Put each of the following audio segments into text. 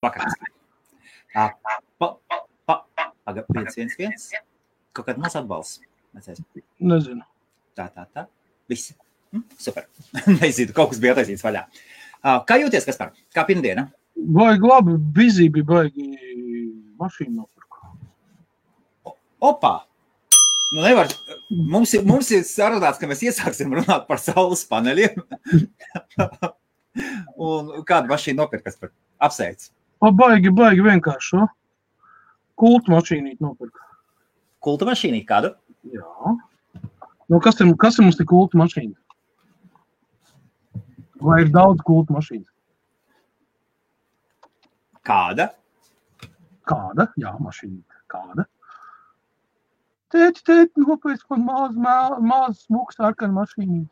Vakars. 511. Kaut kāda maz atbalsts. Nezinu. Tā. Viss. Super. Nezinu, kaut kas bija attaisīts vaļā. Kā jūties, Kaspar? Kā pirmdiena? Baigi labi, bizī bija baigi mašīnu nopirku. Opā! Nu nevar, mums ir sarunāts, ka mēs iesāksim runāt par saules paneļiem. Un kādu mašīnu nopirkt, Kaspar? Apsveic. Baigi vienkārši. Kultu mašīnīt nopirku. Kultu mašīnīt kādu? Jā. Nu, kas ir mums te kultu mašīna? Vai ir daudz kultu mašīnas? Kāda? Kāda? Jā, mašīna. Kāda? Tēti, nopēc man maz smuks sarkana mašīna.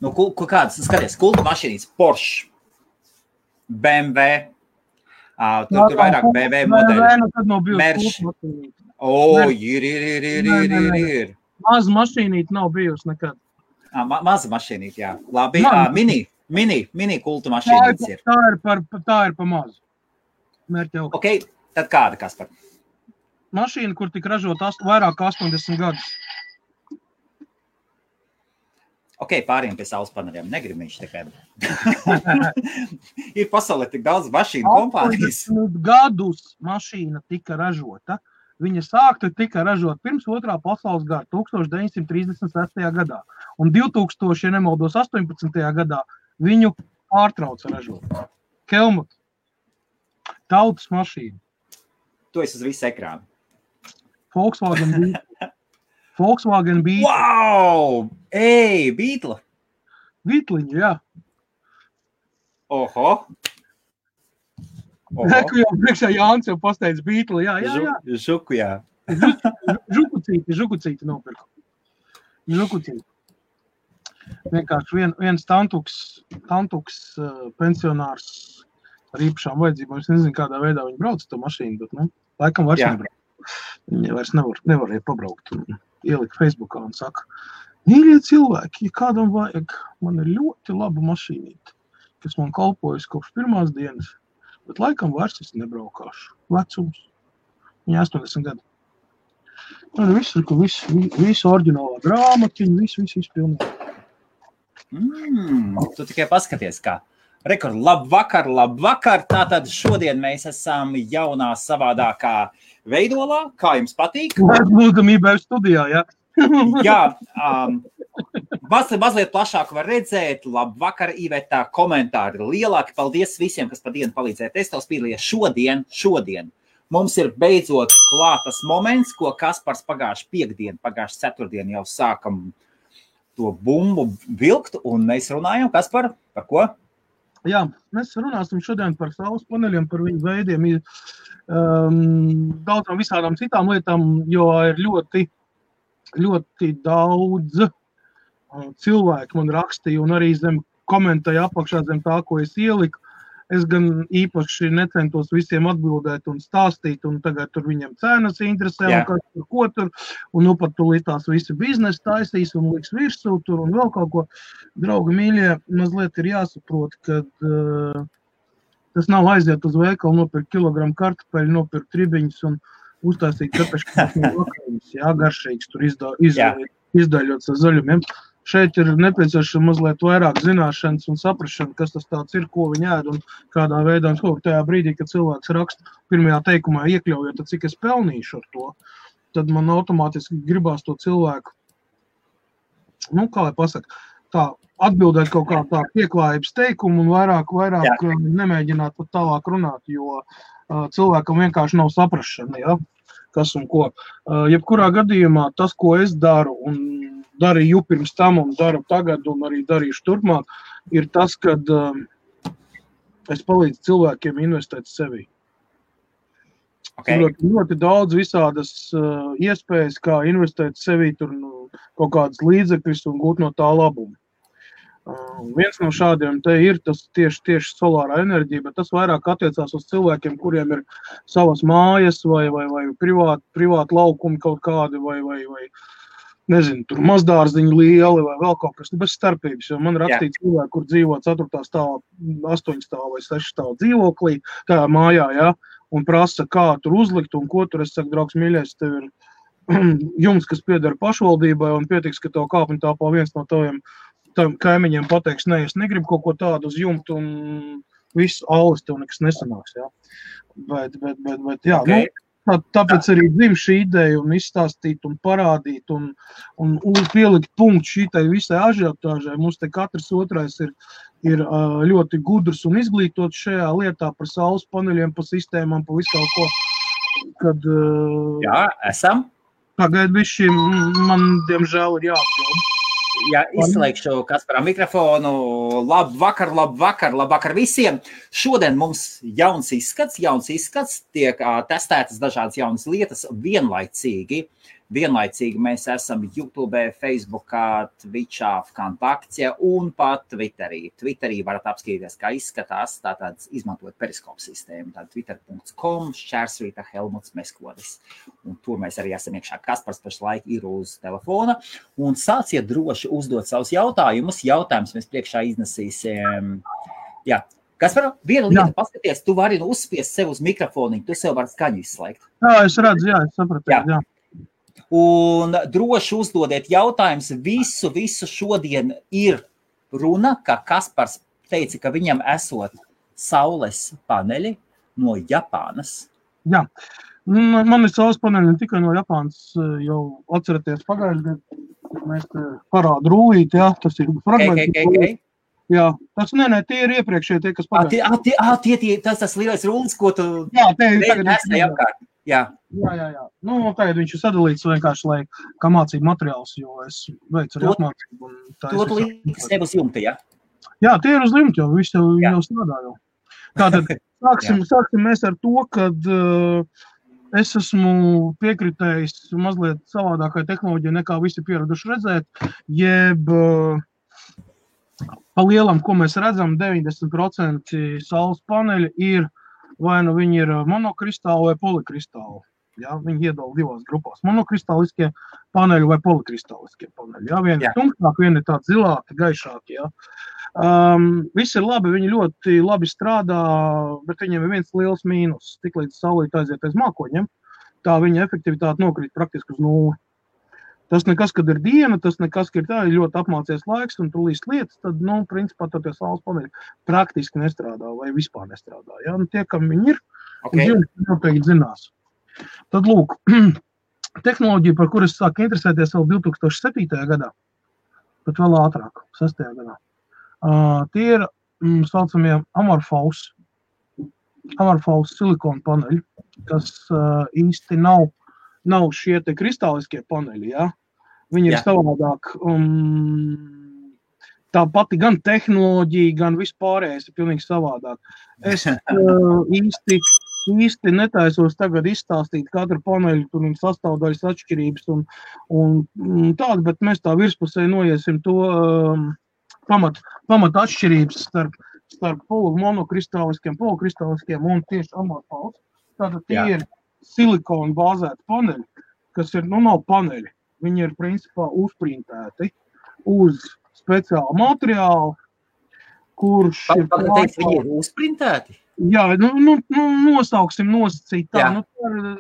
Nu, kādas? Skaties, kultu mašīnīs. Porsche, BMW, tur vairāk BMW modeļi. Tad nav bijusi kultu mašīnīt. Ir. Maza mašīnīt nav bijusi nekad. Maza mašīnīt, jā. Labi, mini kultu mašīnītes ir. Tā ir pa mazu. Mērķi augstu. Ok, tad kāda, Kaspar? Mašīna, kur tika ražot vairāk 80 gadus. Ok, pāriem pie saules paneļiem. Negrib viņš tikai. Ir pasaulē tik daudz mašīnu kompānijas. 80 gadus mašīna tika ražota. Viņa tika ražot pirms 2. pasaules kara, 1936. gadā. Un 2000, ja nemaldos, 18. gadā viņu pārtrauca ražot. Helmut. Tautas mašīna. Tu esi uz visu ekrānu. Volkswagen Beetle. Wow! Ej, Beetle! Beetliņa, jā. Oho! Neku jau priekšā Jānis jau pasteidz Beetle, jā. Žuku, jā. Žukucīti nopirku. Žukucīti. Vienkārši viens tantuks pensionārs ar īpašām vajadzībām. Es nezinu, kādā veidā viņi brauc to mašīnu, bet, laikam vairs nebrauc. Viņi vairs nevarēja pabraukt un ielikt Facebookā un saka, mīļie cilvēki, ja kādam vajag, man ir ļoti laba mašīnīte, kas man kalpojas kopš pirmās dienas, bet laikam vairs es nebraukāšu. Vecums. Viņa 80 gadi. Visu oriģinālā grāmatiņu, visu pilnīgi. Tu tikai paskaties, kā. Rekord, labvakar. Tātad šodien mēs esam jaunā savādākā veidolā. Kā jums patīk? Lūdamībā studijā, jā. Jā, mazliet plašāk var redzēt. Labvakar, Iveta, komentāri lielāki. Paldies visiem, kas pa dienu palīdzēja testos piedalījies šodien. Mums ir beidzot klātas moments, ko Kaspars pagājuši ceturtdien jau sākam to bumbu vilkt, un mēs runājam, Kaspar, par ko? Jā, mēs runāsim šodien par saules paneļiem, par viņu veidiem, daudzām visādām citām lietām, jo ir ļoti, ļoti daudz cilvēku man rakstīja un arī zem komentēja apakšā zem tā, ko es ieliku. Es gan īpaši necentos visiem atbildēt un stāstīt, un tagad tur viņiem cenas interesē, un kas tur, ko tur, un pat tūlīt tās visi biznesi taisīs un liks virsū tur un vēl kaut ko. Draugi mīļie, mazliet ir jāsaprot, ka tas nav aiziet uz veikalu, nopirkt kilogramu kartupeļu, nopirkt ribiņus un uztaisīt kapeškās no vakariņas, garšīgs tur izdaļots ar zaļumiem. Šeit ir nepieciešams mazliet vairāk zināšanas un saprašana, kas tas tāds ir, ko viņi ēd un kādā veidā. Un tajā brīdī, kad cilvēks raksta pirmajā teikumā iekļaujot, tad cik es pelnīšu ar to, tad man automātiski gribās to cilvēku, kā lai pasaka, tā atbildēt kaut kā tā pieklājības teikumu un vairāk nemēģināt pat tālāk runāt, jo cilvēkam vienkārši nav saprašana, kas un ko. Jebkurā gadījumā tas, ko es daru un darīju pirms tam un daru tagad un arī darīšu turpmāk, ir tas, kad es palīdzu cilvēkiem investēt sevi. Ļoti daudz visādas iespējas, kā investēt sevi tur kaut kādas līdzekļus un gūt no tā labumu. Viens no šādiem te ir tas tieši solārā enerģija, bet tas vairāk attiecās uz cilvēkiem, kuriem ir savas mājas vai privāti laukumi kaut kādi vai nezinu, tur mazdārziņi lieli vai vēl kaut kas, bez starpības, jo man rakstīja cilvēki, kur dzīvo 4. stāvā, 8. stāvā vai 6. stāvā dzīvoklī, tā mājā, jā, un prasa, kā tur uzlikt un ko tur. Es saku, draugs mīļais, tev ir jums, kas pieder pašvaldībai, un pietiks, ka tev kāpņu tāpā viens no taviem kaimiņiem pateiks, ne, es negribu kaut ko tādu uz jumtu, un viss aulis tev nekas nesanāks, jā. Bet jā, Okay. Tāpēc arī dzim šī ideja un izstāstīt un parādīt un pielikt punktu šitai visai ažiotāžai. Mums te katrs otrais ir ļoti gudrs un izglītots šajā lietā par saules paneļiem, par sistēmām, par visu kaut ko. Kad, Jā, esam. Pagaid bišķi, man diemžēl ir jāapģēl. Jā, izslēgšu Kasparam mikrofonu. Labvakar visiem. Šodien mums jauns izskats, tiek testētas dažādas jaunas lietas vienlaicīgi. Vienlaicīgi mēs esam YouTube, Facebookā, Twitchā, Vkontaktē un pat Twitterī. Twitterī varat apskatīties, kā izskatās, tātad izmantojot periskopu sistēmu, tātad twitter.com, / Helmuts Meskodis. Un tur mēs arī esam iekšā. Kaspars pašlaik ir uz telefona. Un sāciet droši uzdot savus jautājumus. Jautājums mēs priekšā iznesīsim. Jā. Kaspar, viena lieta paskaties, tu vari uzspiest sev uz mikrofoniņu, tu sev vari skaņu izslēgt. Jā, es redzu, jā, es sapratu, jā. Un droši uzdodiet jautājumus. Visu šodien ir runa, ka Kaspars teica, ka viņam esot saules paneļi no Japānas. Jā, man ir saules paneļi ne tikai no Japānas, jau atceraties pagājušajā gadā, mēs parādu rūlīti, jā, tas ir fragmenti. Jā, tas tie ir iepriekšēji, tie, kas pagājušajā. Tas lielais rūlis, ko tu nesēji apkārt. Jā. Tagad viņš ir sadalīts vienkārši, lai kā mācību materiāls, jo es veicu arī apmācību. To līdz tev uz jumta, jā? Jā, tie ir uz jumta, jo viss jau strādā jau. Tātad sāksim mēs ar to, kad es esmu piekritējis mazliet savādākai tehnoloģijai, nekā visi pieraduši redzēt, jeb pa lielam, ko mēs redzam, 90% saules paneļi ir vai nu viņi ir monokristāli vai polikristāli. Ja? Viņi iedala divās grupās. Monokristāliskie paneļi vai polikristāliskie paneļi. Ja? Vieni ir tumšāki, vieni ir tādi zilāki, gaišāki. Ja? Visi ir labi, viņi ļoti labi strādā, bet viņiem ir viens liels mīnus. Tiklīdz saulīt aiziet aiz mākoņiem, tā viņa efektivitāte nokrīt praktiski uz nulli. Tas nekas, kad ir diena, tas nekas, ka ir tā, ir ļoti apmācies laiks un tu līst lietas, tad, principā, tad tie saules paneļi praktiski nestrādā vai vispār nestrādā. Ja? Un tie, kam viņi ir, viņi noteikti zinās. Tad, lūk, tehnoloģija, par kur es sāku interesēties vēl 2007. gadā, pat vēl ātrāk, 6. gadā. Tie ir, saucamie amorphous silikona paneļi, kas īsti nav šie te kristāliskie paneļi, ja? Viņi ir savādāk, tā pati gan tehnoloģija, gan vispārējais ir pilnīgi savādāk. Es īsti netaisos tagad izstāstīt katru paneļu, tur viņas sastāvdaļas atšķirības un tādu, bet mēs tā virspusē noiesim to pamat atšķirības starp monokristāliskiem, polikristāliskiem un tieši amorphous. Tātad tie ir silikona bāzēti paneļi, kas ir, nav paneļi. Viņi ir, principā, uzprintēti uz speciālu materiālu, kurš ir... Viņi ir uzprintēti? Jā, nosauksim nosacīt tā.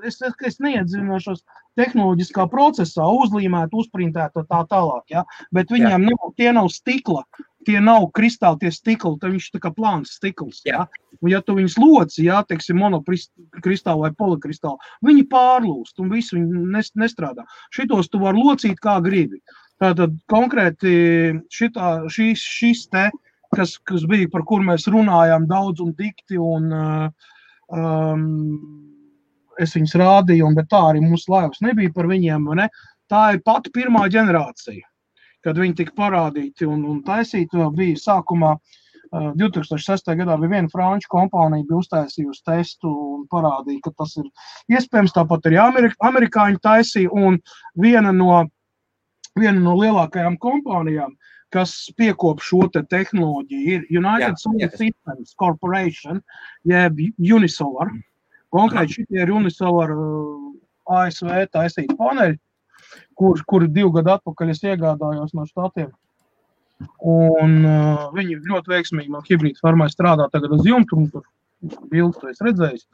Es neiedzinošos tehnoloģiskā procesā, uzlīmēt, uzprintēt tā tālāk, ja? Bet viņiem tie nav stikla. Tie nav kristāli, tie stikli, tad viņš tā kā plāns stikls. Ja? Un ja tu viņus loci, teiksim, monokristāli vai polikristāli, viņi pārlūst un visu viņi nestrādā. Šitos tu var locīt kā gribi. Tātad konkrēti šis te, kas bija, par kur mēs runājām daudz un dikti, un es viņus rādīju, bet tā arī mūsu laivas nebija par viņiem, ne? Tā ir pati pirmā ģenerācija. Kad viņi tika parādīti un taisīti, bija sākumā 2006. gadā bija viena franču kompānija, bija uztaisījusi testu un parādīja, ka tas ir iespējams, tāpat arī amerikāņi taisīja, un viena no lielākajām kompānijām, kas piekop šo te tehnoloģiju, ir United Solar Systems Corporation, jeb Unisolar. Konkrēti šitie ir Unisolar ASV taisīti paneļi, kur 2 gadu atpakaļ es iegādājos no Štatiem. Un viņi ļoti veiksmīgi man hibrīdu farmai strādā tagad uz jumtu, un tur bildes to es redzējis.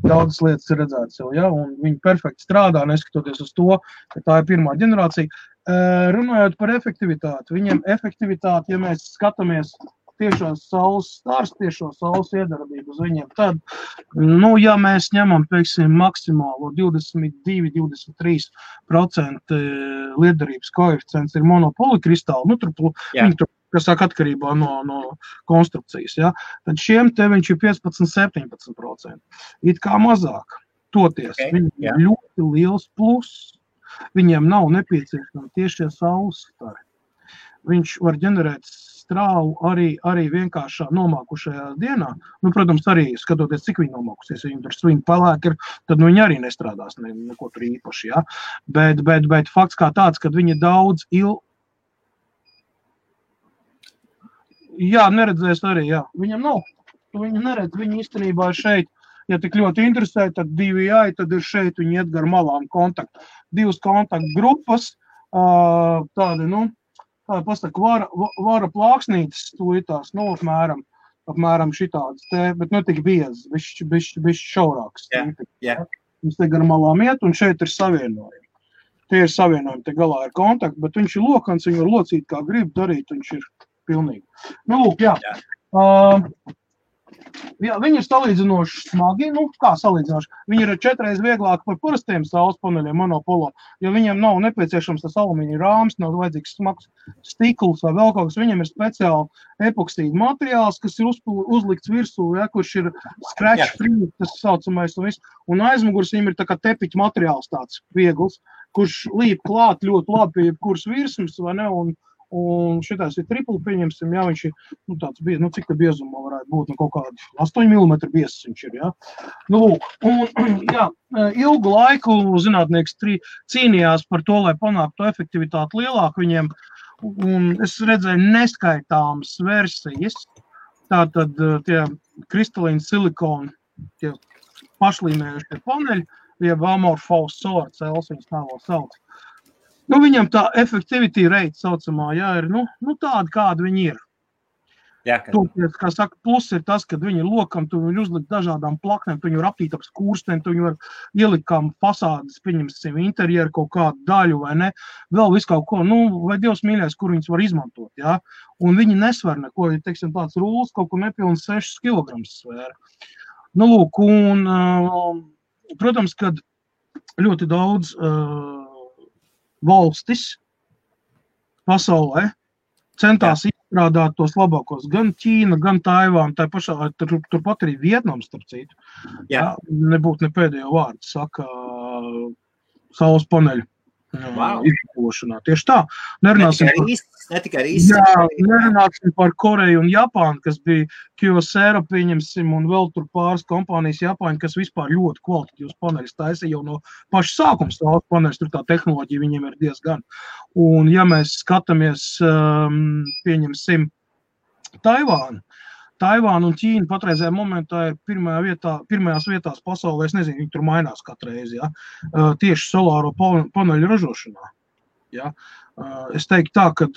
Daudzas lietas ir redzētas jau, ja, un viņi perfekti strādā, neskatoties uz to, ka tā ir pirmā ģenerācija. Runājot par efektivitāti, viņiem efektivitāti, ja mēs skatāmies tiešos saules stars, tiešo saules iedarbību uz viņiem, tad, ja mēs ņemam, teiksim, maksimālo 22-23% lietderības koeficients ir monopolikristāli, viņi tur, kas sāk atkarībā no konstrukcijas, ja, tad šiem te viņš ir 15-17%. It kā mazāk. Toties, viņiem ir ļoti liels pluss. Viņiem nav nepieciešami tiešie saules stari. Viņš var ģenerēt strāvu arī vienkāršā nomākušajā dienā. Protams, arī skatoties, cik viņi nomākusies, ja viņi tur svini pelēki ir, tad viņi arī nestrādās neko tur īpaši, ja. Bet fakts kā tāds, kad viņi daudz neredzēs arī, jā. Viņam nav. Viņi neredz, viņi īstenībā ir šeit. Ja tik ļoti interesē, tad 2 tad ir šeit, viņi iet gar malām kontaktu. 2 kontaktu grupas, tādi, pasaka, vara plāksnītes tūlītās, apmēram šitādas te, bet tik biezas, bišķi šaurākas. Viņš te gar malām iet, un šeit ir savienojumi. Tie ir savienojumi, te galā ir kontakti, bet viņš ir lokans, viņu var locīt kā grib darīt, viņš ir pilnīgi. Jā, viņi ir salīdzinoši smagi, kā salīdzinoši. Viņi ir 4 reizes vieglāki par parastiem saules paneļiem monopolo, jo viņiem nav nepieciešams tas alumīnija rāms, nav vajadzīgs smags stikls vai vēl kaut kas. Viņiem ir speciāli epoksīda materiāls, kas ir uzlikts virsū, ja, kurš ir scratch free, tas saucamais un viss. Un aizmugurs viņiem ir tā kā tepiķa materiāls tāds viegls, kurš līp klāt ļoti labi pie jebkuras virsmas, vai ne, un šitās ir tripli, pieņemsim, jā, viņš ir, tāds biezs, cik tā biezumā varētu būt, kaut kādi 8 mm biezs viņš ir, jā. Ilgu laiku zinātnieks cīnījās par to, lai panāktu efektivitāti lielāku viņiem, un es redzēju neskaitāmas versijas, tātad tie kristalīni silikoni, tie pašlīmējušie paneļi, jeb amorphous solar cells, viņas tā vēl sauc. Viņam tā effectivity rate saucamā, jā, ir, tāda, kāda viņi ir. Toties, kā saka, plus ir tas, kad viņi ir lokam, tu viņi uzlikt dažādām plaknēm, tu viņi var aptīt ap skūrstēm, tu viņi var ielikt kā fasādes, pieņemsim, interjeru kaut kādu daļu, vai ne, vēl visu kaut ko, vai Dievs mīļais, kur viņus var izmantot, jā. Un viņi nesver neko, ja, teiksim, tāds rūls kaut kur nepilns 6 kg svēra. Protams, kad ļoti daudz valstis pasaulē centās izstrādāt tos labākos, gan Ķīna, gan Taivāna, tā pašā, turpat arī Vietnams, starp citu. Nebūtu ne pēdējo vārdu, saka saules paneļu izmantošanā. Tieši tā. Nerunāsim par Koreju un Japānu, kas bija Kyocera, pieņemsim, un vēl tur pāris kompānijas Japāņi, kas vispār ļoti kvalitatīvs paneļus taisa jau no paša sākuma saules paneļus, tur tā tehnoloģija viņiem ir diezgan. Un ja mēs skatāmies, pieņemsim, Taivāna un Ķīna patreizējā momentā ir pirmajās vietās pasaulē, es nezinu, viņi tur mainās katru reizi, ja, tieši solāro paneļu ražošanā. Ja. Es teiktu tā, ka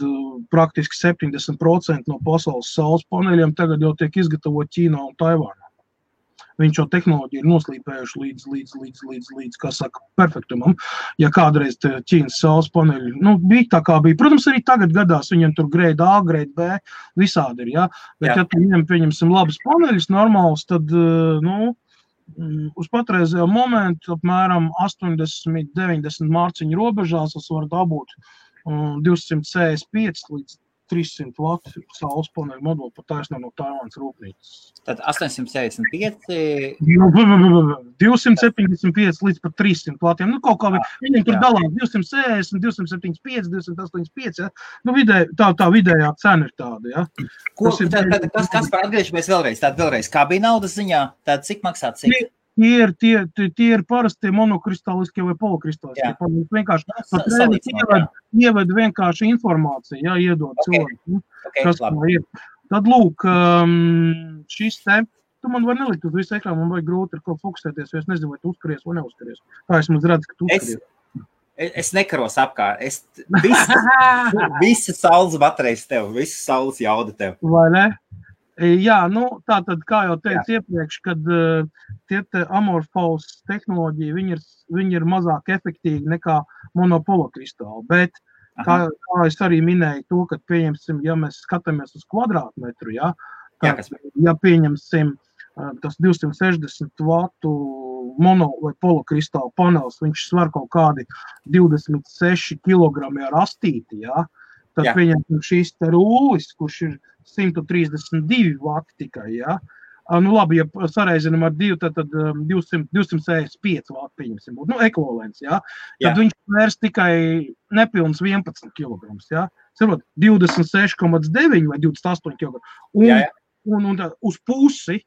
praktiski 70% no pasaules saules paneļiem tagad jau tiek izgatavot Ķīnā un Taivānā. Viņš jau tehnoloģiju ir noslīpējuši līdz, kā saka, perfektumam. Ja kādreiz Ķīnas saules paneļi, bija tā kā bija. Protams, arī tagad gadās viņam tur grade A, grade B, visādi ir, ja. Bet ja tu viņam pieņemsim labas paneļus normālus, tad, uz patreizējo momentu apmēram 80-90 mārciņu robežās es varu dabūt 265 līdz 300 vatu saules paneļu moduli pat taisnā no Taivānas rūpnīcas. Tad 875? 275 līdz pat 300 vatiem. Kaut kā viņiem tur dalās 260, 275, 285, ja? Tā vidējā cena ir tāda, ja? Kas par atgriežamies vēlreiz? Kā bija naudas ziņā? Tāda cik maksā cik? Tie ir parasti monokristāliskie vai polokristāliskie. Vienkārši ieved vienkārši informāciju, ja, iedod cilvēku, kas tā ir. Tad lūk, šis te, tu man var nelikt uz visu ekrānu, man vajag grūti ar kaut fokusēties, jo es nezinu, vai tu uzskaries vai neuzskaries. Tā es redzu, ka tu uzskaries. Es nekaros apkārt. Visa saules baterijas tev, visa saules jauda tev. Vai ne? Jā, nu, tātad, kā jau teicu iepriekš, kad tie amorfous tehnoloģija, viņi ir mazāk efektīvi nekā monopolokristāli, bet kā es arī minēju to, ka pieņemsim, ja mēs skatāmies uz kvadrātmetru, ja pieņemsim tas 260 vatu mono vai polokristāla panels, viņš svar kaut kādi 26 kilogrami ar astīti, ja? Tad pieņemsim šīs te rūlis, kurš ir 132 vati tikai, ja? Nu labi, ja sareizinam ar 2, tad 265 vati pieņemsim būt, nu ekvivalents, ja? Tad viņš vērs tikai nepilns 11 kilograms, ja? Sarot, 26,9 vai 28 kilograms un uz pusi,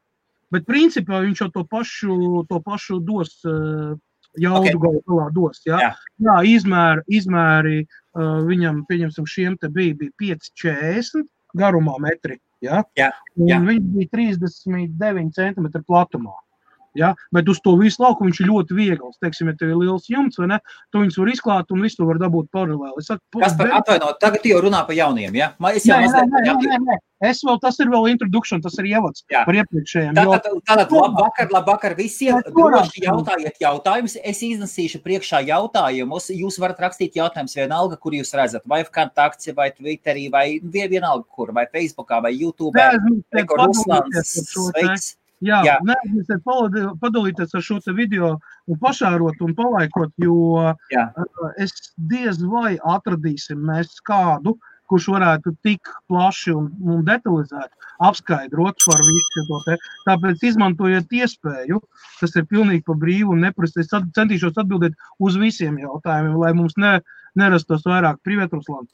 bet principā viņš jau to pašu dos, jaudu galā dos, ja? Jā, izmēri viņam, pieņemsim, šiem te bija 5,40 garumā metri, ja? Un viņš bija 39 centimetri platumā. Ja? Bet uz to visu lauku viņš ir ļoti viegls. Teiksim, ja tev ir liels jumts, vai ne, tu viņus var izklāt un visu var dabūt paralēli. Atvainot, tagad jau runā par jauniem, ja? Nē. Tas ir vēl introduction, tas ir ievads par iepriekšējiem. Tātad labvakar visiem, droši jautājiet jautājumus, es iznesīšu priekšā jautājumus, jūs varat rakstīt jautājumus vienalga, kur jūs redzat, vai Kontakts, vai Twitterī, vai vienalga kur, vai Facebookā, vai YouTube, Ruslans, sveiks. Jā, neaizmirstiet padalīties ar šo te video un pašārot un palaikot, jo es diez vai atradīsim mēs kādu, kurš varētu tik plaši un detalizēt apskaidrot par visu to te. Tāpēc izmantojiet iespēju, tas ir pilnīgi pa brīvu un neprasti. Es centīšos atbildēt uz visiem jautājumiem, lai mums nerastos vairāk. Привет, Руслан.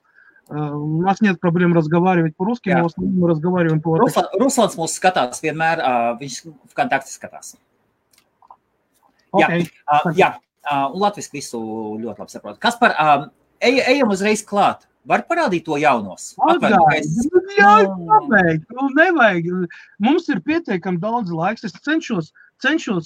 У нас нет проблем разговаривать по-русски, но в основном мы разговариваем по-русски. Ruslans mūs skatās vienmēr, viņš v Kontakti skatās. Okay. Un latviski visu ļoti labi saprot. Kaspar, ejam uzreiz klāt. Var parādīt to jaunos? Nevajag. Mums ir pietiekami daudz laiks. Es cenšos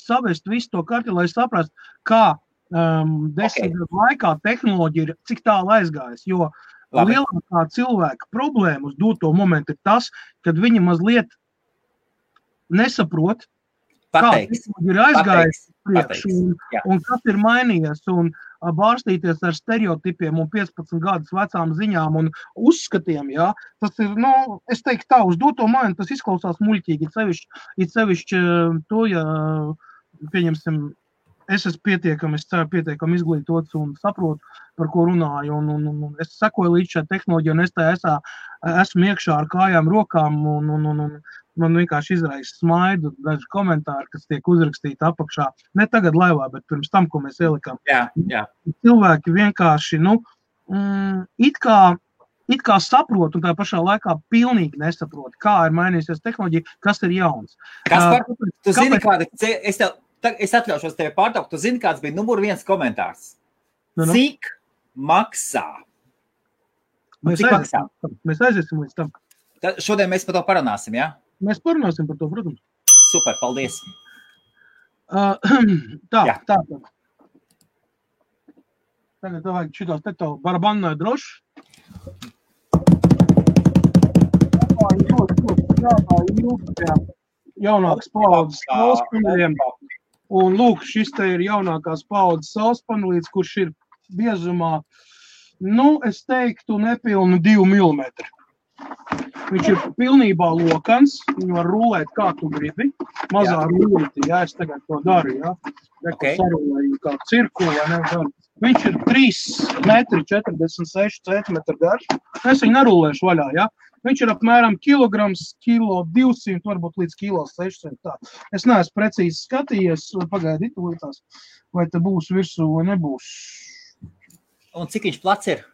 savest visu to karti, lai saprast, kā 10 gadu laikā tehnoloģija ir, cik tālu aizgājas, jo lielākā cilvēka problēma uz doto momentu ir tas, kad viņi mazliet nesaprot, kā tehnoloģija ir aizgājis priekš un kas ir mainījies un bārstīties ar stereotipiem un 15 gadus vecām ziņām un uzskatiem, jā. Tas ir, es teiktu tā, uz doto momentu tas izklausās muļķīgi, it sevišķi to, ja, pieņemsim, es esmu pietiekami izglītots un saprotu, par ko runāju, un es sekoju līdz šai tehnoloģijai, un es esmu iekšā ar kājām, rokām, un man vienkārši izraisa smaidu, daži komentāri, kas tiek uzrakstīti apakšā. Ne tagad laivā, bet pirms tam, ko mēs ielikām. Jā. Cilvēki vienkārši, it kā saprot, un tā pašā laikā pilnīgi nesaprot, kā ir mainījusies tehnoloģija, kas ir jauns. Kaspar, tu zini, es atļaušos tevi pārtraukt, tu zini, kāds bija numur 1 komentārs? Cik maksā? Mēs aiziesim līdz tam. Šodien mēs par to parunāsim, jā? Mēs parunāsim par to, protams. Super, paldies. Tā. Tagad vajag šitās te tev barabanai droši. Jaunākas paaudzes saulespaneļiem. Un lūk, šis te ir jaunākās paaudzes saulespaneļs, kurš ir biezumā, es teiktu, nepilnu 2 mm. Viņš ir pilnībā lokans, viņu var rulēt kā tu gribi, mazā rulīti, es tagad to daru, sarulēju kā cirkuli, viņš ir 3,46 cm garš, es viņu nerulēšu vaļā, viņš ir apmēram kilograms, 1,200, varbūt līdz 1,600, tā. Es neesmu precīzi skatījies, pagaidīt līdzās, vai te būs virsū vai nebūs. Un cik viņš plats ir?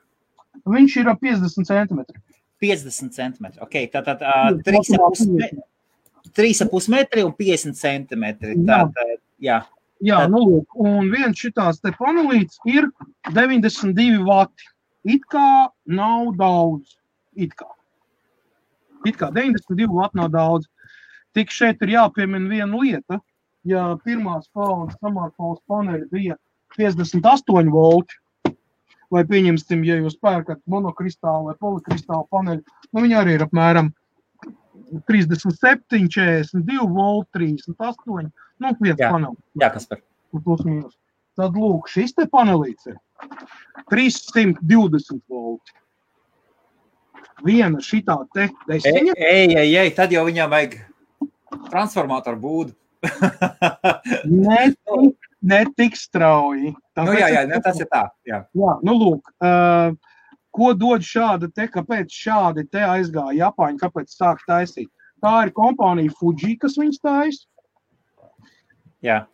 Viņš ir 50 cm. 50 cm, tātad 3,5 metri un 50 cm. Jā, lūk, un viens šitās te panelīts ir 92 vati. It kā nav daudz, it kā 92 vati nav daudz. Tik šeit ir jāpiemina viena lieta, ja pirmās paaudzes amorfous paneļi bija 58 volti, vai pieņemsim, ja jūs pērkat monokristālu vai polikristālu paneļu, nu viņi arī ir apmēram 37, 42 volt, 38, nu viens panelis. Jā, Kaspar. Plus mīnus. Tad lūk, šis te panelīts ir 320 volti. Viena šitā te desiņa. Ej, tad jau viņam vajag transformātoru būdu. Ne tik strauji. Tas ir tā. Jā, nu lūk, ko dod šāda te, kāpēc šādi te aizgāja Japāņi, kāpēc sāk taisīt? Tā ir kompānija Fuji, kas viņas taisa. Jā.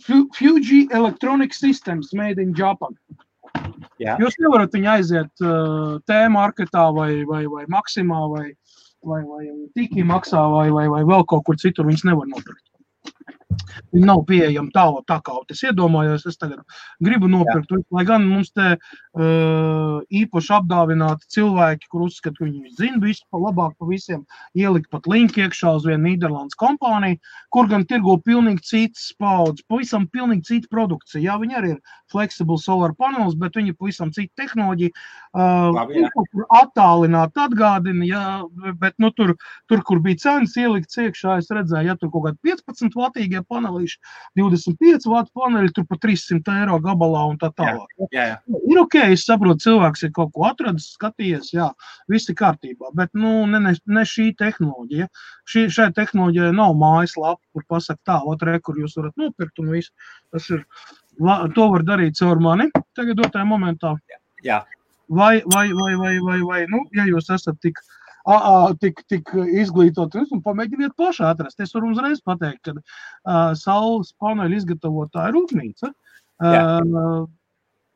Fuji Electronic Systems made in Japan. Jā. Jūs nevarat viņu aiziet T-marketā vai Maksimā vai Tiki maksā vai vēl kaut kur citur, viņas nevar nopirkt. Viņi nav pieejami tā kā es iedomājos, es tagad gribu nopirkt, lai gan mums te īpaši apdāvināti cilvēki, kur uzskat, ka viņi zina visu pa labāk pa visiem, ielikt pat linku iekšā uz vienu Nīderlandes kompāniju, kur gan tirgo pilnīgi citas paudzes, pavisam pilnīgi cita produkcija. Jā, viņi arī ir flexible solar panels, bet viņi pavisam cita tehnoloģija. Attālināt atgādina, jā, bet nu tur, kur bija cenas ielikts iekšā, es redzēju, ja tur kaut kādi 15 vatīgie panelīši, 25 vatu paneļi, tur pa 300 eiro gabalā un tā tālāk. Jā. Ir ok, es saprotu, cilvēks ir kaut ko atradis, skatījies, jā, viss ir kārtībā, bet nu, ne šī tehnoloģija. Šai tehnoloģijai nav mājaslapa, kur pasaka tā, kur jūs varat nopirkt un visu. Tas ir, to var darīt caur mani tagad dotajā momentā. Jā. Vai, nu, ja jūs esat tik izglītot un pamēģiniet pašā atrast. Es varu uzreiz pateikt, ka saules paneļu izgatavotāja rūpnīca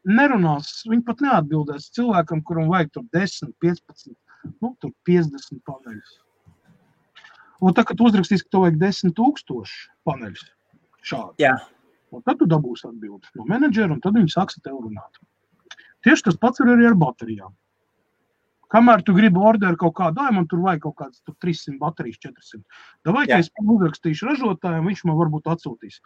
nerunās, viņi pat neatbildēs cilvēkam, kuram vajag tur 10, 15, nu, tur 50 paneļus. Un tā, kad uzrakstīs, ka tev vajag 10,000 paneļus šādi. Jā. Un tad tu dabūsi atbildi no menedžera, un tad viņi sāks tev runāt. Tieši tas pats ir arī ar baterijām. Kamēr tu gribi orderu kaut kādu, man tur vajag kaut kāds 300 baterijas, 400. Davai, ka es uzrakstīšu ražotājiem, viņš man varbūt atsūtīs.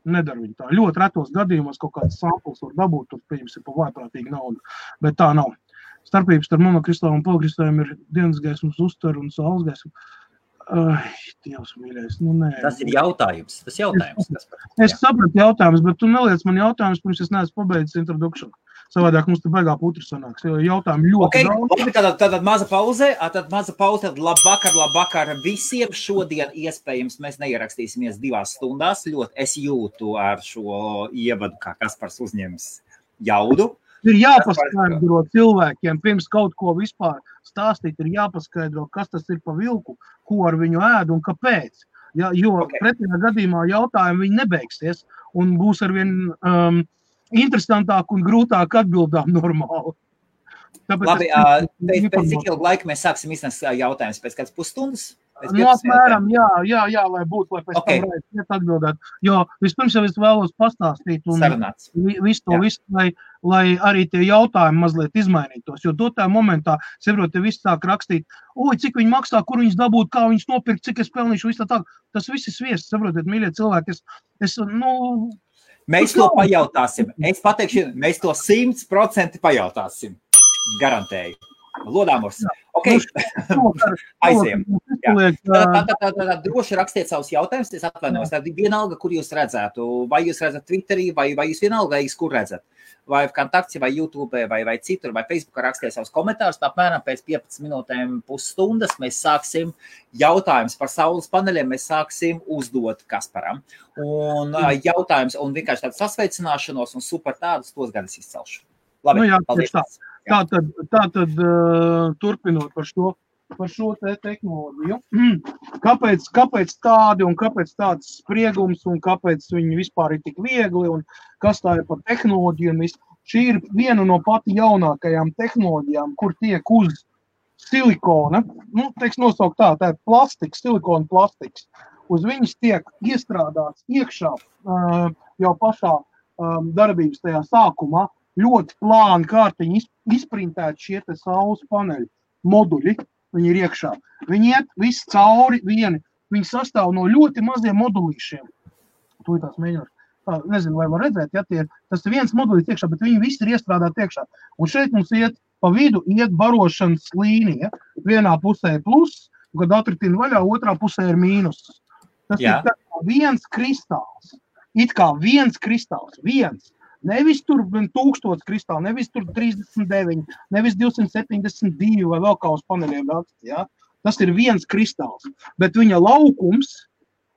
Nedara viņi tā. Ļoti retos gadījumos kaut kāds samples var dabūt, tur pieņemsim pa vājprātīgu naudu. Bet tā nav. Starpības starp monokristālu un polikristāliem ir dienas gaismas uztver un saules gaismu. Dievs mīļais, nu nē. Tas ir jautājums. Es sapratu jautājumus, bet tu neliec man jautājumus, pirms es neesmu pabeidzis introduction. Savādāk mums te baigā putri sanāks, jo jautājumi ļoti daudz. Tātad maza pauze, tad labvakar visiem. Šodien iespējams mēs neierakstīsimies 2 stundās. Ļoti es jūtu ar šo ievadu, kā Kaspars uzņems jaudu. Ir jāpaskaidro cilvēkiem, pirms kaut ko vispār stāstīt, ir jāpaskaidro, kas tas ir pa vilku, ko ar viņu ēd un kāpēc. Ja, jo pretējā gadījumā jautājumi viņi nebeigsies un būs arvien interesantāk un grūtāk atbildām normāli. Tāpēc labi, pēc cik ilgu laiku mēs sāksim iznest jautājumus? Pēc kāds pusstundas? No apmēram, jā, lai būtu, lai pēc tam varētu atbildēt. Jo vispirms jau es vēlos pastāstīt un visu, lai arī tie jautājumi mazliet izmainītos. Jo dotā momentā, saprot, te viss sāk rakstīt, cik viņi maksā, kur viņas dabūt, kā viņas nopirkt, cik es pelnīšu, viss tā. Tas viss ir sviests, saprotiet, mīļie cilvēki. Mēs to pajautāsim. Es pateikšu, mēs to 100% pajautāsim. Garantēju. Lodāmurs. Ok. Aiziem. Tad droši rakstiet savus jautājumus. Es atvainojos. Tad vienalga, kur jūs redzētu. Vai jūs redzat Twitterī, vai jūs vienalga, kur redzat. Vai Kontakts, vai YouTube, vai citur, vai Facebookā rakstiet savus komentārus. Apmēram pēc 15 minūtēm pusstundas mēs sāksim jautājumus par saules paneļiem. Mēs sāksim uzdot Kasparam. Un jautājums, un vienkārši tādu sasveicināšanos un super tādus, tos gan es izcelšu. Labi, paldies. Tātad turpinot par šo tehnoloģiju. Kāpēc tādi un kāpēc tāds spriegums un kāpēc viņi vispār ir tik viegli un kas tā ir par tehnoloģiju un viss. Šī ir viena no pati jaunākajām tehnoloģijām, kur tiek uz silikona, nosaukt tā ir plastiks, silikona plastiks. Uz viņas tiek iestrādāts iekšā jau pašā darbības tajā sākumā. Ļoti plāni kārtiņi izprintēti šie te saules paneļi moduļi, viņi ir iekšā. Viņi iet visi cauri vieni, viņi sastāv no ļoti maziem modulīšiem. Tūlīt tās mēģināt. nezinu, vai var redzēt, ja tas ir viens modulis iekšā, bet viņi visi ir iestrādāti iekšā. Un šeit mums pa vidu iet barošanas līnija. Vienā pusē ir pluss, kad atritina vaļā, otrā pusē ir mīnus. Tas ir tā kā viens kristāls. It kā viens kristāls, viens. Nevis tur 1000 kristāli, nevis tur 39, nevis 272 vai vēl kā uz paneļiem raksts, ja? Tas ir viens kristāls, bet viņa laukums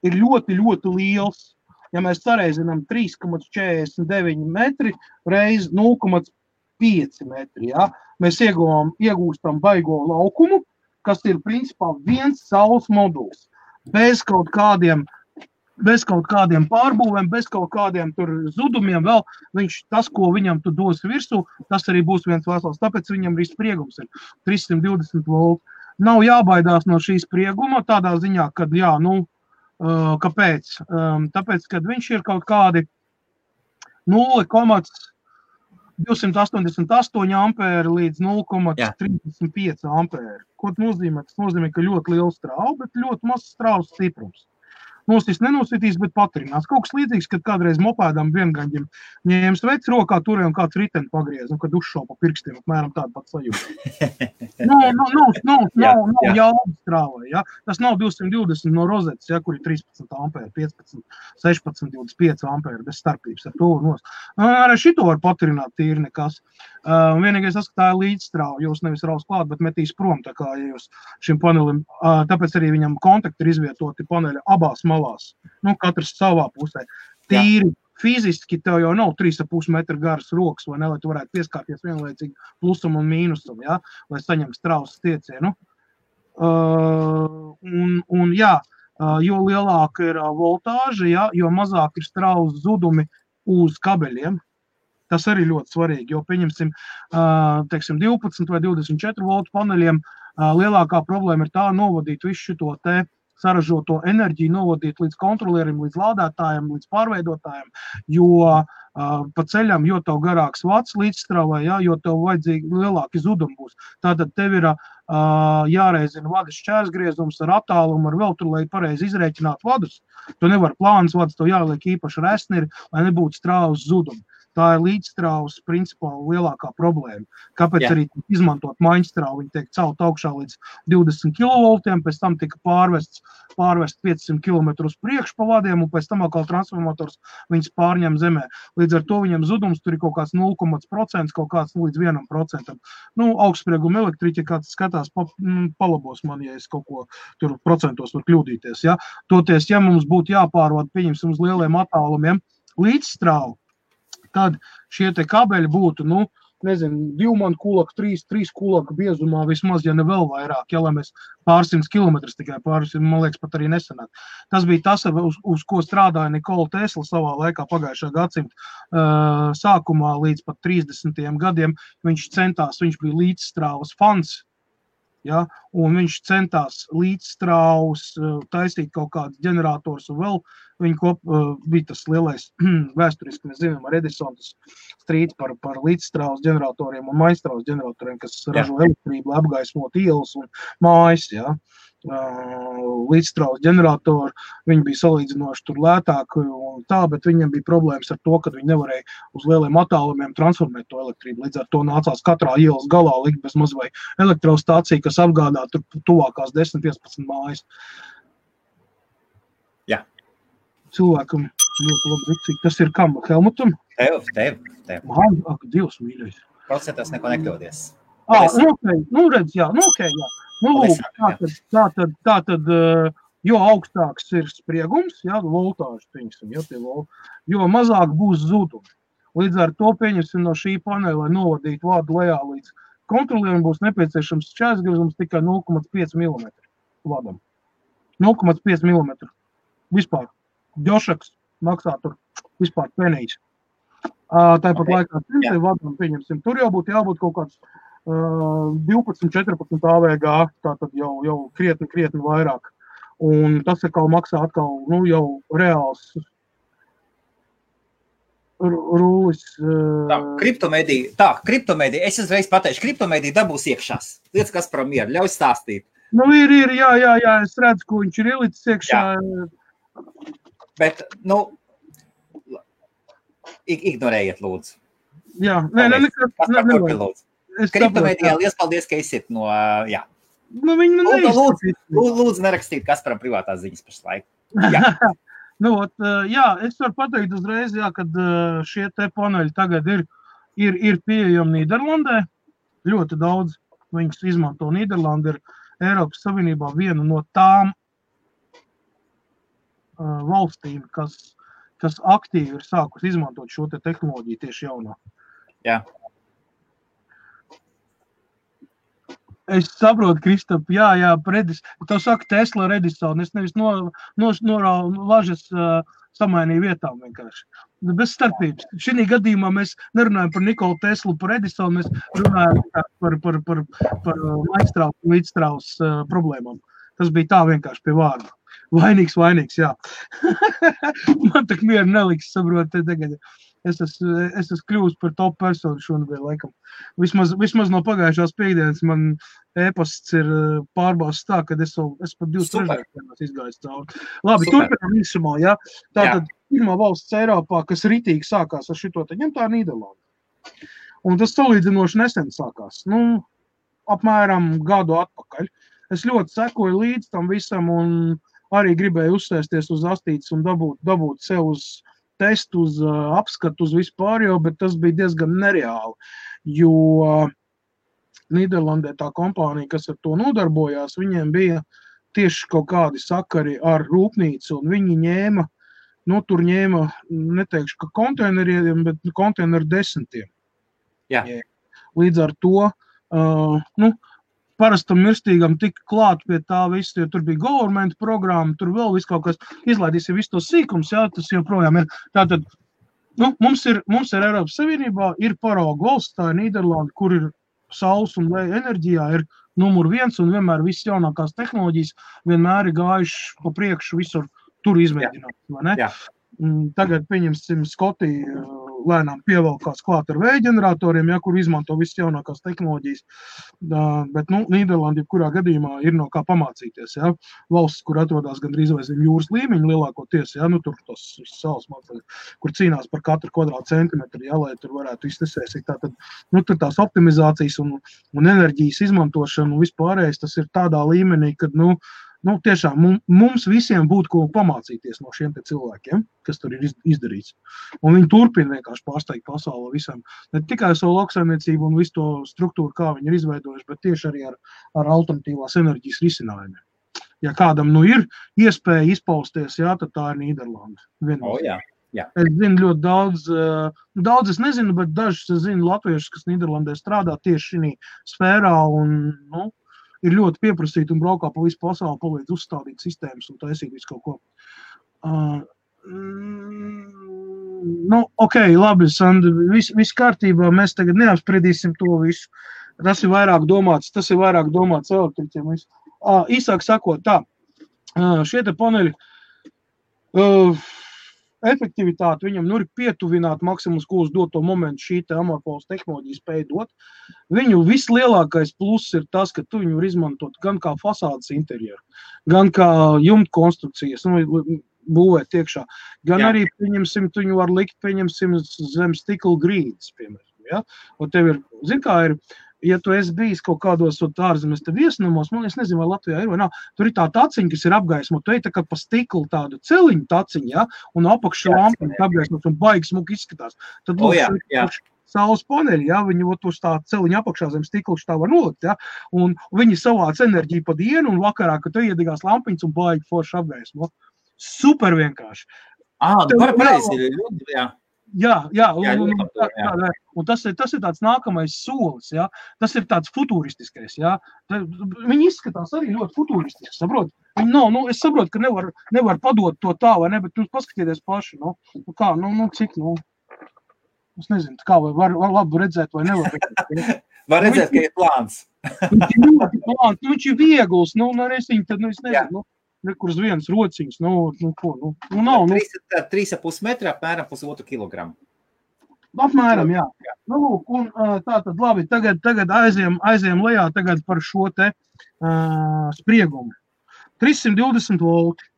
ir ļoti, ļoti liels. Ja mēs sareizinām 3,49 metri reiz 0,5 metri, ja? Mēs iegūstam baigo laukumu, kas ir principā viens saules moduls, bez kaut kādiem pārbūvēm, bez kaut kādiem tur zudumiem vēl, tas, ko viņam tu dos virsū, tas arī būs viens vesels, tāpēc viņam arī spriegums ir 320 volti. Nav jābaidās no šī sprieguma tādā ziņā, kad kāpēc? Tāpēc, kad viņš ir kaut kādi 0,288 ampēri līdz 0,35 ampēri. Ko tas nozīmē? Tas nozīmē, ka ļoti liels strāvu, bet ļoti maz strāvas stiprums. Nenositīs, bet patrinās. Kaut kas līdzīgs, kad kādreiz mopēdām viengaņģim ņēma sveic rokā, turēja un kāds riteni pagriez, un kad uzšauja pa pirkstiem, apmēram tādu pat sajūtu. Nav jauda strāvai, ja? Tas nav 220 no rozetes, ja, kur ir 13 ampēri, 15, 16, 25 ampēri, bez starpības ar to nos. Arī šito var patrināt tīri nekas. Vienīgais tas, ka tā ir līdzstrāva, jūs nevis raus klāt, bet metīs prom, tā kā jūs šim panelim, tāpēc arī viņam kontakti ir izvietoti paneļa abās malās, katrs savā pusē. Tīri fiziski tev jau nav 3,5 metru garas rokas, vai ne, lai tu varētu pieskārties vienlaicīgi plusam un mīnusam, ja, lai saņem strāvas stiecienu. Jo lielāka ir voltāža, ja, jo mazāk ir strāvas zudumi uz kabeļiem. Tas arī ļoti svarīgi, jo pieņemsim, 12 vai 24 voltu paneļiem lielākā problēma ir tā novadīt visu šo te saražoto enerģiju, novadīt līdz kontrolierim, līdz lādētājiem, līdz pārveidotājiem, jo pa ceļam, jo tev garāks vats līdzstrāvai, ja, jo tev vajadzīgi lielāki zudumi būs. Tātad tev ir jāreizina vadas šķērsgriezums ar attālumu, ar vēl tur, lai pareizi izrēķinātu vadus. Tu nevar plānas vadus, tev jāliek īpaši resniri, lai nebūtu strāvas zudumi. Tā ir līdzstrāvas principā lielākā problēma. Kāpēc arī izmantot maiņstrāvu? Viņi tiek celt augšā līdz 20 kV, pēc tam tika pārvest 500 km uz priekšu pa vadiem, un pēc tam atkal transformators viņas pārņem zemē. Līdz ar to viņam zudums tur ir kaut kāds 0,%, kaut kāds līdz 1%. Augstsprieguma elektriķi, kāds skatās, palabos man, ja es kaut ko tur procentos var kļūdīties. Ja? Toties, ja mums būtu jāpārvada, pieņemsim uz lieliem attālumiem līdzstrāvu, tad šie te kabeļi būtu, 2 man kulaka, 3 kulaka biezumā vismaz, ja ne vēl vairāk, ja, lai mēs pārsimts kilometrus tikai man liekas, pat arī nesanāk. Tas bija tas, uz ko strādāja Nikola Tesla savā laikā pagājušā gadsimta sākumā līdz pat 30. gadiem. Viņš bija līdzstrāvas fans, ja, un viņš centās līdzstrāvus taisīt kaut kādus ģenerators un vēl viņa bija tas lielais vēsturiski, mēs zinām, ar Edisontas strīds par līdzstrāvas ģeneratoriem un maistrāvas ģeneratoriem, kas ražo elektrību, lai apgaismot ielas un mājas, ja. Līdzstrāvas ģeneratori, viņi bija salīdzinoši tur lētāki un tā, bet viņiem bija problēmas ar to, ka viņi nevarēja uz lieliem attālumiem transformēt to elektrību. Līdz ar to nācās katrā ielas galā likt bez maz vai elektrostācija, kas apgādā tur tuvākās 10-15 mājas. Jā. Cilvēkam ļoti labi rīcīgi. Tas ir kam? Helmutam? Tev. Ak, Dievs mīļais. Procentos neko nekļūdies. Redz, jā. Tātad, jo augstāks ir spriegums, jā, voltāžas, pieņemsim, jo mazāk būs zudumi. Līdz ar to pieņemsim no šī paneļa, lai novadītu vādu lejā līdz kontrolierim, būs nepieciešams šķērsgriezums tikai 0,5 mm vadam. 0,5 mm. Vispār. Džošaks maksā tur vispār penijas. Tāpat laikā vadam, pieņemsim, tur jau būtu jābūt kaut kāds 12-14 AVG, tātad jau krietni vairāk. Un tas atkal maksā jau reāls rūlis. Kriptomēdija, es uzreiz pateikšu, kriptomēdija dabūs iekšās. Lietas, kas par mieru, ļauj stāstīt. Ir, jā, es redzu, ko viņš ir ielicis iekšā. Jā. Bet, ignorējiet, lūdzu. Jā, nekas. Kriptomēdijā liels paldies, ka esiet no, jā. Nu, viņi man neizskatīt. Lūdzu, nerakstīt Kasparam privātās ziņas pašlaik. Jā. Jā, es varu pateikt uzreiz, jā, kad šie te paneļi tagad ir pieejami Nīderlandē. Ļoti daudz viņus izmanto. Nīderlanda ir Eiropas Savienībā viena no tām valstīm, kas aktīvi ir sākus izmantot šo te tehnoloģiju tieši jaunā. Jā. Es saprotu, Kristap, jā, tev saka Tesla Redison, es nevis lažas samainīju vietām vienkārši. Bez starpības. Šī gadījumā mēs nerunājam par Nikolu Teslu, par Edisonu, mēs runājam par Mainstrauss līdzstrauss problēmām. Tas bija tā vienkārši pie vārda. Vainīgs, jā. Man tak mieru neliks, saprot, tagad. Es esmu kļūst par top personu šonadēļ, laikam. Vismaz no pagājušās piekdienas man e-pasts ir pārbausts tā, kad es pat 2 trešdienas izgāju cauri. Labi, turpinām īsumā, jā. Tātad pirmā valsts Eiropā, kas ritīgi sākās ar šito, tad ņem tā Nīderlanda. Un tas salīdzinoši nesen sākās. Apmēram gadu atpakaļ. Es ļoti sekoju līdz tam visam un arī gribēju uzsēsties uz astītes un dabūt sev uz testu, uz apskatu, uz vispār, bet tas bija diezgan nereāli, jo Nīderlandē tā kompānija, kas ar to nodarbojās, viņiem bija tieši kaut kādi sakari ar rūpnīcu, un viņi ņēma, neteikšu, ka konteineriem, bet konteineru desmitiem. Jā. Līdz ar to, parastam mirstīgam tika klāt pie tā visu, jo tur bija government programma, tur vēl viss kaut kas izlaidīsim visu to sīkums, jā, tas joprojām ir. Tātad, mums ir Eiropas Savienībā, ir parauga valsts, tā ir Nīderlanda, kur ir saules un vēja enerģijā, ir numur 1 un vienmēr viss jaunākās tehnoloģijas vienmēr ir gājuši pa priekšu visur tur izmēģināt, vai ne? Jā. Tagad, pieņemsim, Skotija lēnām pievelkās klāt ar vēja ģeneratoriem, kur izmanto visas jaunākās tehnoloģijas. Bet, Nīderlanda, kurā gadījumā ir no kā pamācīties, jā. Valsts, kur atrodas gandrīz vai zem jūras līmeņa lielākoties, jā, tur tos salas mācās, kur cīnās par katru kvadrātcentimetru, jā, lai tur varētu iztesēsīt. Tātad, tur tās optimizācijas un enerģijas izmantošana un vispārējais, tas ir tādā līmenī, kad, tiešām mums visiem būtu ko pamācīties no šiem te cilvēkiem, kas tur ir izdarīts. Un viņi turpina vienkārši pārsteigt pasauli visam. Ne tikai savu lauksaimniecību un visu to struktūru, kā viņi ir izveidojuši, bet tieši arī ar alternatīvās enerģijas risinājumiem. Ja kādam ir iespēja izpausties, jā, tad tā ir Nīderlanda. Jā. Es zinu ļoti daudz es nezinu, bet dažus es zinu latviešus, kas Nīderlandē strādā tieši šī sfērā un, ir ļoti pieprasīti un braukā pa visu pasauli, palīdz uzstādīt sistēmas un taisīt visu kaut ko. Ok, labi, Sandra, viss kārtībā, mēs tagad neapspriedīsim to visu. Tas ir vairāk domāts elektriķiem. Īsāk sakot, tā, šie te paneļi, efektivitāti viņam ir pietuvināt maksimums, ko uz doto momentu šī te amorfolas tehnoloģija spēja dot. Viņu vislielākais pluss ir tas, ka tu viņu var izmantot gan kā fasādes interjeru, gan kā jumta konstrukcijas, būvēt iekšā, gan arī, pieņemsim, tu viņu var likt, pieņemsim, zem stikla grīdas, piemēram, ja? Un tev ir, kā ir, ja tu esi bijis kaut kādos ārzemes viesnamos, es nezinu, vai Latvijā ir vai nav, tur ir tā taciņa, kas ir apgaismota, tu ej tā kā pa stiklu tādu celiņu taciņu, ja? Un apakšā lampiņu apgaismot un baigi smuki izskatās. Tad saules paneļi, ja? Viņi uz tā celiņa apakšā zem stiklu tā var nolikt, ja? Un viņi savāc enerģiju pa dienu un vakarā, kad tu iedegās lampiņas un baigi forši apgaismot. Super vienkārši. Pareizi, jā. Jā, un tas ir tāds nākamais solis, jā. Tas ir tāds futuristiskais, jā. Viņi izskatās arī ļoti futuristiski, saprot? Es saprotu, ka nevar padot to tā, vai ne, bet paskatieties paši, cik, es nezinu, kā var labi redzēt vai nevar redzēt. Var redzēt, ka ir plāns. Viņš ir ļoti plāns, viņš ir viegls, es nezinu, kur uz vienas rociņas, nav. 3,5 metri, apmēram 1,5 kilogramu. Apmēram, jā. Un tātad, labi, tagad aiziem lejā tagad par šo te spriegumu. 320 volti.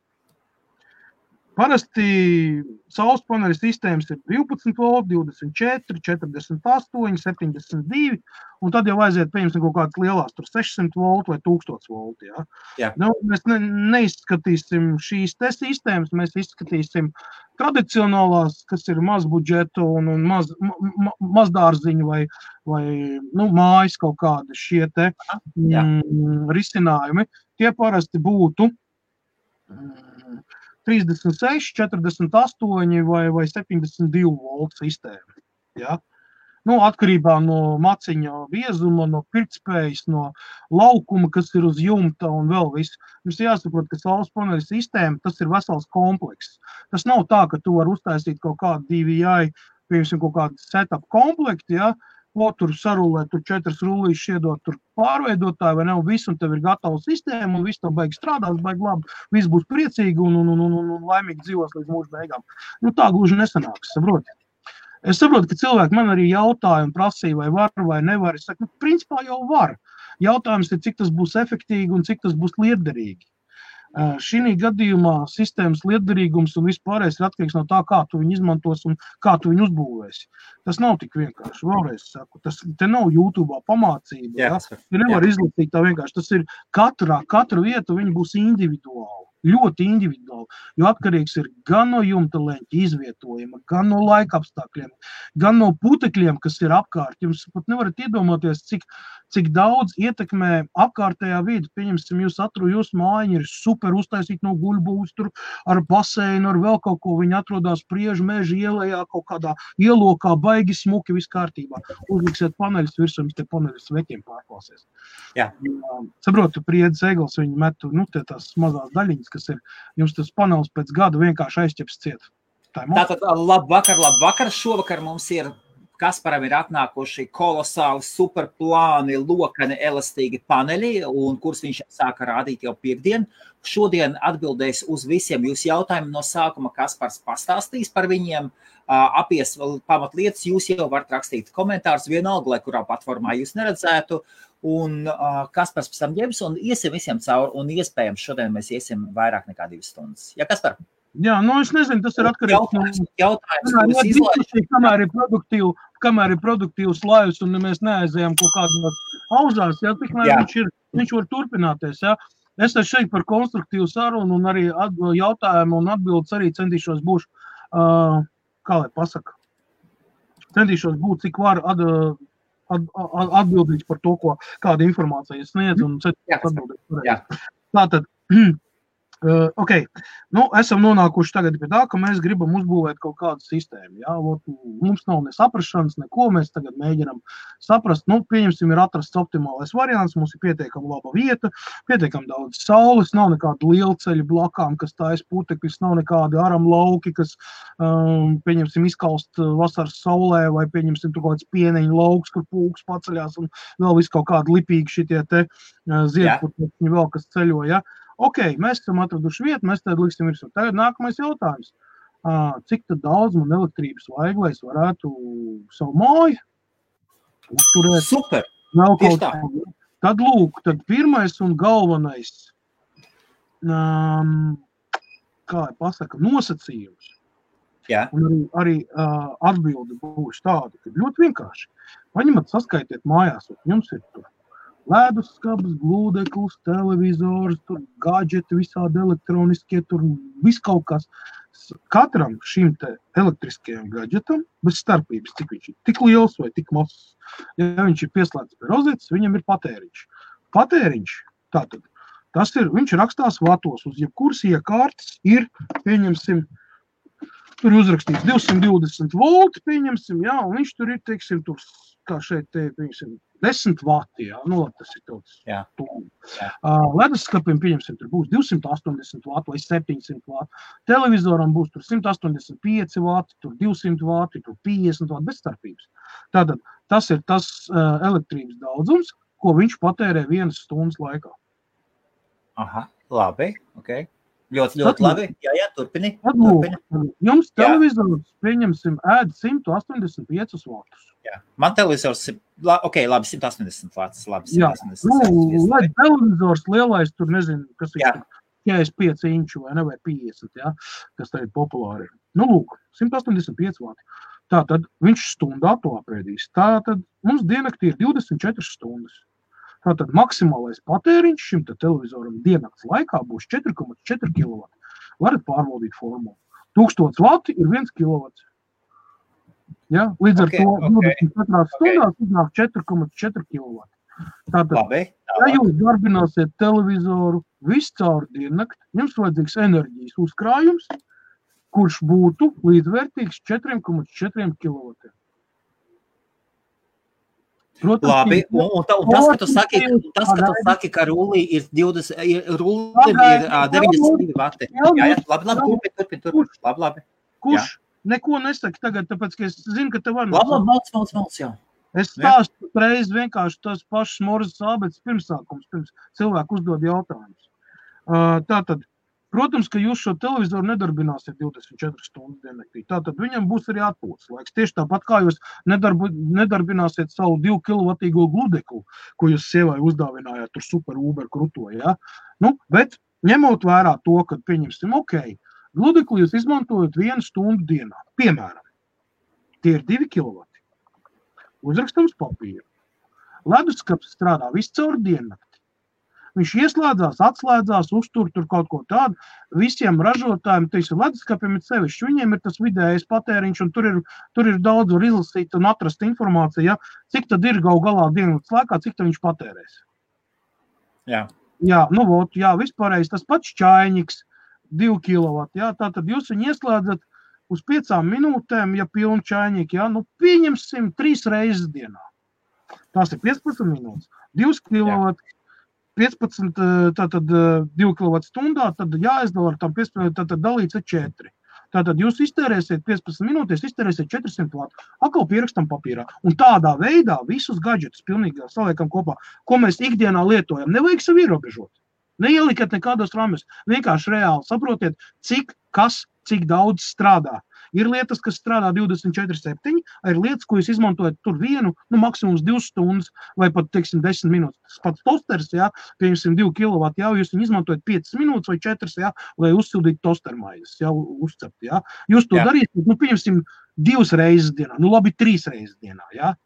Parasti saules paneļu sistēmas ir 12 volti, 24, 48, 72, un tad jau aiziet, pieņemsim, kaut kādas lielās, tur 600 volti vai 1000 volti. Ja? Jā. Nu, mēs neizskatīsim šīs te sistēmas, mēs izskatīsim tradicionālās, kas ir maz budžetu un mazdārziņu vai mājas kaut kādi šie te risinājumi. Tie parasti būtu 36, 48 vai 72 voltu sistēma. Ja? Atkarībā no maciņa biezuma, no pirktspējas, no laukuma, kas ir uz jumta un vēl viss. Mums jāsaprot, ka saules paneļu sistēma, tas ir vesels komplekss. Tas nav tā, ka tu vari uztaisīt kaut kādu DVI, piemēram, kaut kādu setup komplektu, ja? Tur sarulē, tur 4 rullīšus iedot, tur pārveidotāji vai nav visu, un tev ir gatava sistēma, un viss tev baigi strādās, baigi labi, viss būs priecīgi un laimīgi dzīvos līdz mūža beigām. Tā gluži nesanāks, saproti. Es saprotu, ka cilvēki man arī jautāja un prasīja, vai var vai nevar. Es saku, principā jau var. Jautājums ir, cik tas būs efektīgi un cik tas būs liederīgi. Šī gadījumā sistēmas liederīgums un vispārējais ir atkarīgs no tā, kā tu viņu izmantos un kā tu viņu uzbūvēsi. Tas nav tik vienkārši. Vēlreiz saku, te nav YouTube'ā pamācība. Ja? Tu nevar izlasīt tā vienkārši. Tas ir katru vietu viņa būs individuāli. Ļoti individuāli, jo atkarīgs ir gan no jumta leņķa izvietojuma, gan no laika apstākļiem, gan no putekļiem, kas ir apkārt. Jums pat nevarat iedomāties, cik daudz ietekmē apkārtējā vide. Pieņemsim, jūsu mājiņa ir super uztaisīta no guļbūs, tur ar baseinu, ar vēl kaut ko. Viņi atrodas Priežu meža ielējā, kaut kādā ielokā, baigi smuki, viss kārtībā. Uzliksiet paneļus virsū, te paneļus sveķiem pārklāsies. Jā. Saprotu, Priedz eglis, viņi metu, tās mazās daļiņas, kas ir, jums tas panelis pēc gada vienkārši aizķeps ciet. Tātad, labvakar. Šovakar mums ir, Kasparam ir atnākuši kolosāli, superplāni, lokani, elastīgi paneļi, un kurus viņš sāka rādīt jau pirmdien. Šodien atbildēs uz visiem jūsu jautājumiem. No sākuma Kaspars pastāstīs par viņiem, apies pamatlietas. Jūs jau varat rakstīt komentārus vienalga, lai kurā platformā jūs neredzētu. Un Kaspars pēc tam ņems un iesim visiem cauri, un iespējams šodien mēs iesim vairāk nekā 2 stundas. Ja, Kaspar? Jā, es nezinu, tas ir atkarīgs no jautājums, kamēr ir produktīvs laivs, un mēs neaizējām kaut kādās auzās, ja, tikmēr viņš var turpināties, ja. Es šeit par konstruktīvu sarunu un arī jautājumu un atbildes arī centīšos būšu, kā lai pasaka, centīšos būt, cik var atbildīgs par to, kāda informācija sniedz un atbildīgs. Tātad, okay. Esam nonākuši tagad pie tā, ka mēs gribam uzbūvēt kaut kādu sistēmu. Ja? Mums nav ne saprašanas, neko, mēs tagad mēģinam saprast. Pieņemsim, ir atrasts optimālais variants, mums ir pietiekami laba vieta, pietiekami daudz saules, nav nekāda lielceļa blakām, kas tājas putekļus, nav nekādi aram lauki, kas, pieņemsim, izkalst vasaras saulē, vai pieņemsim tur kaut kāds pieneņu lauks, kur pūks paceļās, un vēl viss kaut kādi lipīgi šitie te ziedputekļi vēl, kas ceļo, ja? Ok, mēs esam atraduši vietu, mēs tad liksim virsū. Tagad nākamais jautājums. Cik tad daudz man elektrības vajag, lai es varētu savu māju uzturēt? Super! Tad lūk, tad pirmais un galvenais, kā pasaka, nosacījums. Jā. Un arī atbilde būs tāda, ka ļoti vienkārši. Paņemat, saskaitiet mājās, un jums ir tur ledusskapis, glūdeklis, televizors, tur gadžeti, visādi elektroniskie, tur viss kaut kas. Katram šim te elektriskajam gadžetam, bez starpības, cik viņš ir, tik liels vai tik mazs. Ja viņš ir pieslēgts pie rozetes, viņam ir patēriņš. Patēriņš, tātad, viņš rakstās vatos, uz jebkuras iekārtas ir, pieņemsim, tur uzrakstīts 220 volti, pieņemsim, jā, un viņš tur ir, teiksim, tur, kā šeit, pieņemsim, 10 vati, jā, tas ir tāds tūmi. Leduskapim, pieņemsim, tur būs 280 vati vai 700 vati. Televizoram būs tur 185 vati, tur 200 vati, tur 50 vati, bez starpības. Tātad, tas ir tas elektrības daudzums, ko viņš patērē 1 stundas laikā. Aha, labi, ok. Ļoti labi. Jā, turpini. Jums televizors, pieņemsim, ēd 185 vatus. Jā, man televizors ir, labi, 180 vatus, labi. Jā, lai televizors lielais, tur nezinu, kas ir 45 inču vai ne, vai 50, ja, kas tagad populāri ir. Nu, lūk, 185 vati. Tātad viņš stundā to apēdīs. Tātad mums diennaktī ir 24 stundas. Tātad maksimālais patēriņš šim televizoram diennakts laikā būs 4,4 kW. Varat pārbaudīt formulu. 1000 vati ir 1 kW. Ja? Līdz ar to 24 stundās iznāk 4,4 kW. Tātad, ja jūs darbināsiet televizoru visu caur diennakti, jums vajadzīgs enerģijas uzkrājums, kurš būtu līdzvērtīgs 4,4 kW. Protams, labi, un tas, ka tu saki, ka rullī ir 92 vati. Jā, labi, turpin. Labi. Kurš neko nesaka tagad, tāpēc, ka es zinu, ka tev var Labi, jā. Es stāstu reiz vienkārši tos pašus Morzes ābeces pirmsākums, pirms cilvēku uzdod jautājumus. Tātad, protams, ka jūs šo televizoru nedarbināsiet 24 stundas diennaktī. Tātad viņam būs arī atpūtas laiks. Tieši tāpat kā jūs nedarbināsiet savu 2 kilovatīgo gludeklu, ko jūs sievai uzdāvinājāt tur super Uber kruto, ja? Nu, bet ņemot vērā to, ka pieņemsim, gludekli jūs izmantojat 1 stundu dienā. Piemēram, tie ir 2 kilovati. Uzrakstams papīru. Leduskapis strādā visu caur diennakti. Viņš ieslēdzās, atslēdzās, uztur tur kaut ko tādu. Visiem ražotājiem, leduskapiem ir sevišķi. Viņiem ir tas vidējais patēriņš, un tur ir daudz var izlasīt un atrast informāciju, ja, cik tad ir galā diennakts laikā, cik tad viņš patērēs. Jā. Jā, vispārējais tas pats čaiņiks, 2 kW. Jā, tātad jūs viņu ieslēdzat uz 5 minūtēm, ja pilni čaiņīgi, ja, nu pieņemsim 3 reizes dienā. Tās ir 15 minūtes, 2 kW, 15, tātad 2 kW stundā, tad jāizdala ar tam 15, tātad dalīts ar 4. Tātad jūs iztērēsiet 15 minūtēs, iztērēsiet 400 vatu, atkal pierakstam papīrā. Un tādā veidā visus gadžetus pilnīgi saliekam kopā, ko mēs ikdienā lietojam. Nevajag sev ierobežot. Neielikat nekādos rāmjos. Vienkārši reāli saprotiet, cik daudz strādā. Ir lietas, kas strādā 24/7, ir lietas, ko jūs izmantojat tur vienu, maksimums 2 stundas vai pat, 10 minūtes. Tas pats tosters, jā, pieņemsim 2 kW, jā, jūs viņu izmantojat 5 minūtes vai 4, jā, lai uzsildītu tostermaizes, jā, uzcept, jā. Jūs to darīsiet, pieņemsim 2 reizes dienā, labi 3 reizes dienā, jā.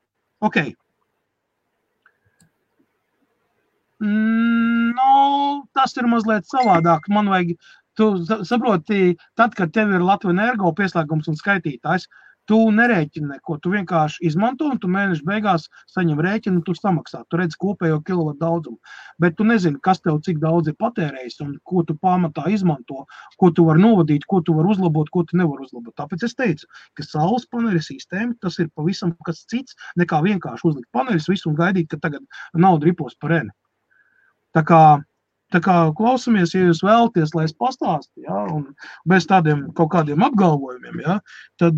Ok. Tas ir mazliet savādāk. Man vajag, tu saproti, tad, kad tev ir Latvijas Energo pieslēgums un skaitītājs, tu nerēķini neko, tu vienkārši izmanto un tu mēneša beigās saņem rēķinu un tu samaksā. Tu redz kopējo kilovatu daudzumu. Bet tu nezini, kas tev cik daudz ir patērējis un ko tu pamatā izmanto, ko tu var novadīt, ko tu var uzlabot, ko tu nevar uzlabot. Tāpēc es teicu, ka saules paneļa sistēma, tas ir pavisam kas cits, nekā vienkārši uzlikt paneļus visu un gaidīt, ka tagad nauda ripos par eni. Tā kā klausamies, ja jūs vēlaties, lai es pastāstu, ja, un bez tādiem kaut kādiem apgalvojumiem, ja, tad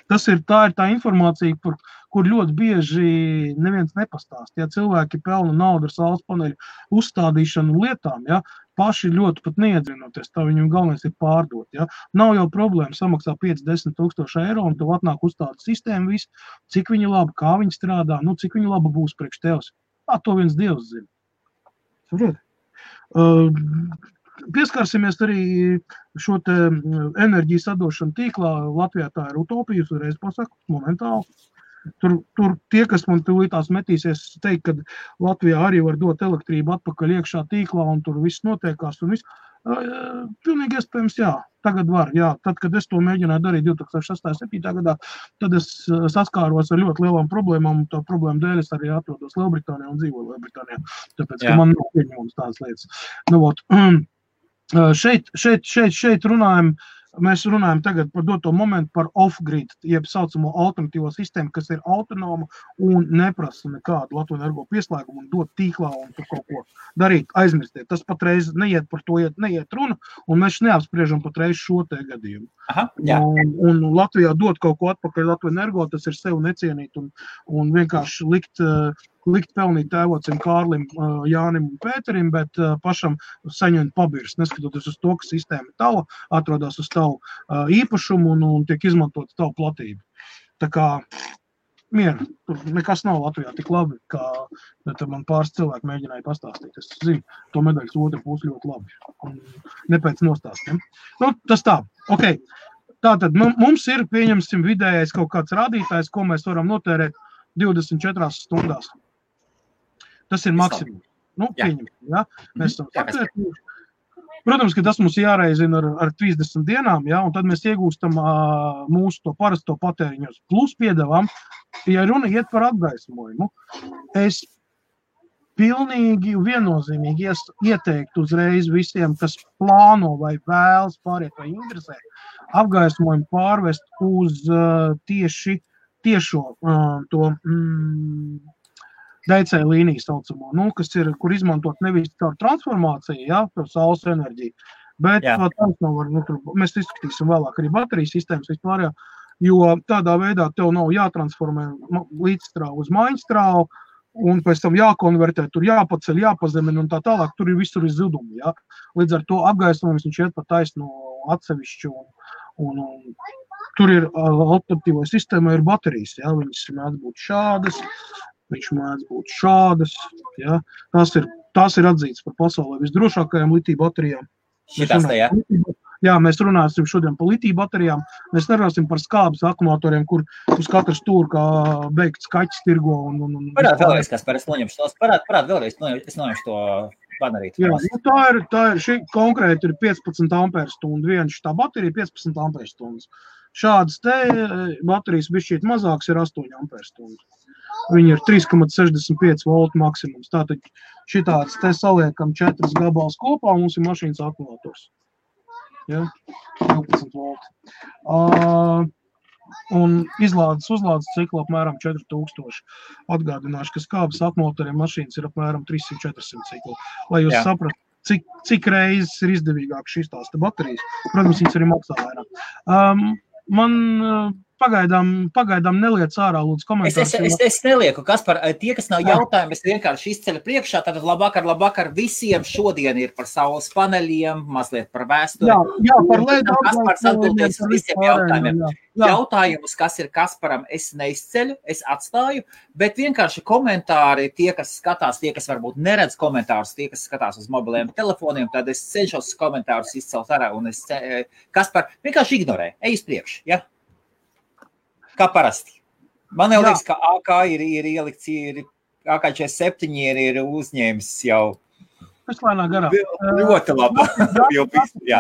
tā ir tā informācija, kur ļoti bieži neviens nepastāst. Ja cilvēki pelna naudu ar saules paneļu uzstādīšanu lietām, ja, paši ļoti pat neiedzinoties, tā viņam galvenais ir pārdot. Ja. Nav jau problēma samaksā 5-10 tūkstoši eiro un tev atnāk uzstāda sistēma visu, cik viņa laba, kā viņa strādā, cik viņa laba būs priekš tevs. To viens Dievs zina. Pieskarsimies arī šo te enerģijas sadošanu tīklā. Latvijā tā ir utopija, jūs uzreiz pasaku, momentāli. Tur tie, kas man tūlītās metīsies, teikt, ka Latvijā arī var dot elektrību atpakaļ iekšā tīklā un tur viss notiekās un viss. Pilnīgi iespējams, jā. Tagad var, jā. Tad, kad es to mēģināju darīt 2006.7. gadā, tad es saskāros ar ļoti lielām problēmām, un tā problēma dēļ es arī atrodos Lielbritānijā un dzīvoju Lielbritānijā. Tāpēc, ka man nav pieņemams tādas lietas. Šeit mēs runājam tagad par doto momentu par off-grid, jeb saucamo alternatīvo sistēmu, kas ir autonoma un neprasa nekādu Latvijas Energo pieslēgumu un dot tīklā un tur kaut ko darīt, aizmirstiet. Tas patreiz neiet par to, neiet runa, un mēs neapspriežam patreiz šo te gadījumu. Un Latvijā dot kaut ko atpakaļ Latvijas Energo, tas ir sev necienīt un vienkārši likt pelnīt tēvocim Kārlim, Jānim un Pēterim, bet pašam saņemt pabirs, neskatoties uz to, ka sistēma tava atrodas uz tavu īpašumu un tiek izmantot tavu platību. Tā kā mieru. Tur nekas nav Latvijā tik labi, kā man pāris cilvēki mēģināja pastāstīt. Es zinu, to medaļas otru pusi ļoti labi. Un ne pēc nostāstiem. Nu, tas tā. Ok. Tātad mums ir, pieņemsim, vidējais kaut kāds rādītājs, ko mēs varam notērēt 24 stundās. Tas ir maksimums. Nu, pieņemsim, ja? Mēs esam sakrētījuši. Protams, ka tas mums jāreizina ar 30 dienām, ja? Un tad mēs iegūstam mūsu to parasto patēriņos. Plus piedevām, ja runa iet par apgaismojumu, es pilnīgi viennozīmīgi ieteiktu uzreiz visiem, kas plāno vai vēlas pāriet vai interesē, apgaismojumu pārvest uz tiešo to DC līniju saucamo, nu, kas ir, kur izmantot nevis caur transformāciju, ja, par saules enerģiju, bet tāds nav var, nu, tur, mēs izskatīsim vēlāk arī baterijas sistēmas vispār, jo tādā veidā tev nav jātransformē līdzstrāvu uz maiņstrāvu, un pēc tam jākonvertē, tur jāpaceļ, jāpazemina un tā tālāk, tur ir visur izzudumi, ja. Līdz ar to apgaismojums viņš iet pa taisno atsevišķu, un tur ir alternatīvai sistēmai ir baterijas, ja, viņas mēdz būt šādas, viņš mēdz būt šādas, ja. Tās ir atzītas par pasaulē visdrošākajām litija baterijām. Šitās te, ja? Jā, mēs runāsim šodien par litija baterijām, mēs nerunāsim par skābes akumulatoriem, kur uz katru stūru kā beigts kaķis tirgo un Parād vēlreiz, kas par es noņemšu tos, parād vēlreiz, es noņemšu to banerītu. Jā, nu tā ir šī konkrēti ir 15 amperstundu, viena šitā baterija 15 amperstundas. Šādas te baterijas bišķīt mazāks ir 8 amperstundu. Viņi ir 3,65 voltu maksimums. Tātad šitāds te saliekam 4 gabals kopā, un mums ir mašīnas akumulators. Ja? 12 volti. Un uzlādes ciklu apmēram 4000. Atgādināšu, ka skābes akumulatoriem mašīnas ir apmēram 300-400 ciklu. Lai jūs saprastu, cik reizes ir izdevīgāk šīs tās baterijas. Protams, viņas arī maksā vairāk. Man pagaidām neliec ārā, lūdzu, komentārus. Es nelieku, Kaspar, tie, kas nav jautājumi, es vienkārši izceļu priekšā, tātad labvakar, visiem šodien ir par saules paneļiem, mazliet par vēsturi. Jā, par LED Kaspars atbildēs visiem jautājumiem. Jautājumus, kas ir Kasparam, es neizceļu, es atstāju, bet vienkārši komentāri, tie, kas skatās, tie, kas varbūt neredz komentārus, tie, kas skatās uz mobiliem telefoniem, tad es cenšos komentārus izcelt ārā, un Kaspar vienkārši ignorē, ej uz priekšu, ja? Kā parasti. Man jau liekas, ka AK ir ielikts, AK47 ir uzņēmis jau. Es lēnā garā. Ļoti labi. Jā.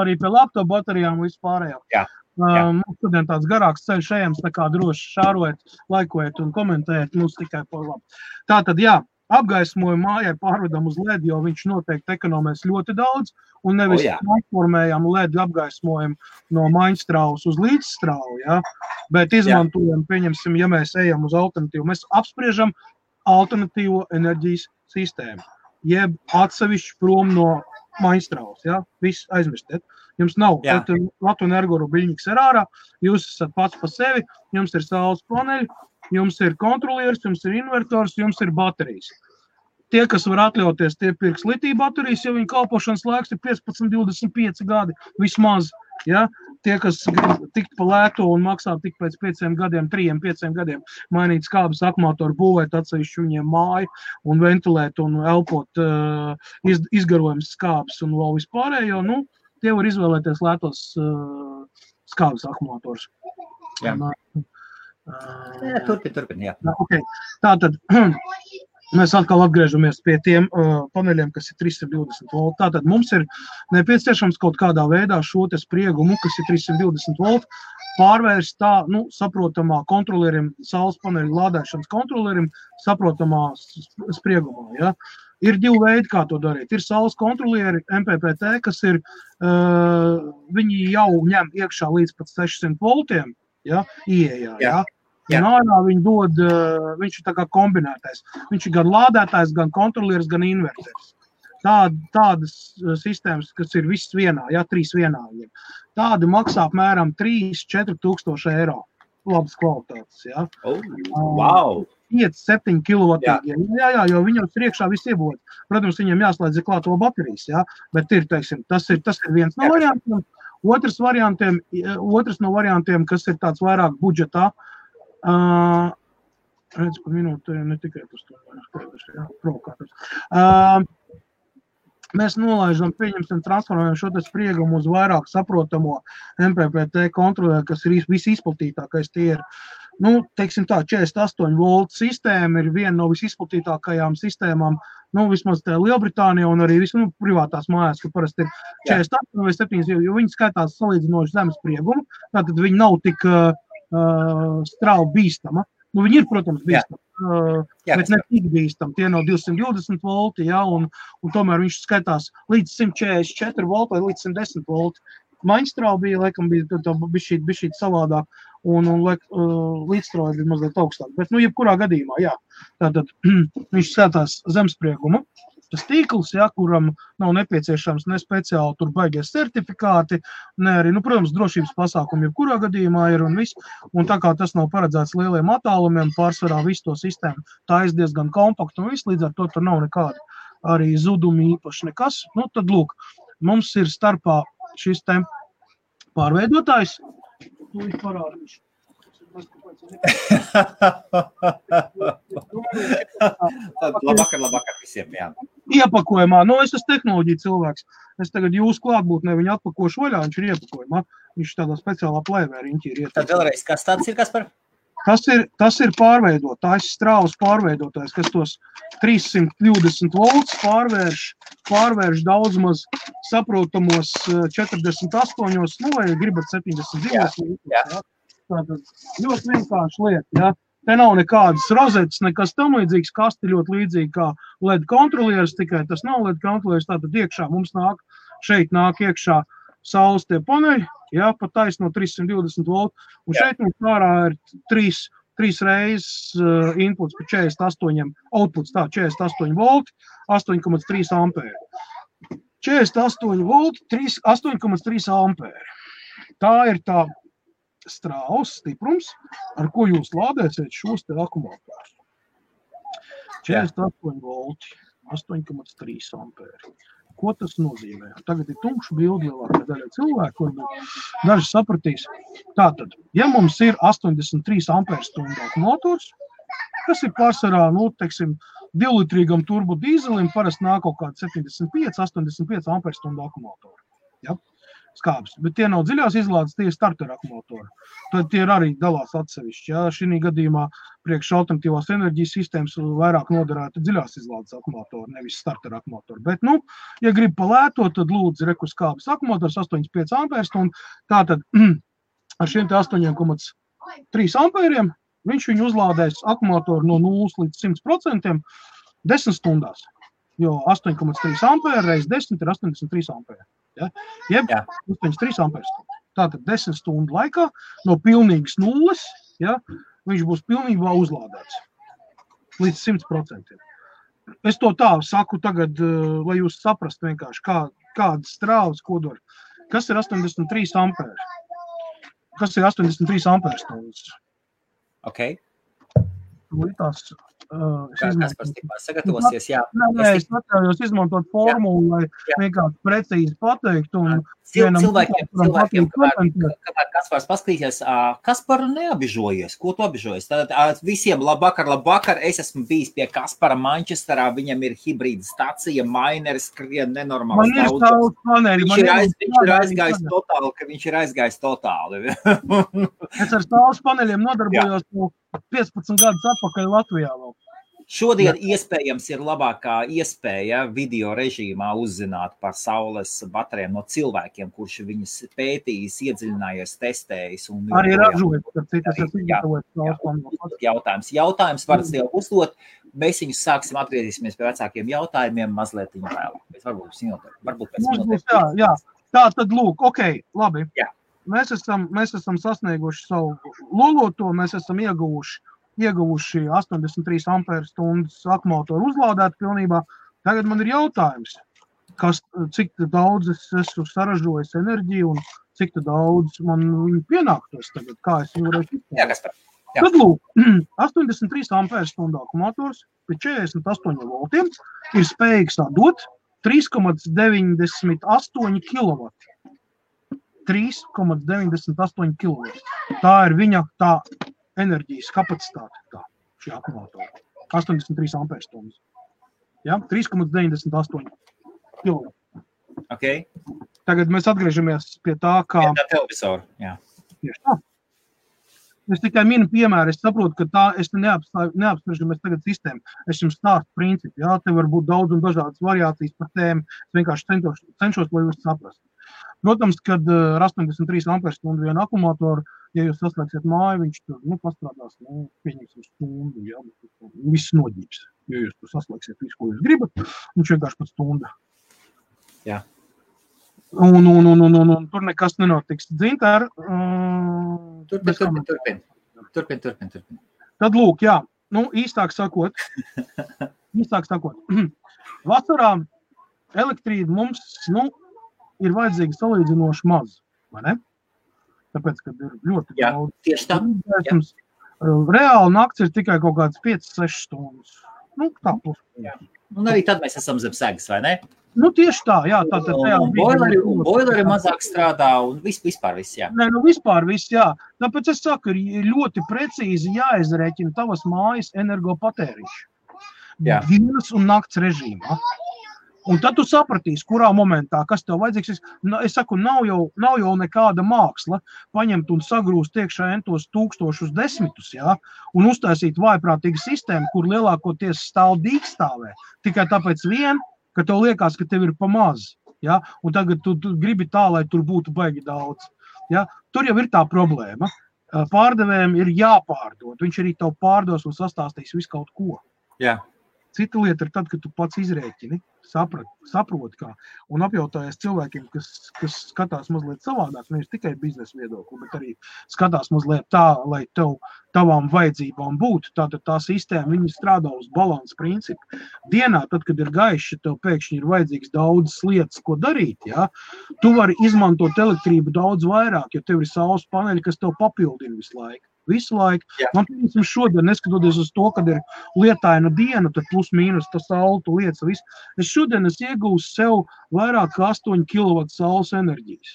Arī pie laptop baterijām vispārējā. Jā. Mums šodien tāds garāks ceļš ejams, tā kā droši šārojiet, laikojiet un komentējiet, mums tikai par labu. Tātad, jā, apgaismojumu mājai pārvedam uz LED, jo viņš noteikti ekonomēs ļoti daudz, un nevis transformējam LED apgaismojumu no maiņstrāvas uz līdzstrāvu, ja? Bet izmantojam, pieņemsim, ja mēs ejam uz alternatīvu, mēs apspriežam alternatīvo enerģijas sistēmu, jeb atsevišķi prom no maiņstrāvas, ja? Viss aizmirstiet. Jums nav Latvijas energo biļņiks ir ārā, jūs esat pats pa sevi, jums ir saules paneļi, jums ir kontrolieris, jums ir invertors, jums ir baterijas. Tie, kas var atļauties, tie pirks litija baterijas, jo viņa kalpošanas laiks ir 15-25 gadi vismaz. Ja? Tie, kas grib tikt pa lēto un maksā tik pēc 5 gadiem, 3-5 gadiem, mainīt skābes akumulatoru, būvēt atsevišķi viņiem māju un ventilēt un elpot izgarojums skābes un vēl vispārējo, nu, tie var izvēlēties lētos skābes akumulators. Jā. Turpin, jā. Okay. Tātad, mēs atkal atgriežamies pie tiem paneļiem, kas ir 320 volti. Tātad mums ir nepieciešams kaut kādā veidā šo te spriegumu, kas ir 320 volti, pārvērst tā, nu, saprotamā kontrolierim, saules paneļu lādēšanas kontrolierim, saprotamā spriegumā, ja. Ir divi veidi, kā to darīt. Ir saules kontrolieri MPPT, kas ir, viņi jau ņem iekšā līdz pat 600 voltiem, ja, ieejā, ja. Un ārā viņi dod, viņš ir tā kā kombinētais. Viņš ir gan lādētājs, gan kontrolieris, gan inverters. Tādas sistēmas, kas ir viss vienā, ja, 3 vienā. Tādi maksā apmēram 3-4 tūkstoši eiro. Labas kvalitātes, ja. Wow! 5-7 kilovatīgi. Jā, jo viņam priekšā viss iebūvēt. Protams, viņam jāslēdz klāto baterijas, ja, bet ir, teiksim, tas ir viens no variantiem. Otrs no variantiem, kas ir tāds vairāk budžetā, Redz, pa minūti, ne tikai tas provokātors. Mēs nolaižam, pieņemsim, transformējam šo te spriegumu uz vairāk saprotamo MPPT kontrolē, kas ir visizplatītākais. Tie ir, teiksim tā, 48 voltu sistēma ir viena no visizplatītākajām sistēmām, vismaz tā Lielbritānija un arī privātās mājās, ka parasti ir 48 vai 7, jo viņi skaitās salīdzinoši zemes spriegumu, tātad viņi nav tik strauji bīstama. Viņi ir, protams, bīstami, bet ne tik bīstami. Tie nav 220 volti, un tomēr viņš skaitās līdz 144 volti vai līdz 110 volti. Maiņstrāva laikam bija bišķīt savādāk, un līdzstrāva bija mazliet augstāk. Bet, jebkurā gadījumā, tātad viņš skatās zemspriegumu. Tas tīkls, kuram nav nepieciešams ne speciāli tur baigies certifikāti, ne arī, protams, drošības pasākumi jebkurā gadījumā ir un viss. Un tā kā tas nav paredzēts lieliem attālumiem, pārsvarā visu to sistēmu, tā ir diezgan kompakta un viss, līdz ar to tur nav nekāda arī zudumi īpaši nekas. Tad lūk, mums ir starpā šis te pārveidotājs. Viņš parādīšu. Labvakar visiem, jā. Iepakojumā, es esmu tehnoloģija cilvēks. Es tagad jūsu klātbūtnē viņu atpakošu vaļā, viņš ir iepakojumā. Viņš tādā speciālā plēvērīņķī ir iepakojumā. Tad vēlreiz, kas tāds ir, Kaspar? Tas ir pārveidotājs, strāvas pārveidotājs, kas tos 320 volts pārvērš daudz maz saprotamos 48, vai gribat 72. Tātad ļoti vienkārši lieta, Te nav nekādas rozetes, nekas tam līdzīgs, kasti ļoti līdzīgi kā LED kontrolieris, tikai tas nav LED kontrolieris, tātad iekšā mums šeit nāk iekšā saules tie paneļi, pa taisno 320 voltu, un šeit mums ārā ir trīs reizes inputs pa 48, outputs 48 volti, 8,3 ampēri. 48 volti, 8,3 ampēri. Tā ir tā strāvas stiprums, ar ko jūs lādēsiet šos te akumulatorus. 48 volti, 8,3 ampēri. Ko tas nozīmē? Tagad ir tumša bildi lielākā daļa cilvēku, varbūt daži sapratīs. Tātad, ja mums ir 83 ampērstundu akumulators, kas ir pārsvarā, 2-litrīgam turbo dīzelim, parasti nāk kaut kādi 75-85 ampērstundu akumulatori. Skābs, bet tie nav dziļās izlādes, tie ir starter akumulatori. Tad tie arī dalās atsevišķi. Šī gadījumā priekš alternatīvās enerģijas sistēmas vairāk noderētu dziļās izlādes akumulatori, nevis starter akumulatori. Bet, ja grib palētot, tad lūdzu rekus skābs akumulators 8,5 ampērstundu. Tātad ar šiem te 8,3 ampēriem viņš viņu uzlādēs akumulatoru no 0 līdz 100% 10 stundās. Jo 8,3 ampēri reiz 10 ir 83 ampēri. Jeb 83 ampērstundu. Tātad 10 stundu laikā no pilnīgas nulles, viņš būs pilnībā uzlādēts līdz 100%. Es to tā saku tagad, lai jūs saprastu vienkārši, kādas strāvas kodori. Kas ir 83 ampēri? Kas ir 83 ampērstundas? Ok. Tās Kaspars tikmā sagatavosies, Es atļaujos izmantot formulu, lai vienkārši precīzi pateikt. Cilvēkiem, kamēr Kaspars paskatīsies, Kasparu neabižojies. Ko tu abižojies? Tātad visiem labvakar. Es esmu bijis pie Kaspara Manchesterā, viņam ir hibrīda stacija, maineris, skrien nenormāls. Man ir saules paneļi. Viņš ir aizgājis totāli. Es ar saules paneļiem nodarbojos 15 gadus atpakaļ Latvijā vēl. Šodien iespējams ir labākā iespēja video režīmā uzzināt par saules baterijām no cilvēkiem, kurš viņas pētījis, iedziļinājies, testējis. Arī ražojot. Jautājums varat jau uzdot. Mēs viņus sāksim, atgriezīsimies pie vecākiem jautājumiem mazliet viņu vēlāk. Varbūt pēc minūtēm. Jā. Tā tad lūk, ok, labi. Jā. Mēs esam sasnieguši savu loloto, mēs esam ieguvuši 83 ampērstundas akumulatoru uzlādēt pilnībā. Tagad man ir jautājums, cik daudz es esmu saražojis enerģiju un cik daudz man viņu pienāktos tagad, kā es viņu varētu izpērt. Tad lūk, 83 ampērstundu akumulators pie 48 voltiem ir spējīgs dot 3,98 kW. 3,98 kW. Tā ir viņa tā enerģijas kapacitāte tā, šī akumulatora. 83 amperstundas. Ja? 3,98 kW. Okay. Tagad mēs atgriežamies pie tā, kā... Pie tā televizoru, jā. Tieši tā. Es tikai minu piemēru, es saprotu, ka tā es neapspriežamies tagad sistēmu. Es jums stāstu principu, jā, te var būt daudz un dažādas variācijas par tēmu. Es vienkārši cenšos, lai jūs saprastu. Protams, kad ar 83 amperstundu vienu akumulatoru, ja jūs saslēgsiet māju, viņš tur, pastrādās, pieņemsim stundu, jā, viss noģības. Ja jūs tur saslēgsiet visu, ko jūs gribat, viņš vienkārši pat stunda. Jā. Un tur nekas nenotiks. Dzintār, Turpin. Tad lūk, jā, īstāk sakot, vasarā elektrība mums, ir vajadzīga salīdzinoši maz, vai ne? Tāpēc, kad ir ļoti daudz. Tieši tā. Reāli nakts ir tikai kaut kāds 5-6 stundas. Tā plus. Un arī tad mēs esam zem segas, vai ne? Tieši tā, jā. Tātad boileri mazāk strādā un vispār viss, jā. Nē, vispār viss, jā. Tāpēc es saku, ir ļoti precīzi jāizrēķina tavas mājas energopatēriņš. Dienas un nakts režīmā. Un tad tu sapratīsi, kurā momentā, kas tev vajadzīgs. Es saku, nav jau nekāda māksla paņemt un sagrūst iekšā entos tūkstošus desmitus, jā, un uztaisīt vājprātīgu sistēmu, kur lielākoties stāv dīkstāvē. Tikai tāpēc ka tev liekas, ka tev ir pa maz, jā, un tagad tu gribi tā, lai tur būtu baigi daudz. Jā. Tur jau ir tā problēma. Pārdevējiem ir jāpārdod. Viņš arī tev pārdos un sastāstīs visu kaut ko. Jā. Cita lieta ir tad, kad tu pats izrēķini, saproti kā, un apjautājies cilvēkiem, kas skatās mazliet savādāk, nevis tikai biznesa viedokli, bet arī skatās mazliet tā, lai tavām vajadzībām būtu. Tātad tā sistēma, viņi strādā uz balansa principu. Dienā, tad, kad ir gaišs, tev pēkšņi ir vajadzīgs daudzas lietas, ko darīt, jā, tu vari izmantot elektrību daudz vairāk, jo tev ir saules paneļi, kas tev papildina visu laiku. Man piemēram šodien, neskatoties uz to, kad ir lietaina diena, tad plus mīnus tas saule, tu lietas visu. Es šodien iegūstu sev vairāk kā 8 kW saules enerģijas.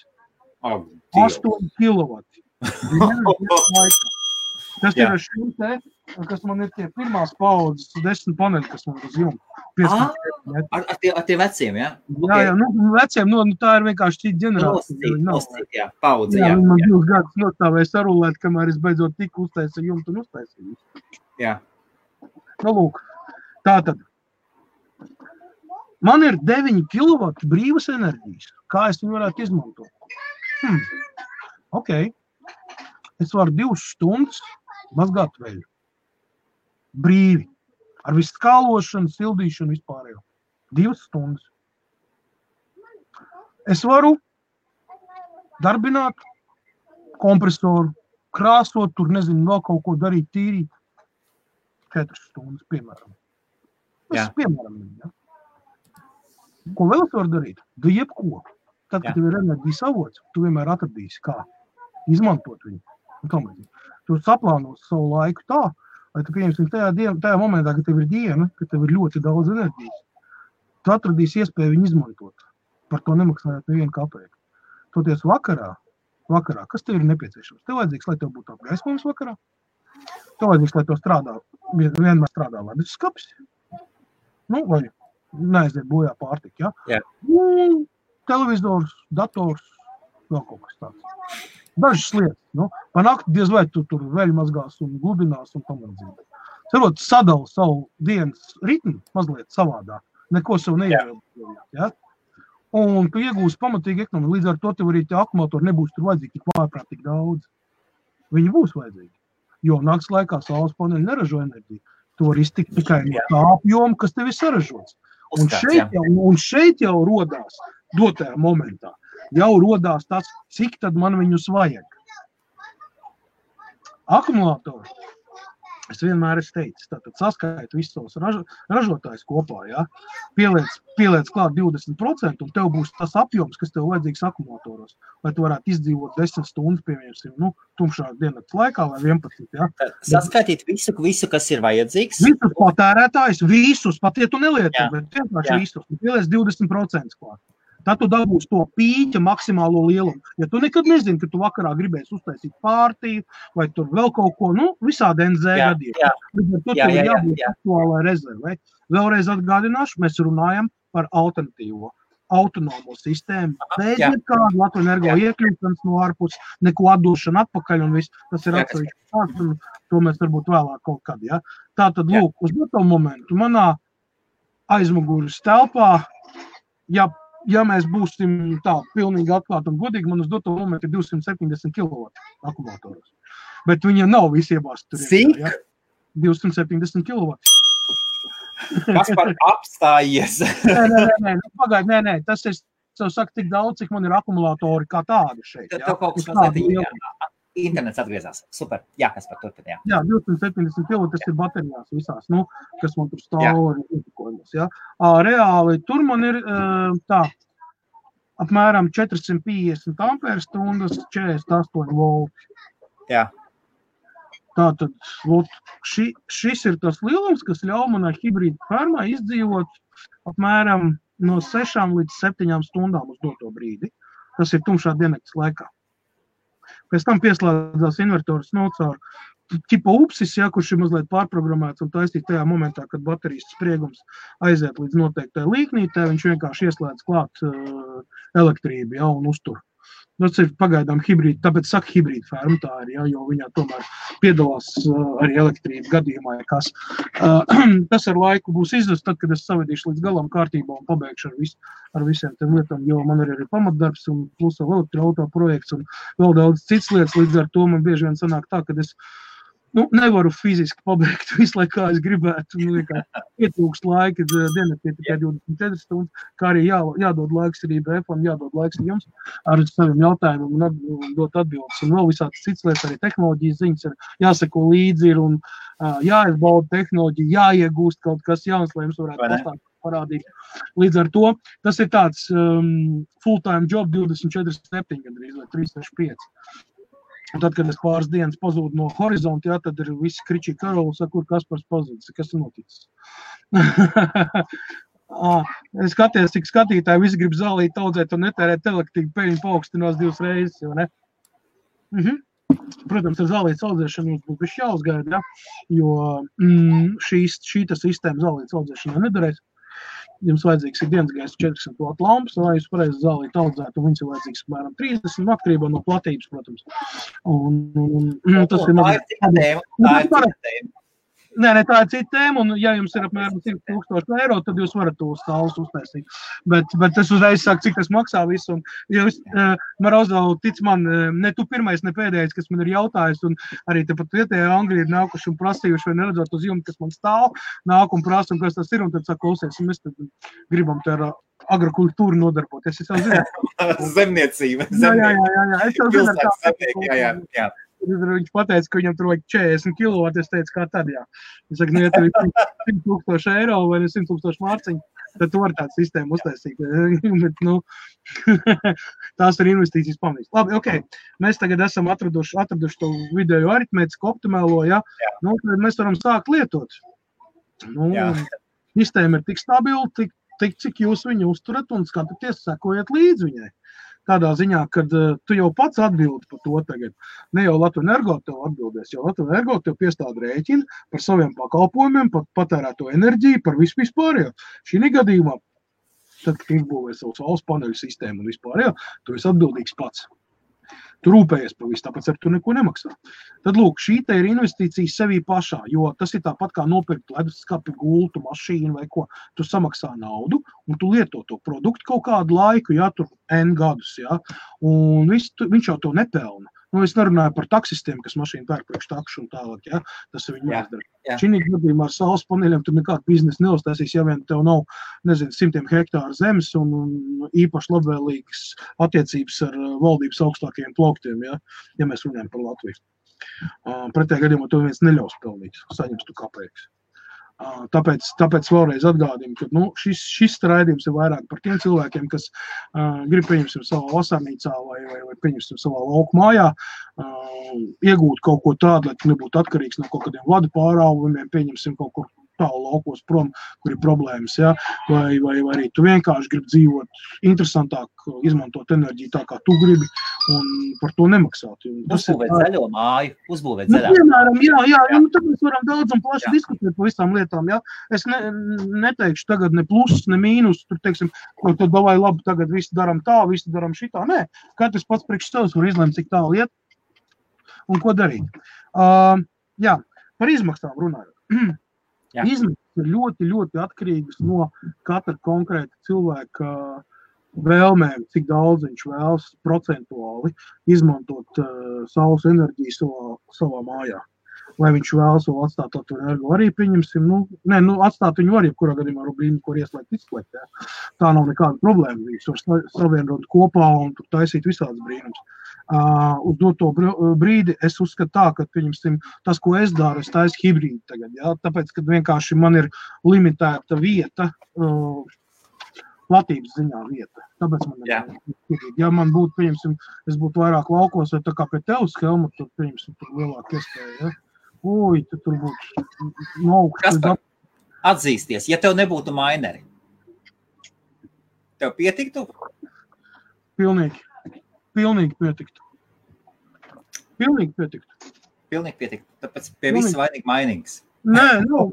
8 kW. Tas ir ar šim te, kas man ir tie pirmās paudzes 10 paneļi, kas man uz jumta. Ar tie veciem, jā? Jā, veciem, tā ir vienkārši šī ģenerācija. Nostīt, jā, paudze, jā. Man 2 gadus nostāvēja sarulēt, kamēr es beidzot tik uztaisīju jumtu un uztaisīju. Jā. Lūk, tātad. Man ir 9 kW brīvas enerģijas. Kā es viņu varētu izmantot? Ok. Es varu 2 stundas mazgāt veļu. Brīvi. Ar visu skālošanu, sildīšanu vispārējo. 2 stundas. Es varu darbināt kompresoru, krāsot, tur nezinu, vēl kaut ko darīt, tīrīt. 4 stundas, piemēram. Piemēram, ja? Ko vēl es varu darīt? Jebko. Tad, kad tev ir enerģijas avots, tu vienmēr atradīsi, kā izmantot viņu. Tu saplānos savu laiku tā, lai tu pieņemsim tajā momentā, ka tev ir diena, ka tev ir ļoti daudz enerģijas. Tu atradīsi iespēju viņu izmantot. Par to nemaksājot nevienu kapeiku. Toties vakarā, kas tev ir nepieciešams? Tev vajadzīgs, lai tev būtu apgaismojums vakarā. Tev vajadzīgs, lai tev vienmēr strādā ledus skapis. Vai neaiziet bojā pārtika, ja? Televizors, dators, vēl kaut kas tāds. Dažas lietas, pa nakti diez vai tu tur veļu mazgās un gludinās un tam līdzīgi. Cerot, sadala savu dienas ritmu mazliet savādāk, neko sev neievēlēt, ja? Un tu iegūsi pamatīgi ekonomiju, līdz ar to tev arī tie akumulatori nebūs tur vajadzīgi tik vājprātīgi daudz. Viņi būs vajadzīgi, jo nakts laikā saules paneļi neražo enerģiju. Tu vari iztikt tikai no tā apjoma, kas tev ir saražots. Un šeit jau rodās dotajā momentā. Jau rodās tas, cik tad man viņus vajag. Akumulatori, es vienmēr esmu teicis, tātad saskaitu visus savus ražotājus kopā, ja? Pieliec klāt 20% un tev būs tas apjoms, kas tev vajadzīgs akumulatoros, lai tu varētu izdzīvot 10 stundas, piemēram, tumšā diennakts laikā vai 11, ja? Saskaitīt visu, kas ir vajadzīgs. Visus patērētājus, visus, pat ja tu nelieto, bet vienkārši visus, pieliec 20% klāt. Tad tu dabūsi to pīķa maksimālo lielumu. Ja tu nekad nezini, ka tu vakarā gribēsi uztaisīt pārtīju vai tur vēl kaut ko, visādi NZ gadījumā. Bet tur ir jābūt aktuālai rezervei. Vēlreiz atgādināšu, mēs runājam par alternatīvo, autonomo sistēmu. Bez nekādu Latvijas Energo iekļūšanas no ārpus, neko atdošana atpakaļ un viss. Tas ir atsevišķi tāds, un to mēs varbūt vēlāk kaut kad, ja. Tātad, lūk, uz to momentu manā aizmugures telpā, ja mēs būsim tā pilnīgi atklāti un godīgi, man uz doto momentu ir 270 kW akumulātoros. Bet viņiem nav visi iebāsti tur. Cik? Ja? 270 kW. Kas par apstājies? Nē, pagaidi, nē. Tas ir, es saku, tik daudz, cik man ir akumulātori kā tādi šeit. Tev kaut kas mazliet internets atgriezās. Super. Jā, kas par turpin, Jā, 270 kW, tas ir baterijās visās, kas man tur stāv ar ietekojumos, jā. Reāli, tur man ir tā, apmēram 450 ampērstundas, 48 volti. Jā. Tātad, šis ir tas lielums, kas ļauj manai hibrīda fermai izdzīvot apmēram no 6 līdz 7 stundām uz doto brīdi. Tas ir tumšā diennakts laikā. Pēc tam pieslēdzās invertors caur ķipa upsis, kurš ir mazliet pārprogrammēts un taisīt tajā momentā, kad baterijas spriegums aiziet līdz noteiktai līknītē, viņš vienkārši ieslēdz klāt elektrību, un uztur. Tas ir pagaidām hibrīda, tāpēc saka hibrīda ferma tā ir, jo viņā tomēr piedalās arī elektrība gadījumā, kas. Tas ar laiku būs izdevies, tad, kad es savedīšu līdz galam kārtībā un pabeigšu ar visiem tiem lietām, jo man arī ir pamatdarbs un plus vēl elektroauto projekts un vēl daudz cits lietas, līdz ar to man bieži vien sanāk tā, kad es nevaru fiziski pabeigt visu laiku, kā es gribētu, ietrūkst laika, diennaktī tikai 24 stundas, kā arī jādod laiks arī BF-am, jādod laiks jums ar saviem jautājumiem un dot atbildes. Un vēl visādas cits lietas, arī tehnoloģijas ziņas ir jāseko līdzi ir un jāizbauda tehnoloģija, jāiegūst kaut kas jauns, lai jums varētu pastāstīt parādīt. Līdz ar to tas ir tāds full-time job 24/7 gandrīz vai 365. Un tad, kad es pāris dienas pazūdu no horizonta, tad ir visi kričī karoli, saka, kur Kaspars pazudis, kas ir noticis. Es skaties, cik skatītāji visi grib zālīt audzēt un netērēt elektrību, peļņu paaugstinās 2 reizes, vai ne? Protams, ar zālītes audzēšanu jums būs bišķi jāuzgaida, jo šī sistēma zālītes audzēšanā nedarēs. Jums vajadzīgs ir dienas gaisa 400 W lampas, lai jūs pareizi zālīti audzētu, un viņas ir vajadzīgs apmēram 30 atkarībā no platības, protams. Tas ir mazliet. Nē, tā ir cita tēma, un ja jums ir apmēram 100,000 eiro, tad jūs varat to stāvus uztaisīt. Bet es uzreiz saku, cik tas maksā visu, un jūs, Marozov, tic man, ne tu pirmais, ne pēdējais, kas man ir jautājis, un arī tepat vietējā Angļi ir nākuši un prasījuši, vai neredzot uz jumta, kas man stāv, nāk un prasa, un kas tas ir, un tad saka, klausies, un mēs tad gribam te ar agrokultūru nodarboties. Es jau zinu. Zemniecība. Jā. Es jau zinu, jā. Viņš pateica, ka viņam tur vajag 40 kW, es teicu, kā tad, jā. Es saku, ja tur ir 100,000 eiro vai 100,000 mārciņu, tad tu vari tādu sistēmu uztaisīt. Bet, tās ir investīcijas pamanīs. Labi, ok, mēs tagad esam atraduši to vidējo aritmētisku optimālo, ja? Tad mēs varam sākt lietot. Sistēma ir tik stabila, tik cik jūs viņu uzturat un skatāties, sekojat līdz viņai. Tādā ziņā, kad tu jau pats atbildi par to tagad. Ne jau Latvijas Energo tev atbildēs, jo Latvijas Energo tev piestāda rēķinu par saviem pakalpojumiem, par patērēto enerģiju, par vispārējo. Šī gadījumā, tad, kad izbūvē savu saules paneļu sistēmu un vispārējo, tu esi atbildīgs pats. Tu rūpējies par visu, tāpēc ar tu neko nemaksā. Tad, lūk, šī te ir investīcija sevī pašā, jo tas ir tāpat kā nopirkt leduskapi, gultu, mašīnu vai ko. Tu samaksā naudu un tu lieto to produktu kaut kādu laiku, tur N gadus, un viņš jau to nepelna. Es nerunāju par taksistiem, kas mašīnu pērk priekš takšu un tālāk, tas ir viņu jāizdara. Šī gadījumā ar saules paneļiem tur nekādu biznesu neuztaisīs, ja vien tev nav, 100 hektāru zemes un īpaši labvēlīgas attiecības ar valdības augstākajiem plauktiem, ja mēs runājam par Latviju. Pretējā gadījumā to viens neļaus pelnīt, saņems tu kapeikas. Tāpēc vēlreiz atgādinu, ka šis raidījums ir vairāk par tiem cilvēkiem, kas grib pieņemsim savā vasarnīcā vai pieņemsim savā lauku mājā, iegūt kaut ko tādu, lai tu nebūtu atkarīgs no kaut kādiem vadu pārāvumiem, pieņemsim kaut kur tālu laukos prom, kur ir problēmas, ja? vai arī tu vienkārši gribi dzīvot interesantāk, izmantot enerģiju tā, kā tu gribi, un par to nemaksāt. Uzbūvēt zaļo māju, uzbūvēt zaļā. Piemēram, jā. Nu, tad mēs varam daudz un plaši diskutēt par visām lietām, ja? Es neteikšu tagad ne plus, ne mīnus, tur, teiksim, ko tad davai labi, tagad visi daram tā, visi daram šitā. Nē, katrs pats priekš savs var izlemt, cik tālu iet un ko darīt. Jā, par izmaksām runājot. Izmaksas ir ļoti, ļoti atkarīgas no katra konkrēta cilvēka vēlmēm, cik daudz viņš vēlas procentuāli izmantot saules enerģiju savā mājā. Vai viņš vēlas vēl atstāt to energo arī, pieņemsim, atstāt viņu var, jebkurā gadījumā brīdi, kur ieslēgt, izslēgt. Ja. Tā nav nekāda problēma. Viņš var savienot kopā un tur taisīt visādas brīnums. Uz doto brīdi es uzskatu tā, ka, pieņemsim, tas, ko es daru, es taisu hibrīdu tagad, ja, tāpēc, ka vienkārši man ir limitēta vieta, platības ziņā vieta, tāpēc man ir hibrīdi. Ja man būtu, pieņemsim, es būtu vairāk laukos, vai tā kā pie tevis, Helma, tad, pieņemsim, tur lielāk iespēja, ja. Oi, tur būtu augsts. Kaspar, atzīsties, ja tev nebūtu maineri, tev pietiktu? Pilnīgi pietiktu. Pilnīgi pietiktu. Tāpēc pie visa vainīgi mainīgs. Nē,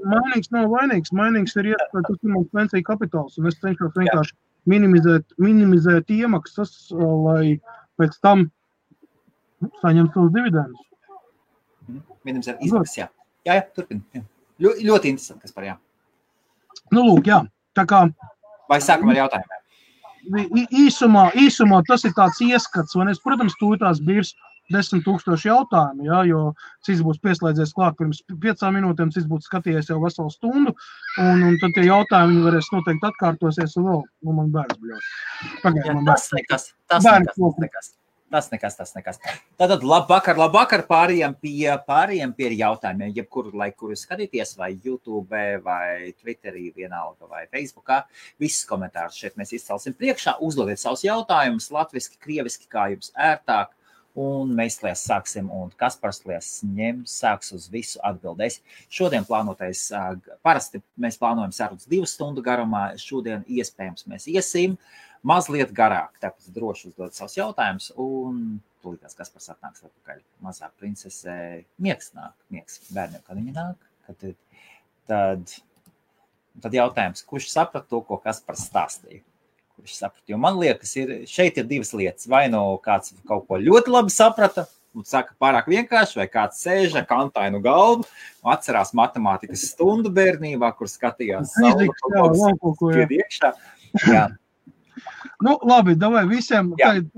mainīgs nav vainīgs. Mainīgs ir iespēja, tas ir mums pensiju kapitāls, un es cenšos vienkārši minimizēt iemaksas, lai pēc tam saņemt savus dividendus. Minimizēt izmaksas, jā. Jā, turpini. Ļoti interesanti, kas par jā. Nu, lūk, jā. Tā kā... Vai sākam ar jautājumiem? Īsumā tas ir tāds ieskats, un es, protams, tūtās birs 10,000 jautājumu, ja, jo cits būs pieslēdzies klāt pirms 5 minūtēm, cits būtu skatījies jau veselu stundu, un tad tie jautājumi viņi varēs noteikti atkārtosies, un vēl, man bērns bļaus. Tas nekas. Tātad labvakar pārējiem pie jautājumiem, jebkuru laiku, kuru skatīties, vai YouTube, vai Twitterī, vienalga, vai Facebookā. Visus komentārus šeit mēs izcelsim priekšā. Uzdodiet savus jautājumus latviski, krieviski, kā jums ērtāk. Un mēs lies sāksim, un Kaspars lies sāks uz visu atbildēs. Šodien plānotais, parasti mēs plānojam sarunas 2 stundu garumā, šodien iespējams mēs iesim mazliet garāk, tāpēc droši uzdod savus jautājumus, un tūlītās Kaspars atnāks atpakaļ. Mazā princese miegs bērniem, kad viņi nāk, tad jautājums, kurš saprat to, ko Kaspars stāstīja? Kurš saprat? Jo man liekas, šeit ir 2 lietas. Vai no kāds kaut ko ļoti labi saprata, un saka pārāk vienkārši, vai kāds sēž ar kantainu galvu, atcerās matemātikas stundu bērnībā, kur skatījās saule, iekšā. Jā. Nu, labi, davai visiem. Labi,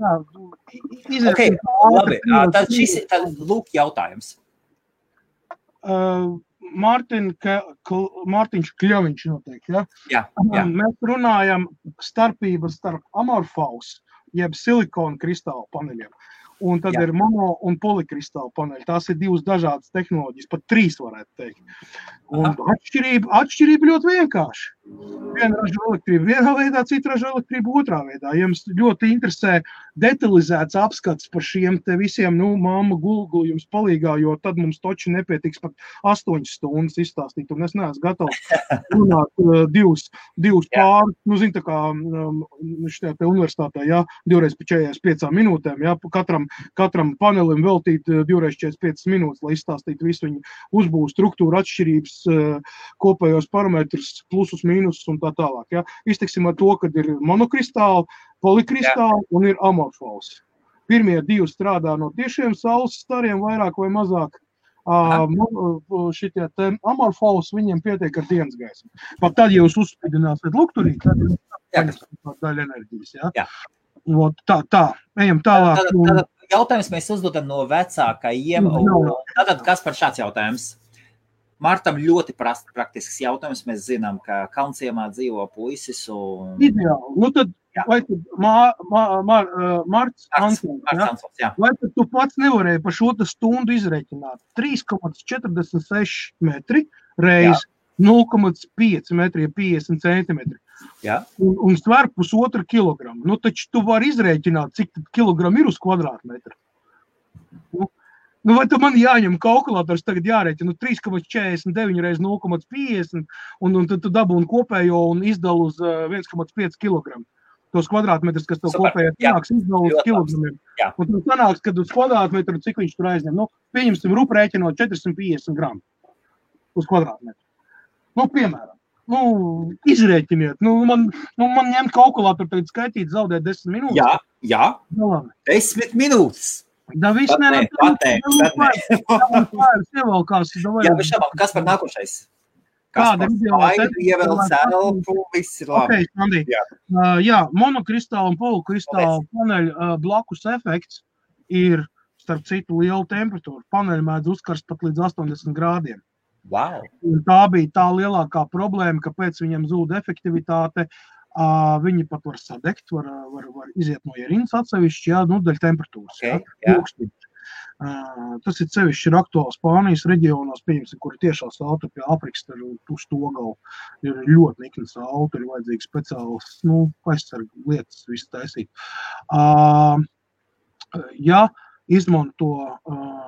tad lūk jautājums. Mārtiņš Kļoviņš noteikti, ja? Jā. Mēs runājam starpības starp amorfous, jeb silikona kristāla paneļiem. Un tad ir mono un polikristāla paneļi. Tās ir 2 dažādas tehnoloģijas, pat 3 varētu teikt. Un atšķirība ļoti vienkārši. Viena ražo elektrību vienā veidā, cita ražo elektrību otrā veidā. Ja jums ļoti interesē detalizēts apskats par šiem te visiem, mamma Google jums palīgā, jo tad mums toči nepietiks pat 8 stundas izstāstīt, un es neesmu gatavs runāt 2 pāri. Zin, tā kā šajā te universitātē, 2x45 minūtēm, katram panelim veltīt 2x45 minūtes, lai izstāstītu visu viņu uzbūvu struktūru atšķirības, kopējos parametrus, plusus, mīnusus un tā tālāk. Ja? Izteiksim ar to, kad ir monokristāli, polikristāli un ir amorfous. Pirmie 2 strādā no tiešiem saules stariem, vairāk vai mazāk. Šitie te amorfous, viņiem pietiek ar dienas gaismu. Pat tad, ja jūs uzspīdināsiet lukturī, tad ir daļa enerģijas. Ja? Tā, ejam tālāk. Tātad jautājums mēs uzdodam no vecākajiem. Tātad, kas par šāds jautājums? Martam ļoti praktisks jautājums. Mēs zinām, ka Kalnciemā dzīvo puisis un... Ideāli. Nu tad, vai tad Marts Ansons, vai tad tu pats nevarēji par šo stundu izreikināt 3,46 metri reiz 0,5 metri, 50 centimetri. Jā. Un sver 1,5 kilogramu. Nu, taču tu vari izreikināt, cik kilogramu ir uz kvadrātmetru. Nu, vai tu man jāņem kalkulators tagad jārēķina 3,49 reiz 0,50 un tad tu dabūni kopējo un izdala uz 1,5 kg. Tos kvadrātmetrus, kas tev kopējā sanāks, izdala uz kilogramiem. Un tu sanāks, kad uz kvadrātmetru, cik viņš tur aizņem. Nu, pieņemsim, rupu rēķinot 450 gramu uz kvadrātmetru. Nu, piemēram. Nu, izrēķiniet. Nu, man ņemt kalkulatoru tagad skaitīt, zaudēt 10 minūtes. Jā. 10 minūtes. Da viss nevar. Jā, bet šabāk, kas par nākošais? Kas par spaidu, ievēl celpu, viss ir labi. Okay, Sandi. Jā, monokristāla un polukristāla paneļa blakus efekts ir, starp citu, liela temperatūra. Paneļa mēdz uzkarst pat līdz 80 grādiem. Wow. Un tā bija tā lielākā problēma, kāpēc viņam zūd efektivitāte. Viņi pat var sadegt, var iziet no ierīnas atsevišķi, dēļ temperatūras. Okay, tas ir sevišķi ir aktuāls Spānijas reģionos, pieņemsim, kuri tiešā saule pie Afrikas uz to galu ir ļoti nikna saule, tur ir vajadzīgs speciāls, aizsargu lietas visu taisīt. Ja izmanto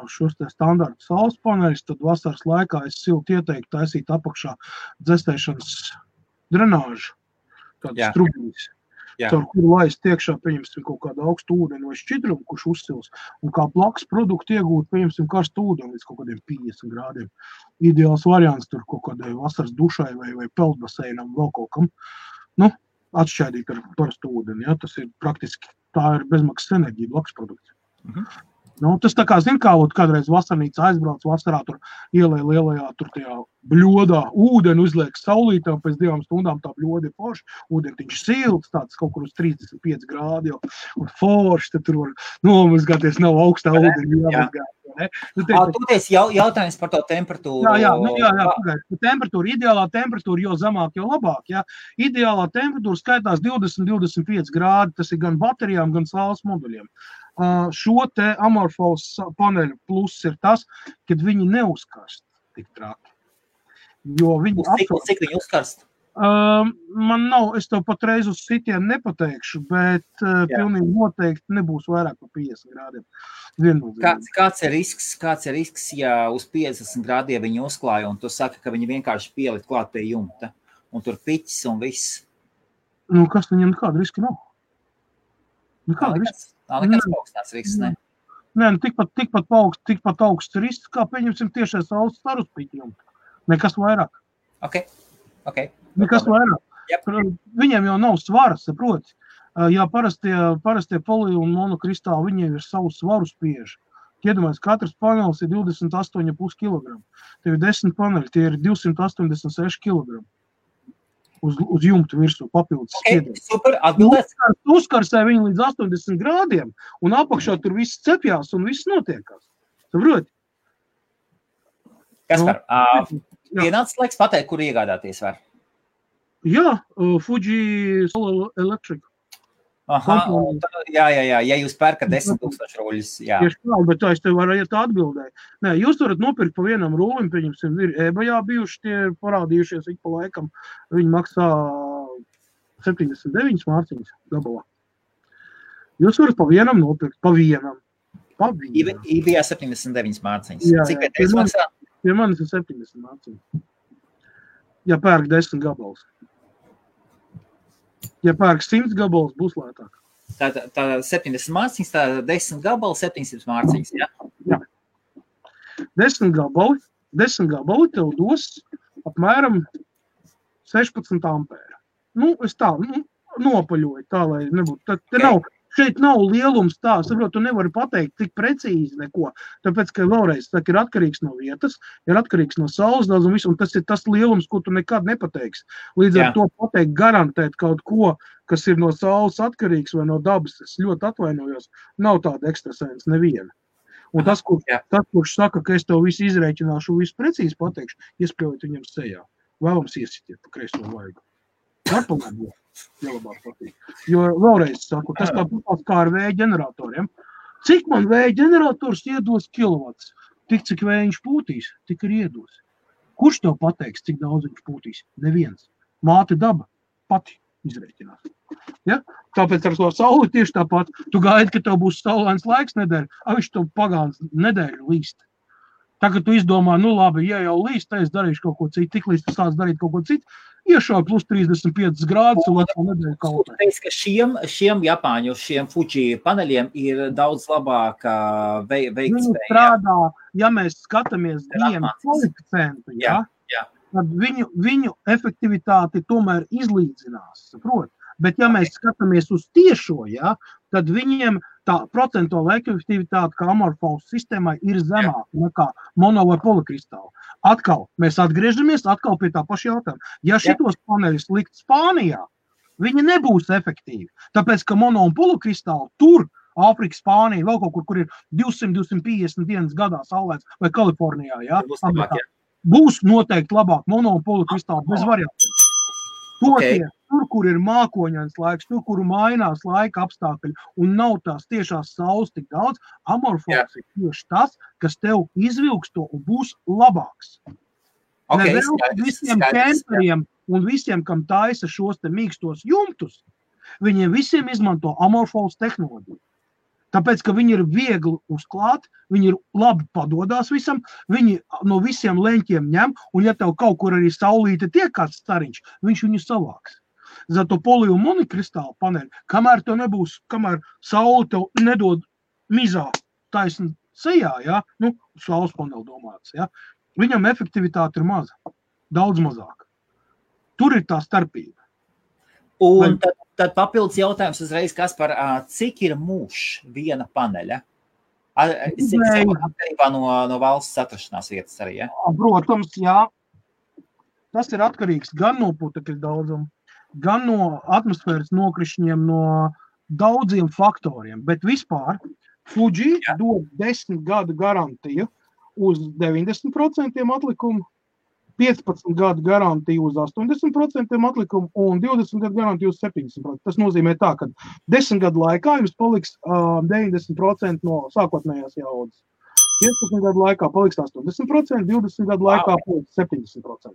šos te standarta saules paneļus, tad vasaras laikā es silti ieteiktu taisīt apakšā dzestēšanas drenāžu. Tādas trubīs, caur kuru laist iekšā, pieņemsim, kaut kādu augstu ūdeni vai šķidrumu, kurš uzsils, un kā blakus produktu iegūt, pieņemsim, karstu ūdeni līdz kaut kādiem 50 grādiem. Ideāls variants tur kaut kādai vasaras dušai vai peldbaseinam, vēl kaut kam, atšķaidīt ar parastu ūdeni, tas ir praktiski, tā ir bezmaksas enerģija, blakus produkts. Tas tā kā, kādreiz vasarnīca aizbrauc vasarā, tur ielē lielajā, tur tajā bļodā ūdeni uzliek saulītā, pēc 2 stundām tā bļoda ir forši, ūdentiņš silts, tāds kaut kur uz 35 grādi jau, un forši, tad tur var nomazgāties, nav augstā ūdeni jāmazgāt. Toties jautājums par to temperatūru. Jā, temperatūra, ideālā temperatūra, jo zemāk, jo labāk. Ideālā temperatūra skaitās 20-25 grādi, tas ir gan baterijām, gan saules moduļiem. Šo te amorfos paneļu pluss ir tas, kad viņi neuzkarst tik traki. Jo viņi Cik viņi uzkarst? Man nav, es tev patreiz uz sitienu nepateikšu, bet pilnīgi noteikti nebūs vairāk par 50 grādiem. Kāds ir risks, ja uz 50 grādiem viņi uzklāja, un tu saki, ka viņi vienkārši pielikt klāt pie jumta, un tur piķis un viss? Kas viņam nekāda riska nav? Nav nekāds augstās risks, ne? Nē, tikpat augsts risks, kā pieņemsim tiešais saules staru uz piķi jumta. Nekas vairāk. Ok. Nekas vairāk. Yep. Viņiem jau nav svara, saproti. Ja parastie poli un monokristāli, viņiem ir savu svaru spieži. Iedomājies, katrs panelis ir 28,5 kg. Tev ir 10 paneļi, tie ir 286 kg. Uz jumtu virsū papildus spiedienu. Super, atbildēs. Uzkarsē viņu līdz 80 grādiem, un apakšā tur viss cepjās un viss notiekās. Saproti? Kaspar, pienācis laiks pateikt, kur iegādāties var? Jā, Fuji Solar Electric. Jā, ja jūs pērkat 10,000 ruļus, jā. Tieši tā, bet tā es tev varu atbildēt. Nē, jūs varat nopirkt pa vienam rūlim, pieņemsim, ir eBayā bijuši, tie parādījušies ik pa laikam. Viņi maksā 79 mārciņas gabalā. Jūs varat pa vienam nopirkt, pa vienam. eBayā 79 mārciņas. Cik vietējais maksā? Pie manis ir 70 mārciņas. Ja pērk 10 gabals. Ja pērk 100 gabalus, būs lētāk. Tā 70 mārciņas, tā 10 gabali, 700 mārciņas, jā? Jā. 10 gabali tev dos apmēram 16 ampēra. Es tā, nopaļoju tā, lai nebūtu. Šeit nav lielums tā, saprot, tu nevari pateikt tik precīzi neko, tāpēc, ka vēlreiz ir atkarīgs no vietas, ir atkarīgs no saules daudz un visu, un tas ir tas lielums, ko tu nekad nepateiksi. Līdz ar to pateikt, garantēt kaut ko, kas ir no saules atkarīgs vai no dabas, es ļoti atvainojos, nav tāda ekstrasens neviena. Un tas, kurš saka, ka es tev visu izrēķināšu, visu precīzi pateikšu, iespļaujot viņam sejā. Vēlams iesitiet pa kreiso vaigu. Varpalēdot. Labāk patīk. Jo vēlreiz saku, tas tāpat kā ar vēja ģeneratoriem. Cik man vēja ģenerators iedos kilovats? Tik, cik vējiņš pūtīs, tik ir iedos. Kurš tev pateiks, cik daudz viņš pūtīs? Neviens. Māte daba pati izrēķinās. Ja? Tāpēc ar to sauli tieši tāpat. Tu gaidi, ka tev būs saulains laiks nedēļa, viņš tev pagāns nedēļu līst. Tagad tu izdomā, nu labi, ja jau līst, tad es darīšu kaut ko citu, tik līdz tu sāc darīt kaut ko citu, iešauj plus 35 grādus un otru nedēļu kaut ko. Teic, ka šiem Japāņu, šiem Fuji paneļiem ir daudz labāka veiktspēja. Viņi strādā, ja mēs skatāmies viņiem koeficientu, tad viņu efektivitāti tomēr izlīdzinās, saprot? Bet, ja mēs skatāmies uz tiešo, tad viņiem tā procentuāla efektivitāte, kā amorfos sistēmai, ir zemāka nekā mono vai polikristāla. Atkal, mēs atgriežamies pie tā paša jautājuma. Ja šitos paneļus likt Spānijā, viņi nebūs efektīvi. Tāpēc, ka mono un polikristāli tur, Āfrika, Spānija, vēl kaut kur ir 200-250 dienas gadā saulēts, vai Kalifornijā, būs noteikti labāk mono un polikristāli bez variantiem. Tur, kur ir mākoņains laiks, tur, kur mainās laika apstākļi un nav tās tiešās saules tik daudz, amorfos ir tieši tas, kas tev izvilks to un būs labāks. Visiem kemperiem un visiem, kam taisa šos te mīkstos jumtus, viņiem visiem izmanto amorfos tehnoloģiju. Tāpēc, ka viņi ir viegli uzklāt, viņi ir labi padodās visam, viņi no visiem leņķiem ņem, un ja tev kaut kur arī saulīte tiek kāds stariņš, viņš viņu savāks. Zato poli un monikristāla paneļi, kamēr tev nebūs, kamēr saule tev nedod mizā taisni sejā, saules paneļi domāts, viņam efektivitāte ir maza, daudz mazāka. Tur ir tā starpība. Un tad papildus jautājums uzreiz, Kaspar, cik ir mūžs viena paneļa? Cik atkarībā no valsts atrašanās vietas arī, Protams, Tas ir atkarīgs gan no putekļu daudzuma, gan no atmosfēras nokrišņiem, no daudziem faktoriem. Bet vispār Fuji dod 10 gadu garantiju uz 90% atlikumu, 15 gadu garantiju uz 80% atlikumu un 20 gadu garantiju uz 70%. Tas nozīmē tā, ka 10 gadu laikā jums paliks 90% no sākotnējās jaudas. 15 gadu laikā paliks 80%, 20 gadu laikā paliks 70%.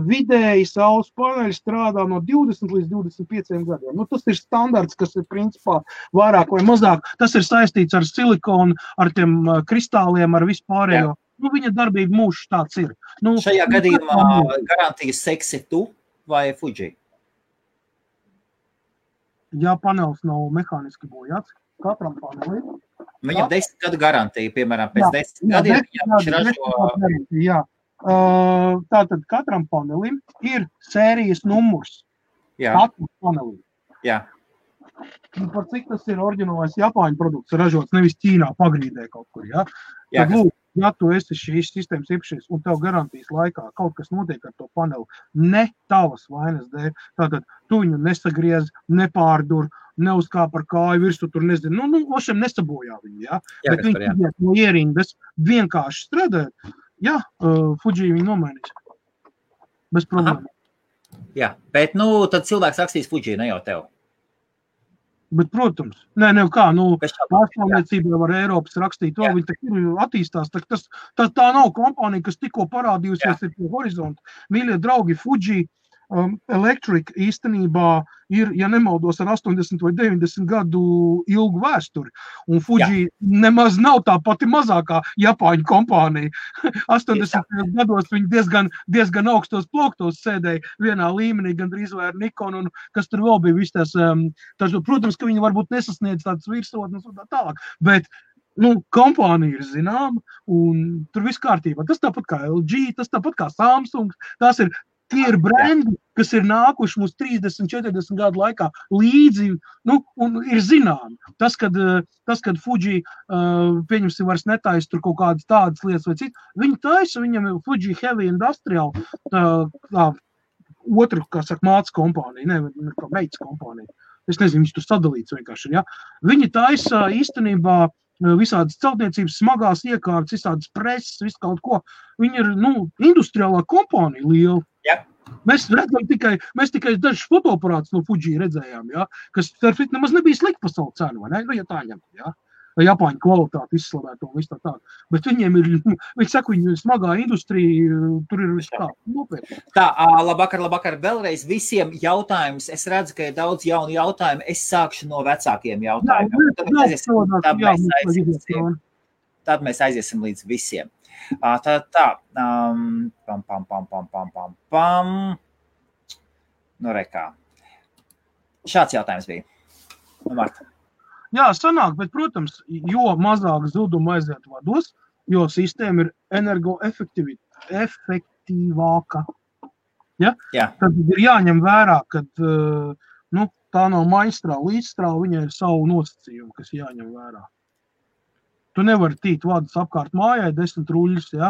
Vidēji saules paneļi strādā no 20 līdz 25 gadiem. Tas ir standarts, kas ir principā vairāk vai mazāk. Tas ir saistīts ar silikonu, ar tiem kristāliem, ar vispārējo. Viņa darbība mūžs tāds ir. Šajā gadījumā garantijas seksi tu vai Fuji? Ja panelis nav mehāniski bojāts, katram panelim. Viņam 10 gadu garantija, piemēram, pēc 10 gadiem. Tātad katram panelim ir sērijas numurs. Katram panelim. Par cik tas ir oriģinālais Japāņu produkts ražots, nevis Ķīnā pagrīdē kaut kur, Tad lūk, ja tu esi šīs sistēmas īpašais un tev garantijas laikā kaut kas notiek ar to paneli, ne tavas vainas dēļ, tātad tu viņu nesagriez, nepārdur, neuzkāp ar kāju virsū, tur nezinu, ošiem nesabojā viņu, bet viņi iet no ierindas vienkārši strādāt, Fuji viņu nomainīs. Bez problēma. Bet, tad cilvēks rakstīs Fuji, ne jau tev. Bet, protams, pārstāvniecībā var Eiropas rakstīt to, viņi tak ir attīstās, tā nav kompānija, kas tikko parādījusies ir pie horizonta. Mīļie draugi, Fuji Electric īstenībā ir, ja nemaldos, ar 80 vai 90 gadu ilgu vēsturi. Un Fuji nemaz nav tā pati mazākā Japāņu kompānija. 80 gados viņi diezgan augstos plauktos sēdēja vienā līmenī, gandrīz vai ar Nikon, un kas tur vēl bija viss tas, protams, ka viņi varbūt nesasniedz tādas virsotnes un tā tālāk, bet kompānija ir zināma, un tur viss kārtībā. Tas tāpat kā LG, tas tāpat kā Samsung, tās ir tie ir brendi, kas ir nākuši mums 30-40 gadu laikā līdzi, un ir zināmi. Tas, kad Fuji, pieņemsim, vairs netaisa tur kaut kādas tādas lietas vai citas, viņi taisa, viņam ir Fuji Heavy Industrial, otru, kā saka, māca kompānija, kā meitas kompānija. Es nezinu, viņš tur sadalīts vienkārši, Viņi taisa īstenībā visādas celtniecības smagās iekārtas, visādas preses, visu kaut ko. Viņi ir, industriālā kompānija liela. Mēs redzam tikai dažus fotoaparātus no Fuji redzējām, kas nemaz nebija slikta pasaules cena, vai ne? Ja tā ņem, Japāņu kvalitāti izslavētu un viss tā. Bet viņiem ir, viņi saka, viņi smagā industrija, tur ir viss tā nopietni. Tā, labvakar, vēlreiz visiem jautājums. Es redzu, ka ir daudz jaunu jautājumu. Es sākšu no vecākiem jautājumiem. Tad mēs aiziesim līdz visiem. Nu, rekā. Šāds jautājums bija. Marta. Jā, sanāk, bet, protams, jo mazāk zudumu aiziet vados, jo sistēma ir energoefektīvāka. Ja? Jā. Tad ir jāņem vērā, ka tā nav maistrāva, līdzstrāva, viņai ir savu nosacījumu, kas jāņem vērā. Tu nevari tīt vadus apkārt mājai 10 ruļus, ja?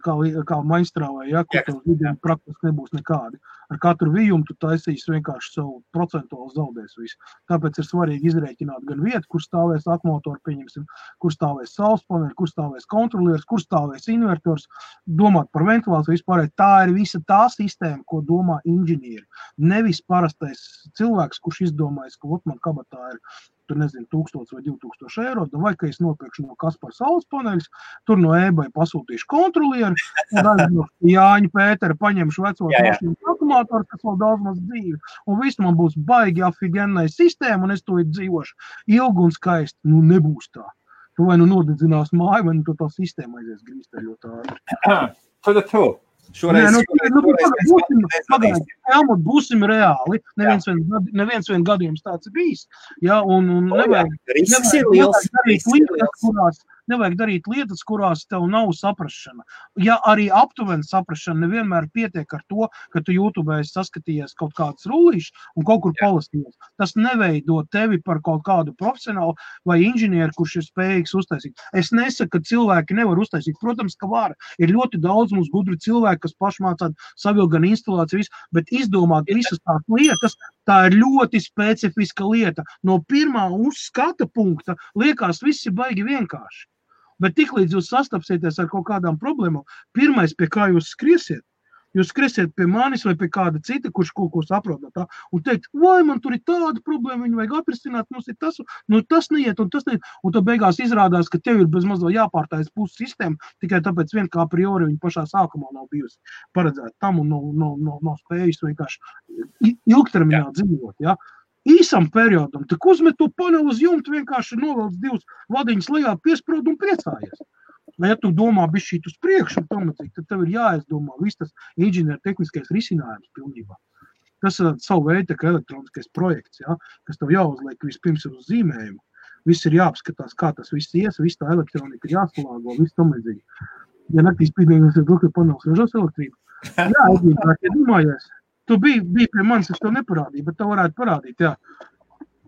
Kā maistrāvai, ja? Kur tev vidiem praktiski nebūs nekādi. Ar katru vijumu tu taisīsi vienkārši savu procentuāli zaudēs visu. Tāpēc ir svarīgi izrēķināt gan vietu, kur stāvēs akumulators, pieņemsim, kur stāvēs saules paneļi, kur stāvēs kontrolieris, kur stāvēs invertors, domāt par ventilāciju vispārēj. Tā ir visa tā sistēma, ko domā inženieri. Nevis parastais cilvēks, kurš izdomājas, ka man kabatā ir tur nezinu, 1000 vai 2000 eiro, vai ka es nopirkšu no Kaspar saules paneļus, tur no eBay pasūtīšu kontrolieru, un no Jāņa Pētera paņemšu vecos mašīnu akumulātoru, kas vēl daudz maz dzīvi, un viss man būs baigi afigenai sistēma, un es to dzīvošu ilgi un skaisti. Nebūs tā. Tu vai nodedzinās māju, vai tu tā sistēma aizies grīsteļot ātri. Būsim reāli. Neviens vien gadījums tāds ir bijis. Ja, un nevajag darīt lietas, kurās tev nav saprašana. Ja arī aptuveni saprašana nevienmēr pietiek ar to, ka tu YouTube saskatījies kaut kādas rullīšas un kaut kur palastījies. Tas neveido tevi par kaut kādu profesionālu vai inženieru, kurš ir spējīgs uztaisīt. Es nesaku, ka cilvēki nevar uztaisīt. Protams, ka var. Ir ļoti daudz mums gudri cilvēki, kas pašmācāt savilgt gan instalāciju, bet izdomāt visas tās lietas, tā ir ļoti specifiska lieta. No pirmā uzskata punkta liekas, viss ir baigi vienkārši. Bet tiklīdz jūs sastapsieties ar kaut kādām problēmām, pirmais, pie kā jūs skriesiet pie manis vai pie kāda cita, kurš kaut ko saprot no tā, un teikt, vai man tur ir tāda problēma, viņu vajag atrisināt, mums ir tas, tas neiet, un tas neiet, un tad beigās izrādās, ka tev ir bez mazliet jāpārtājas puses sistēma, tikai tāpēc vien kā priori viņa pašā sākumā nav bijusi paredzēta tam un nav spējusi vienkārši ilgtermiņā dzīvot, ja. Īsam periodam, tik uzmet to paneli uz jumtu, vienkārši novelc 2 vadiņas lejā, piesprod un priecājies. Ja tu domā bišķīt uz priekšu, tad tev ir jāizdomā viss tas inženieru tehniskais risinājums pilnībā. Tas ir savu veidu elektroniskais projekts, ja, kas tev jāuzliek vispirms uz zīmējumu. Viss ir jāapskatās, kā tas viss ies, viss tā elektronika ir jāsalāgo, viss tam līdzīgi. Ja naktīs pīdējums ir bloku panels ražos elektrību. Jā, ja domājies. Tu biji pie manis, es to neparādīju, bet tev varētu parādīt, jā.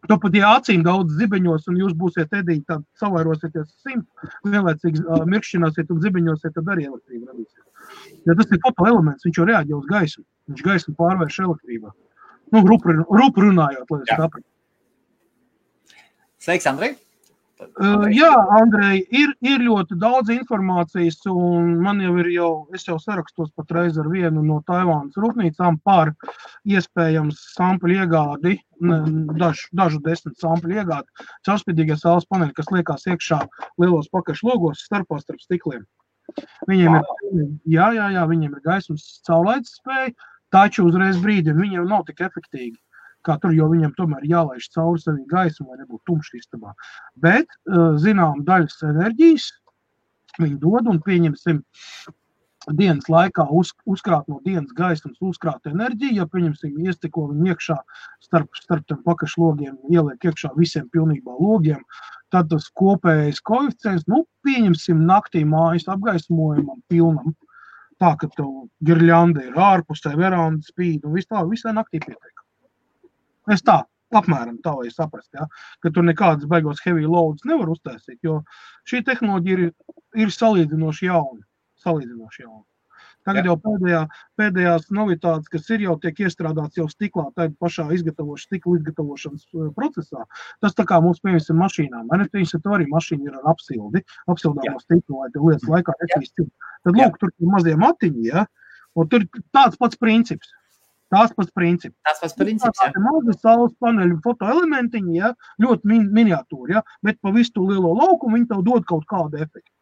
Tu pat, ja acīm daudz zibeņos un jūs būsiet edīgi, tad savairosieties 100, vienlaicīgi mirkšķināsiet un zibeņosiet, tad arī elektrība radīsies. Ja tas ir fotoelements, viņš jau reaģē uz gaismu. Viņš gaismu pārvērš elektrībā. Rupu runājot, lai es sapratu. Sveiks, Andrej! Jā, Andrej, ir ļoti daudz informācijas, un es jau sarakstos patreiz ar vienu no Taivānas rūpnīcām par iespējams sampļu iegādi, dažu 10 sampļu iegādi, caurspīdīgie saules paneļi, kas liekās iekšā lielos pakaļš logos starp stikliem. Viņiem viņiem ir gaismas caurlaides spēja, taču uzreiz brīdi viņiem nav tik efektīgi. Kā tur, jo viņam tomēr jālaiž cauri savī gaismu, lai nebūtu tumšs istabā. Bet, zinām, daļas enerģijas viņi dod un pieņemsim dienas laikā uzkrāt no dienas gaismas uzkrāt enerģiju, ja pieņemsim iestiko viņu iekšā starp tiem pakašlogiem, ieliek iekšā visiem pilnībā logiem, tad tas kopējais koeficients, pieņemsim naktī mājas apgaismojumam pilnam, tā, ka tev girļanda ir ārpusē, veranda spīd un visā naktī pietiek. Es tā, apmēram tā, lai saprast, ja, ka tur nekādas baigos heavy loads nevar uztaisīt, jo šī tehnoloģija ir salīdzinoši jauna. Tagad jau pēdējās novitātes, kas ir jau tiek iestrādāts jau stiklā, tā pašā stikla izgatavošanas procesā, tas tā kā mums pieņemsim mašīnām. Viņas to arī mašīna ir ar apsildāmo stiklu, lai te lietas laikā netīst. Tad lūk, tur ir mazie matiņi, ja, un tur tāds pats princips. Tās pats princips. Tas pats princips, jā. Mazi saules paneļu fotoelementiņi, ja, ļoti miniatūri, ja, bet pa visu to lielo laukumu viņi tev dod kaut kādu efektu.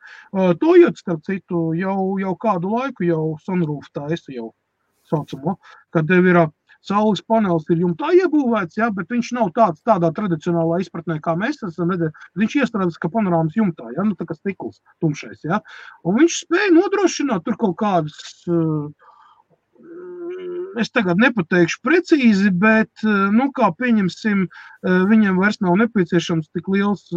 Toyota, starp citu, jau kādu laiku jau sunroof taisa jau saucamo, kad tev ir saules panelis ir jumtā iebūvēts, ja, bet viņš nav tādā tradicionālā izpratnē, kā mēs esam redzējuši. Viņš iestrādās kā panorāmas jumtā, ja, nu tā kā stikls tumšais, ja. Un viņš spēja nodrošināt tur kaut kādas, es tagad nepateikšu precīzi, bet, nu, kā pieņemsim, viņam vairs nav nepieciešams tik liels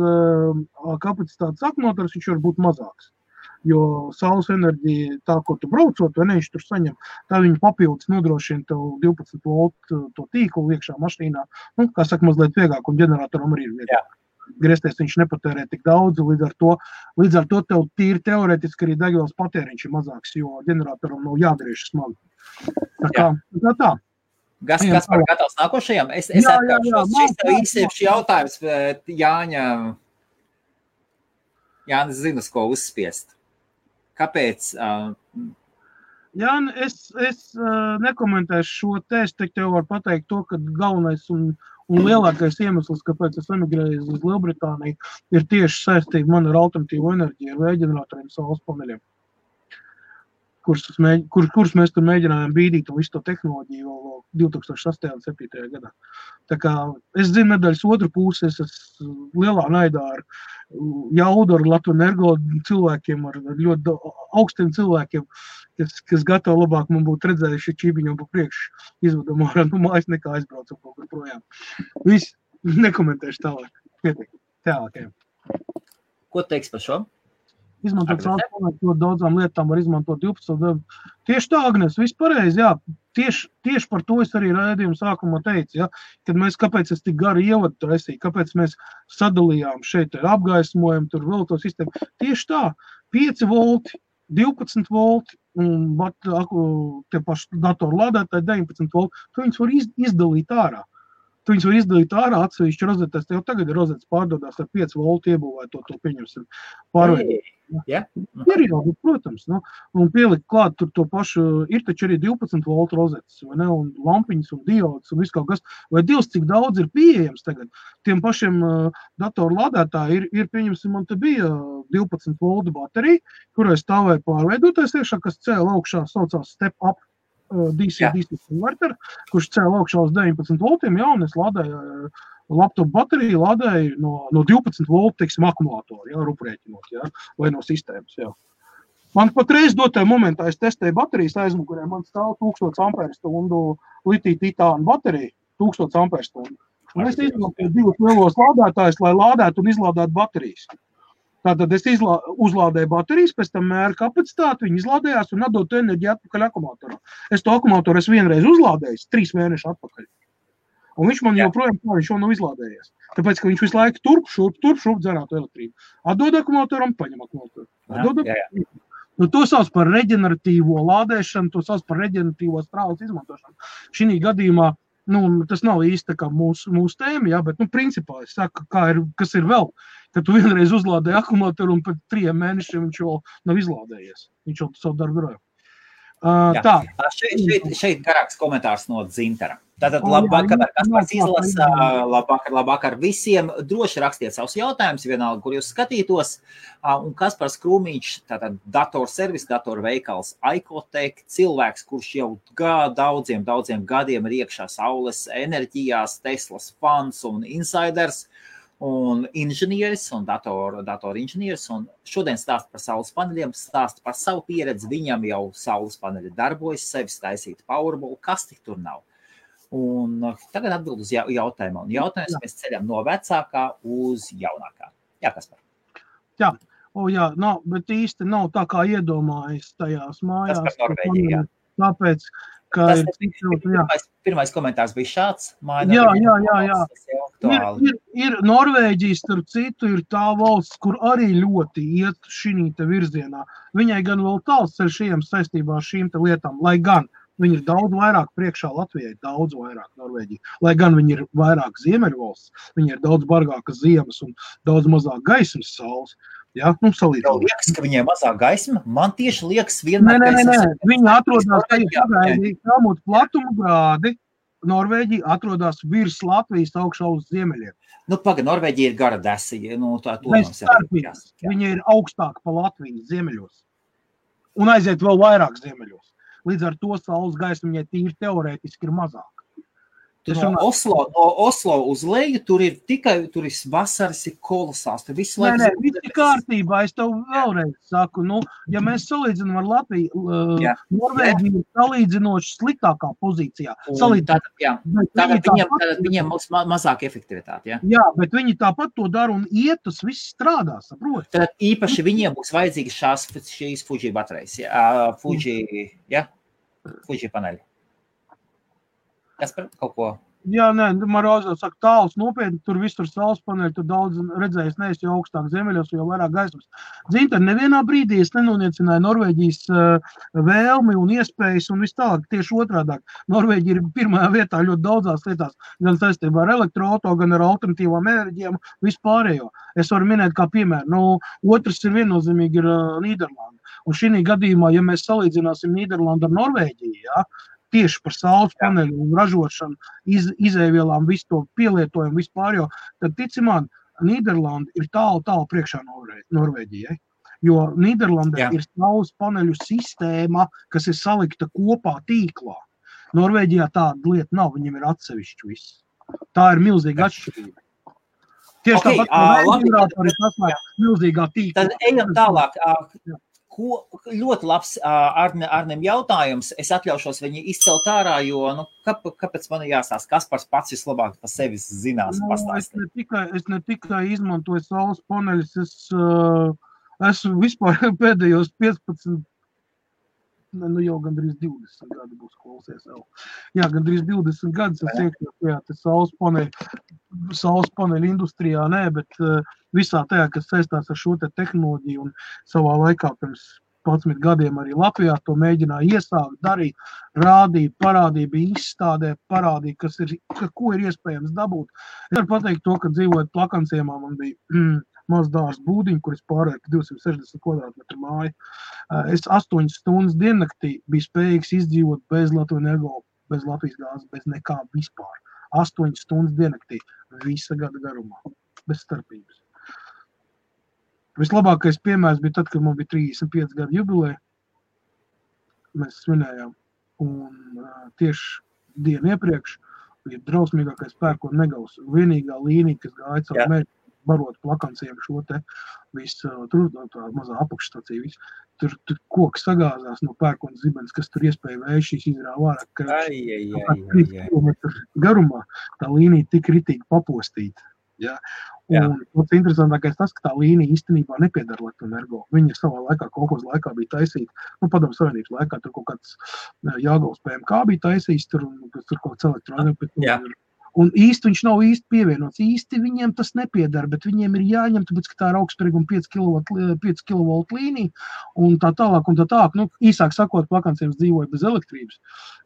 kapacitātes akumulators, viņš var būt mazāks. Jo saules enerģija, tā, ko tu braucot, vai ne, viņš tur saņem, tā viņa papildus nodrošina tev 12 voltu to tīklu iekšā mašīnā. Nu, kā saka, mazliet vieglāk, un ģeneratoram arī ir vieglāk. Griezties viņš nepatērē tik daudz, līdz ar to tev tīri teorētiski arī degvielas patēriņš ir mazāks, jo ģeneratoram nav jādriež smagi. Tā. Gaspar, gatavs nākošajam? Es atkāršos, šis tev īsieši jautājums, bet Jānis zina, ko uzspiest. Kāpēc? Jāni, es nekomentēšu šo te, es tev varu pateikt to, ka galvenais un lielākais iemesls, kāpēc es emigrēju uz Lielbritāniju, ir tieši saistība man ar alternatīvu enerģiju, ar vējģeneratoriem, saules paneļiem, kurus mēs tur mēģinājām bīdīt un visu to tehnoloģiju vēl 2008. un 2007. gadā. Tā kā es zinu medaļas otru pusi, es esmu lielā naidā ar jaudu, ar Latviju Energo cilvēkiem, ar ļoti augstiem cilvēkiem, kas gatavi labāk man būtu redzējuši čibiņu pa priekšu izvedam ārā no mājas nekā aizbraucam kaut kur projām. Viss, nekomentēšu tālāk. Pietiek, tālākajam. Ko teiks par šo? Izmantot saules paneļus ļoti daudzām lietām, var izmantot 12. Tieši tā, Agnes, viss pareizi, jā. Tieši par to es arī raidījumu sākumā teicu, ja, kad kāpēc es tik garu ievadu taisīju, kāpēc mēs sadalījām šeit apgaismojumu, tur vēl to sistēmu. Tieši tā, 5 volti, 12 volti un tie paši datoru lādētāji 19 volti, tu viņus var izdalīt ārā. Tu viņus var izdalīt ārā atsevišķi rozetēs, tev tagad ir rozetes pārdodās ar 5 voltu iebūvēto, to pieņemsim pārveidot. Yeah. Ir jau, protams, nu, un pielikt klāt tur to pašu, ir taču arī 12 voltu rozetes, vai ne, un lampiņas un diodas un viss kaut kas, vai Dievs, cik daudz ir pieejams tagad. Tiem pašiem datoru lādētāji ir pieņemsim, man te bija 12 voltu baterija, kurai stāvēja pārveidotais iekšā, kas cēla augšā, saucās step up DC converter, kurš cēla augšā uz 19 voltiem, jā, un es lādēju laptop bateriju lādēju no 12 voltu, teiksim, akumulātoru, jā, ruprēķinot, jā, vai no sistēmas, jā. Man patreiz dotajā momentā es testēju baterijas aizmugurē, man stāv 1000 amperstundu litiju-titānu bateriju, 1000 amperstundu. Un es izmantoju 2 lielos lādētājus, lai lādētu un izlādētu baterijas. Tātad es uzlādēju baterijas, pēc tam mēru kapacitāti, viņi izlādējās un atdod enerģiju atpakaļ akumulātorā. Es to akumulātoru vienreiz uzlādējis, 3 mēneši atpakaļ. Un viņš man joprojām viņš jau nav izlādējies. Tāpēc, ka viņš visu laiku turp dzerātu elektrību. Atdod akumulātoram, paņem akumulātoru. Nu, to sauc par reģeneratīvo lādēšanu, to sauc par reģeneratīvo strāles izmantošanu. Šī gadījumā, nu, tas nav īsti kā mūsu tēma, jā, bet, nu, principā, es saku, kas ir vēl, ka tu vienreiz uzlādēji akumulātoru un pēc 3 mēnešiem viņš vēl nav izlādējies. Viņš jau savu darbu darāja. Tā. Šeit garāks komentārs no Dzintara. Tātad labvakar, Kaspars izlasa, labvakar visiem. Droši rakstiet savus jautājumus, vienalga, kur jūs skatītos. Un Kaspars Krūmiņš, tātad datorservis, datorveikals Aikotech, cilvēks, kurš jau daudziem gadiem ir iekšā saules enerģijās, Teslas fans un insiders. Un inženieris un datorinženieris, un šodien stāsta par saules paneļiem, stāsta par savu pieredzi, viņam jau saules paneļi darbojas, sevis taisīt Powerball, kas tik tur nav. Un tagad atbild uz jautājumu, un jautājums mēs ceļam no vecākā uz jaunākā. Jā, Kaspar? Jā, nav, bet īsti nav tā kā iedomājas tajās mājās. Tas par Norvēģiju, jā. Tāpēc, ka pirmais komentārs bija šāds. Jā. Ir Norvēģija, starp citu, ir tā valsts, kur arī ļoti iet šī te virzienā. Viņai gan vēl tāls ceļš ejams saistībā ar šīm te lietām, lai gan viņi ir daudz vairāk priekšā Latvijai, daudz vairāk Norvēģija. Lai gan viņi ir vairāk ziemeļvalsts, viņi ir daudz bargākas ziemas un daudz mazāk gaismas saules. Ja, nu, salīdzinot. Liekas, ka viņiem mazāk gaisma. Man tieši liekas vienmēr, Nē. Viņi atrodas pagaidī Helmuta platuma grādi. Norvēģija atrodas virs Latvijas augšā uz ziemeļiem. Nu, Norvēģija ir gara desija. Nu, tā Viņa ir augstāk pa Latvijas ziemeļos. Un aiziet vēl vairāk ziemeļos. Līdz ar to saules gaisma viņai tīri teorētiski ir mazāk. No Oslo uz leju, tur ir vasaras ir kolosāls. Tur visu laiku... Nē, viss ir kārtībā. Es tev vēlreiz saku, ja mēs salīdzinām ar Latviju, Norvēģija ir salīdzinoši sliktākā pozīcijā. Tātad viņiem mazāk efektivitāte, ja? Jā, bet viņi tāpat to dara un tas viss strādā, saprot? Tad īpaši viņiem būs vajadzīgi šīs Fuji baterijas, Fuji paneļi. Kas par kaut ko? Jā, nē, Marozā saka, tāls nopietni, tur visur saules paneļi, tur daudz redzējis, neesi jau augstāk ziemeļos, jo vairāk gaismas. Zinta, nevienā brīdī es nenoniecināju Norvēģijas vēlmi un iespējas un viss tālāk, tieši otrādāk. Norvēģija ir pirmajā vietā ļoti daudzās lietās, gan saistībā ar elektroauto, gan ar alternatīvām enerģijām, vispārējo. Es varu minēt kā piemēru. Otrs ir viennozīmīgi ir Nīderlanda. Un šī gadījumā, ja mēs salīdzināsim Nīderlandu ar Norvēģiju, ja, tieši par saules paneļu un ražošanu, izēvielām, visu to pielietojumu, vispārējo, tad tici man, Nīderlanda ir tālu priekšā Norvēģijai. Jo Nīderlandē ir saules paneļu sistēma, kas ir salikta kopā tīklā. Norvēģijā tāda lieta nav, viņiem ir atsevišķi viss. Tā ir milzīga atšķirība. Tieši tāpat, ģeneratori sasniedz milzīgā tīklā. Tad ejam tālāk. Ļoti labs Arnim jautājums. Es atļaušos viņu izcelt ārā, jo, kāpēc man jāstāsta, Kaspars pats vislabāk par sevi zinās pastāstīt? Es ne tikai izmantoju saules paneļus, es esmu vispār pēdējos 15, jau gandrīz 20 gadi būs klausies jau. Jā, gandrīz 20 gadus es iekļauju saules paneļu industrijā, bet visā tajā, kas saistās ar šo te tehnoloģiju un savā laikā pirms 11 gadiem arī Latvijā to mēģināja iesākt, darīt, rādīt, parādīja, bija izstādē, parādīja, ko ir iespējams dabūt. Es varu pateikt to, ka dzīvojot Plakanciemā, man bija maz dārs būdiņu, kur es pārēju 260 kvadrātmetru māju. Es 8 stundas diennaktī biju spējīgs izdzīvot bez Latvijas energo, bez Latvijas gāzes, bez nekā vispār. 8 stundas diennaktī, visa gada garumā, bez starpības. Vislabākais piemērs bija tad, kad man bija 35 gadu jubileja. Mēs svinējām. Un tieši dienu iepriekš bija drausmīgākais pērkona negavs. Vienīgā līnija, kas gāja caur mērķi, barot Plakanciem šo te visu, tur tā mazā apakšstacija, visu. Tur koks sagāzās no pērkona zibens, kas tur iespēja vējšīs izrāva ārā. 3 kilometru garumā tā līnija tik ritīgi papostīta. Ja? Un pats interesantākais tas, ka tā līnija īstenībā nepiedara Latvenergo. Viņa savā laikā, kolhoz laikā bija taisīta, Padomu Savienības laikā, tur kaut kāds Jāgauls PMK bija taisījis, tur kaut kāds elektroenerģija. Un īsti viņš nav īsti pievienots. Īsti viņiem tas nepiedara, bet viņiem ir jāņem, tāpēc, ka tā ir augstsprieguma 5 kV līnija un tā tālāk. Īsāk sakot, Plakanciem dzīvoja bez elektrības.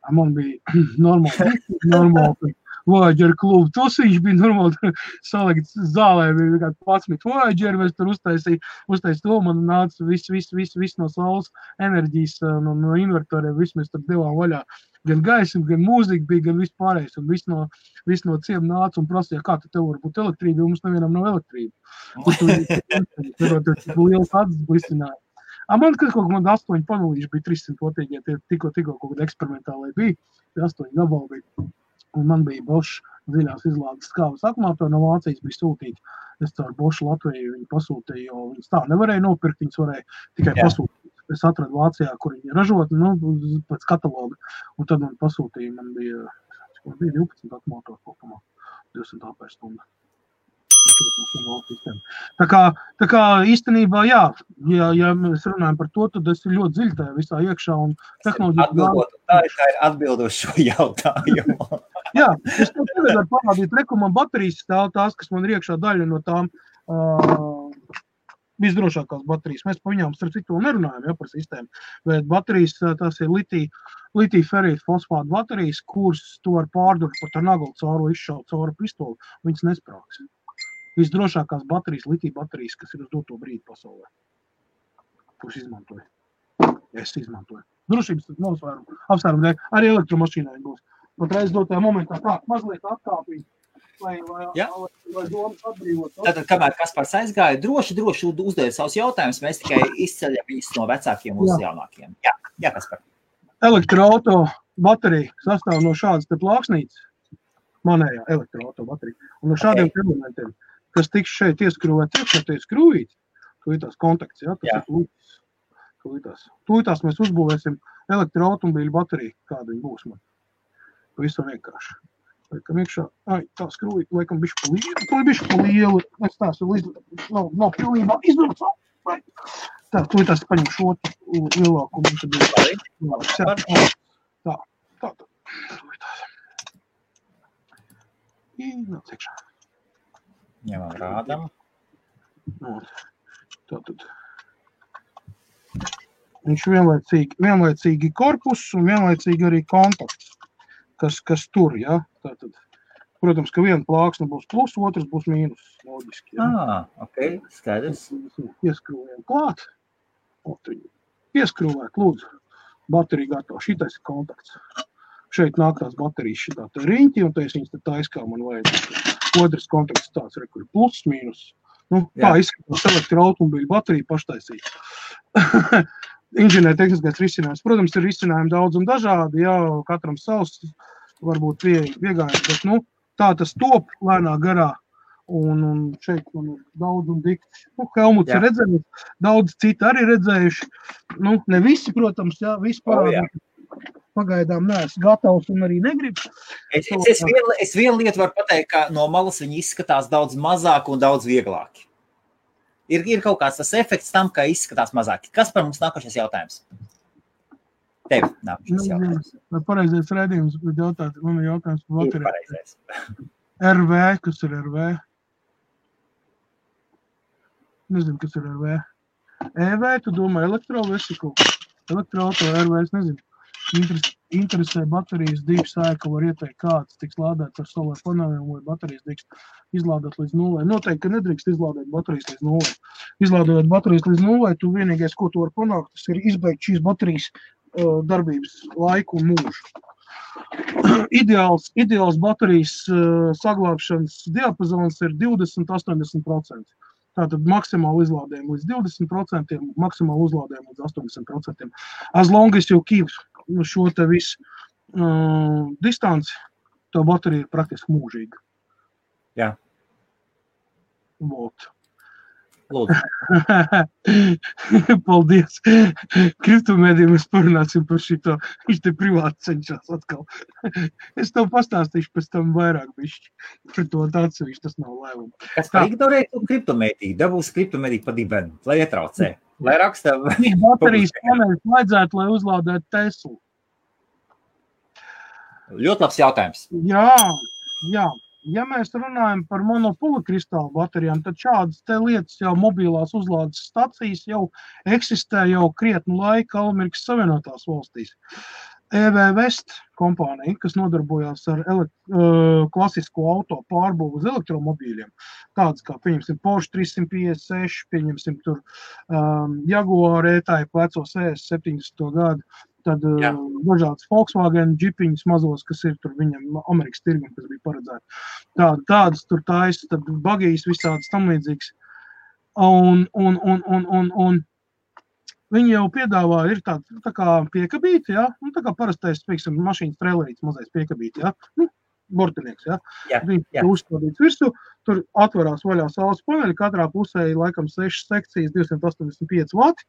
Man bija normāli Voyager klubu. Tos viņš bija normāli salikts zālē, bija 11 Voyager, mēs tur uztaisīja to, man nāca viss no saules enerģijas, no invertoriem, viss mēs tur devām vaļā. Gan gaisma, gan mūzika bija, gan viss pārējais, un viss no ciem nāca un prasīja, kā tev var būt elektrība, jo mums nevienam nav elektrība. Tur liels atzis blisināja. Man kaut kādā 8 panelīši bija 300 potīgie, tikko kaut kāda eksperimentālai bija, 8 gabali bija. Un man bija Bosch dziļās izlādes skābes akumulatori no Vācijas bija sūtīti. Es caur Bosch Latviju viņu pasūtīju, jo viņas tā nevarēja nopirkt, viņas varēja tikai pasūtīt. Es atradu Vācijā, kur viņi ražot, pēc kataloga. Un tad man pasūtīja, man bija 12 akumulatori kopumā, 200 ampēr stunda. Tā kā īstenībā, ja mēs runājam par to, tad es ir ļoti dziļi tajā visā iekšā un tehnoloģija. Tā ir atbildoši šo jautājumu. Jā, es tev tagad varu parādīt, man baterijas stāv tās, kas man ir iekšā daļa no tām visdrošākās baterijas. Mēs par viņām starp citu nerunājam, par sistēmu, bet baterijas tās ir litija ferīta fosfāta baterijas, kuras tu var pārdurt par tā naglu cauru, izšaut cauru pistoli, viņas nesprāks. visdrošākās baterijas, litija baterijas, kas ir uz doto brīdi pasaulē. Kurš izmantoja? Es izmantoju. Drošības apsvērumu dēļ. Arī elektromašīnai būs. Patreiz dotajā momentā tā, mazliet atkāpīt, lai domas atbrīvot. Tātad, kamēr Kaspars aizgāja, droši uzdēja savus jautājumus, mēs tikai izceļam viņus no vecākiem uz jaunākiem. Jā, Kaspar. Elektroauto baterija sastāv no šādas te plāksnītes, manējā elektroauto baterija, un no šādiem elementiem, kas tiks šeit ieskrūvēt, tie skrūvīt, tūlītās kontakts, tas ir tūlītās mēs uzbūvēsim elektroautomobīļu bateriju, kāda viņa būs man. Visam vienkārši. Laikam iekšā, tā skrūvīt, laikam bišķi pa lielu, es tās nav pilnībā izdarot. Tā, tūlītās paņem šo lielāku. Tā. Tūlītās. Nāc iekšā. Ņemam rādam. Tātad. Viņš vienlaicīgi korpus un vienlaicīgi arī kontakts, kas tur, ja? Tātad, protams, ka viena plāksne būs plus, otrs būs mīnus, loģiski. Ja? Ok, skaidrs. Ieskrūvējam klāt. Ieskrūvēt, lūdzu. Baterija gatava. Šitais ir kontakts. Šeit nāk tās baterijas šitā te riņķi, un es viņas te taiskā man vajag. Otrs kontakts tāds, kur ir plus, mīnus. Tā izskatās elektroautomobīļu baterija paštaisīt. Inženiertehniskais risinājums. Protams, ir risinājumi daudz un dažādi, katram savs, varbūt viegājums, bet, tā tas top lēnā garā, un šeit man ir daudz un dikti. Helmuts ir redzējis, daudz citi arī redzējuši. Ne visi, protams, visi parādīt. Pagaidām neesmu gatavs un arī negribu. Es vienu lietu varu pateikt, ka no malas viņi izskatās daudz mazāk un daudz vieglāki. Ir kaut kāds tas efekts tam, ka izskatās mazāk. Kas par mums nākošais jautājums? Tev nākošais jautājums. Vai pareizais redzījums, bet man ir jautājums par bateriju. Ir pareizais. RV, kas ir RV? Nezinu, kas ir RV. EV, tu domā elektrovesiklu? Elektroauto RV, es nezinu. Interesē baterijas dīgs sēka, var ieteikt, kāds tiks lādēts ar solāru paneliem, vai baterijas tiks izlādēt līdz 0. Noteikti, ka nedrīkst izlādēt baterijas līdz 0. Izlādēt baterijas līdz 0, tu vienīgais, ko tu var panākt, tas ir izbeigt šīs baterijas darbības laiku un mūžu. Ideāls baterijas saglābšanas diapazons ir 20–80%. Tātad maksimāli izlādējumu līdz 20%, maksimāli uzlādējumu līdz 80%. As long as you keep šo te visu distanci, to baterija ir praktiski mūžīga. Jā. Vot. Lūdzu. Paldies. Kriptomēdiju mēs parunāsim par šito. Viņš te privāti cenšas atkal. Es tev pastāstīšu pēc tam vairāk bišķi. Par to atsevišķi tas nav lēmumi. Kas par ignorētu kriptomēdiju? Dabūs kriptomēdiju pa dibenu, lai ietraucē. Lai raksta... Baterijas paneļus vajadzētu, lai uzlādētu Teslu. Ļoti labs jautājums. Jā. Ja mēs runājam par monopolikristālu baterijām, tad šādas te lietas jau mobilās uzlādes stacijas jau eksistē jau krietnu laiku Amerikas Savienotās valstīs. EV West kompānija, kas nodarbojās ar klasisko auto pārbūvu uz elektromobīļiem, tādas kā, pieņemsim, Porsche 356, pieņemsim tur Jaguar E-Type vecos 70. gadu, tad dažādas Volkswagen džipiņas mazos, kas ir tur viņam Amerikas tirgum, kas bija paredzēti. Tādas tur taisa, tad bagijas visādas tam līdzīgas. Un viņi jau piedāvā, ir tā kā piekabīti, tā kā parastais, pieksim, mašīnas trailerīts mazais piekabīti, bortinieks, Viņi uzstādīts virsū, tur atverās vaļā saules paneļi, katrā pusē ir laikam 6 sekcijas, 285 vati,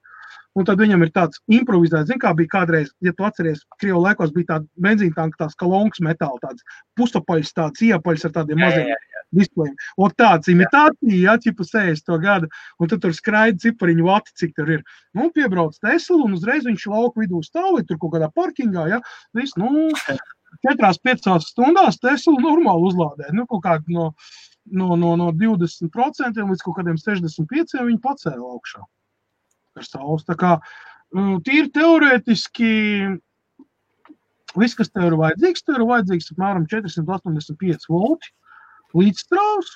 un tad viņam ir tāds improvizēts, kā bija kādreiz, ja tu atceries, Krievu laikos bija tāda benzīntanka, tās kalonkas metāla, tāds pusapaļs, tāds iepaļs ar tādiem maziem displejiem. Un tāds imitācija, ķipa 60. gada, un tad tur skraida cipariņu vati, cik tur ir. Piebrauc Tesla, un uzreiz viņš lauku vidū stāv, tur kaut kādā parkingā, viss, 4–5 stundās Tesla normāli uzlādē. Kaut kādi no 20% līdz kaut kādiem 65% viņi pacēla augšā ar saules. Tā kā tīri teorētiski viss, kas tev ir vajadzīgs apmēram 485 volti līdzstrāvs.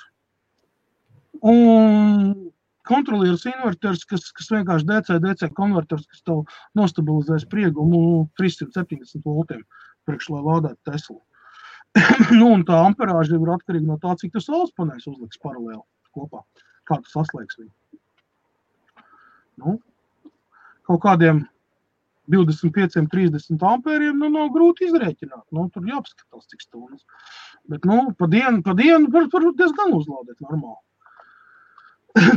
Un kontrolieris inverters, kas vienkārši DC konverters, kas tev nostabilizē spriegumu 370 voltiem priekš, lai lādētu Teslu. Un tā amperāža ir atkarīga no tā, cik tu saules paneļus uzliks paralēli kopā. Kā tu saslēgs viņu. Kaut kādiem 25-30 ampēriem, nav grūti izrēķināt. Tur jāpaskatās, cik stundas. Bet, pa dienu var diezgan uzlādēt normāli.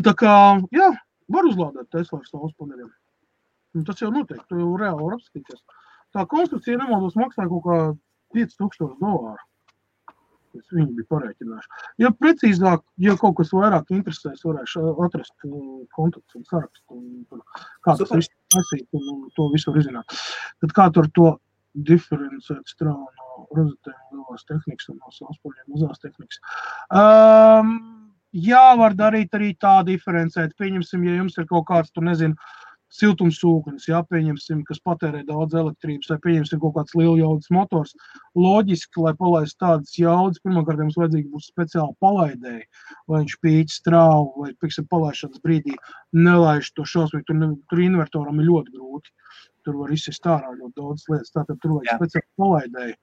Tā kā, jā, var uzlādēt Tesla ar saules paneļiem. Tas jau noteikti, tu jau reāli var apskatīties. Tā konstrukcija nemaldos maksāja kaut kā $5,000. Viņi bija parēķinājuši. Ja precīzāk, ja kaut kas vairāk interesēs, varēšu atrast kontaktus un sarakstu, kā tas viss nesīt un to visu var izzināt. Tad kā tur to diferencēt strāvu no rozetēm lielās tehnikas un no saules mazās tehnikas. Jā, var darīt arī tā diferencēt. Pieņemsim, ja jums ir kaut kāds, siltumsūknis, pieņemsim, kas patērē daudz elektrības, vai pieņemsim kaut kāds lieljaudas motors. Loģiski, lai palaist tādas jaudas, pirmkārt jums vajadzīgi būs speciāli palaidēji, lai viņš pīķi strāvu, vai, pieksim, palaišanas brīdī nelaiž to šausmīgi, tur invertoram ir ļoti grūti. Tur var izsist ārā ļoti daudz lietas, tātad tur vajag speciāli palaidēji.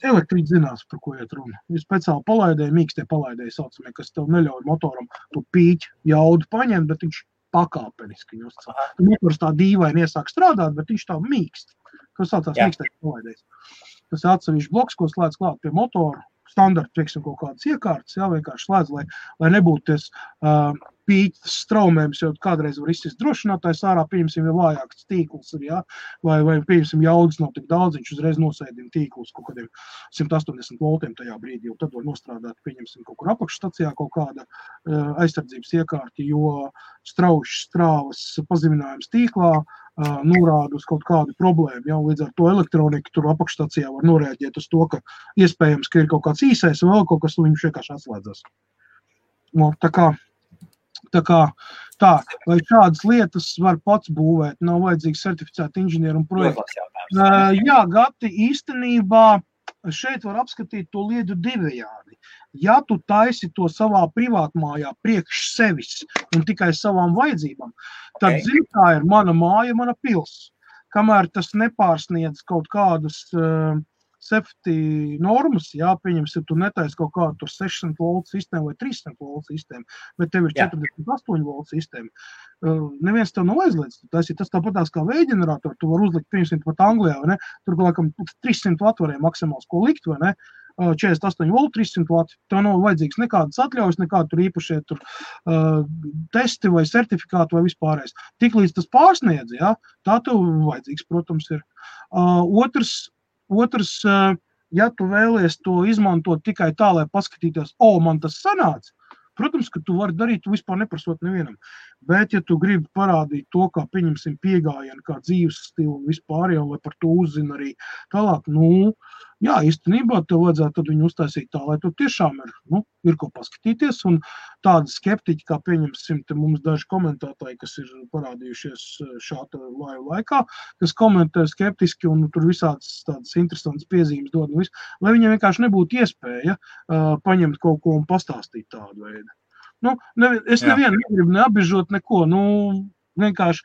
Elektrīti zinās, par ko iet runa. Ir speciāli palaidēji, mīkstie palaidēji saucamie, kas tev neļauj motoram to pīķi jaudu paņemt, bet viņš pakāpeniski. Motors tā dīvaini iesāk strādāt, bet viņš tā mīkst. Tas saucās mīkstais palaidējs. Tas ir atsevišķs bloks, ko slēdz klāt pie motora. Standarta, pieksim, kaut kādas iekārtas, vienkārši slēdz, lai nebūtu ties pīķis straumējums, jo kādreiz var izsist drošinātājs ārā, pieņemsim, ja vājāks tīkls ir, vai pieņemsim, jaudas nav tik daudz, viņš uzreiz nosēdina tīklus kaut kādiem 180 voltiem tajā brīdī, un tad var nostrādāt, pieņemsim, kaut kur apakšstacijā kaut kāda aizsardzības iekārti, jo strāvas pazeminājums tīklā norāda uz kaut kādu problēmu, līdz ar to elektronika tur apakšstacijā var norēģēt uz to, ka iespējams, ka ir kaut kāds īsais vai vēl kaut kas, un viņš vienkārši atslēdzas. Tā, vai šādas lietas var pats būvēt, nav vajadzīgi certificēti inženieri un projekti. Jā, Gati, īstenībā šeit var apskatīt to lietu divējādi. Ja tu taisi to savā privātmājā priekš sevis un tikai savām vajadzībām, tad zini, tā ir mana māja, mana pils. Kamēr tas nepārsniedz kaut kādus safety normas, pieņemsim, tu netaisi kaut kādu tur 600 volt sistēmu vai 300 volt sistēmu, bet tev ir 48 volt sistēma. Neviens tev nav aizliedz. Tas tāpatās kā vējģeneratoru, tu var uzlikt, pieņemsim, pat Anglijā, vai ne? Tur, laikam, 300 watt varēja maksimāls ko likt, vai ne? 48 volt, 300 watt. Tev nav vajadzīgs nekādas atļaujas, nekādu tur īpašie testi vai certifikāti vai vispārējais. Tiklīdz tas pārsniedz, tā tev vajadzīgs, protams, ir. Otrs, ja tu vēlies to izmantot tikai tā, lai paskatīties, man tas sanāca, protams, ka tu vari darīt, tu vispār neprasot nevienam. Bet, ja tu gribi parādīt to, kā pieņemsim piegājienu, kā dzīves stilu un vispār, lai par to uzzina arī tālāk, jā, īstenībā tev vajadzētu tad viņu uztaisīt tā, lai tu tiešām ir ko paskatīties, un tādi skeptiķi, kā pieņemsim, te mums daži komentētāji, kas ir parādījušies šāda laikā, kas komentē skeptiski un tur visādas tādas interesantas piezīmes dod, lai viņiem vienkārši nebūtu iespēja paņemt kaut ko un pastāstīt tādu veidu. Es nevienu negribu neapbežot neko, vienkārši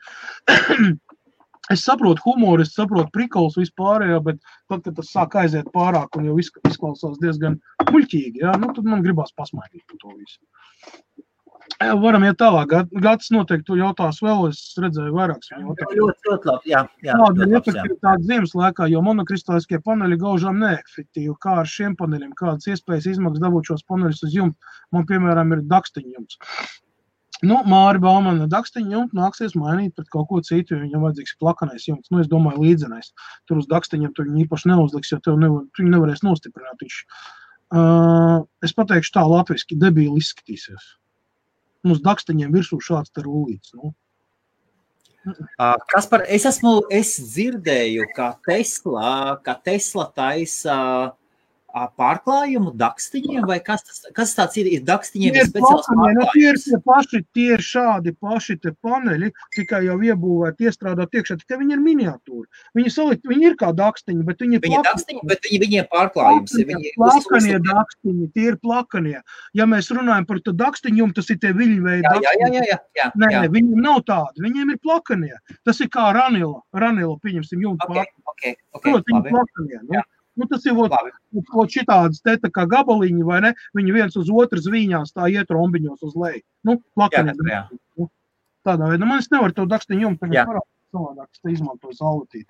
es saprotu humoru, es saprotu prikols vispārējo, bet tad, kad tas sāk aiziet pārāk un jau izklausās diezgan muļķīgi, tad man gribās pasmaidīt par to visu. Varam iet tālāk. Gatis noteikti to jautās vēl, es redzēju vairākas viņa jautājumus. Ļoti labi, jā. Kāda ir efektivitāte ziemas laikā, jo monokristāliskie paneļi gaužām neefektīvi. Kā ar šiem paneļiem? Kādas iespējas izmaksas dabūt šos paneļus uz jumta? Man, piemēram, ir dakstiņa jumts. Māri Baumana dakstiņa jumtu nāksies mainīt pret kaut ko citu, jo viņam vajadzīgs plakanais jumts. Es domāju, līdzenais. Tur uz dakstiņiem tu viņu īpaši neuzliks, jo viņu nevarēs nostiprināt. Es pateikšu tā latviski, debīli izskatīsies. Uz dakstiņiem virsū šāds te rullīts. Kaspar, es dzirdēju, ka Tesla taisa pārklājumu dakstiņiem, vai kas tāds ir dakstiņiem Tie ir speciāls pārklājums? Tie ir šādi paši te paneļi, tikai jau iebūvēti, iestrādāt iekšā, tikai viņi ir miniatūri. Viņi ir kā dakstiņi, bet viņi ir dakstiņi, bet viņiem pārklājums ir. Plakanie dakstiņi, tie ir plakanie. Ja mēs runājam par to dakstiņu, tas ir tie viļņveidi dakstiņi. Jā. Nē, viņiem nav tādi, viņiem ir plakanie. Tas ir kā ranila, pieņemsim, jumta pārklājumi. Viņi plakanie, nu. Nu, tas ir šitādas te tā kā gabaliņi, vai ne? Viņi viens uz otru zvīņās tā iet rombiņos uz leju. Nu, plakani. Tādā veidā. Man es nevaru to dakstiņu jums tagad parādīt savādāk, es te izmantoju saulatīti.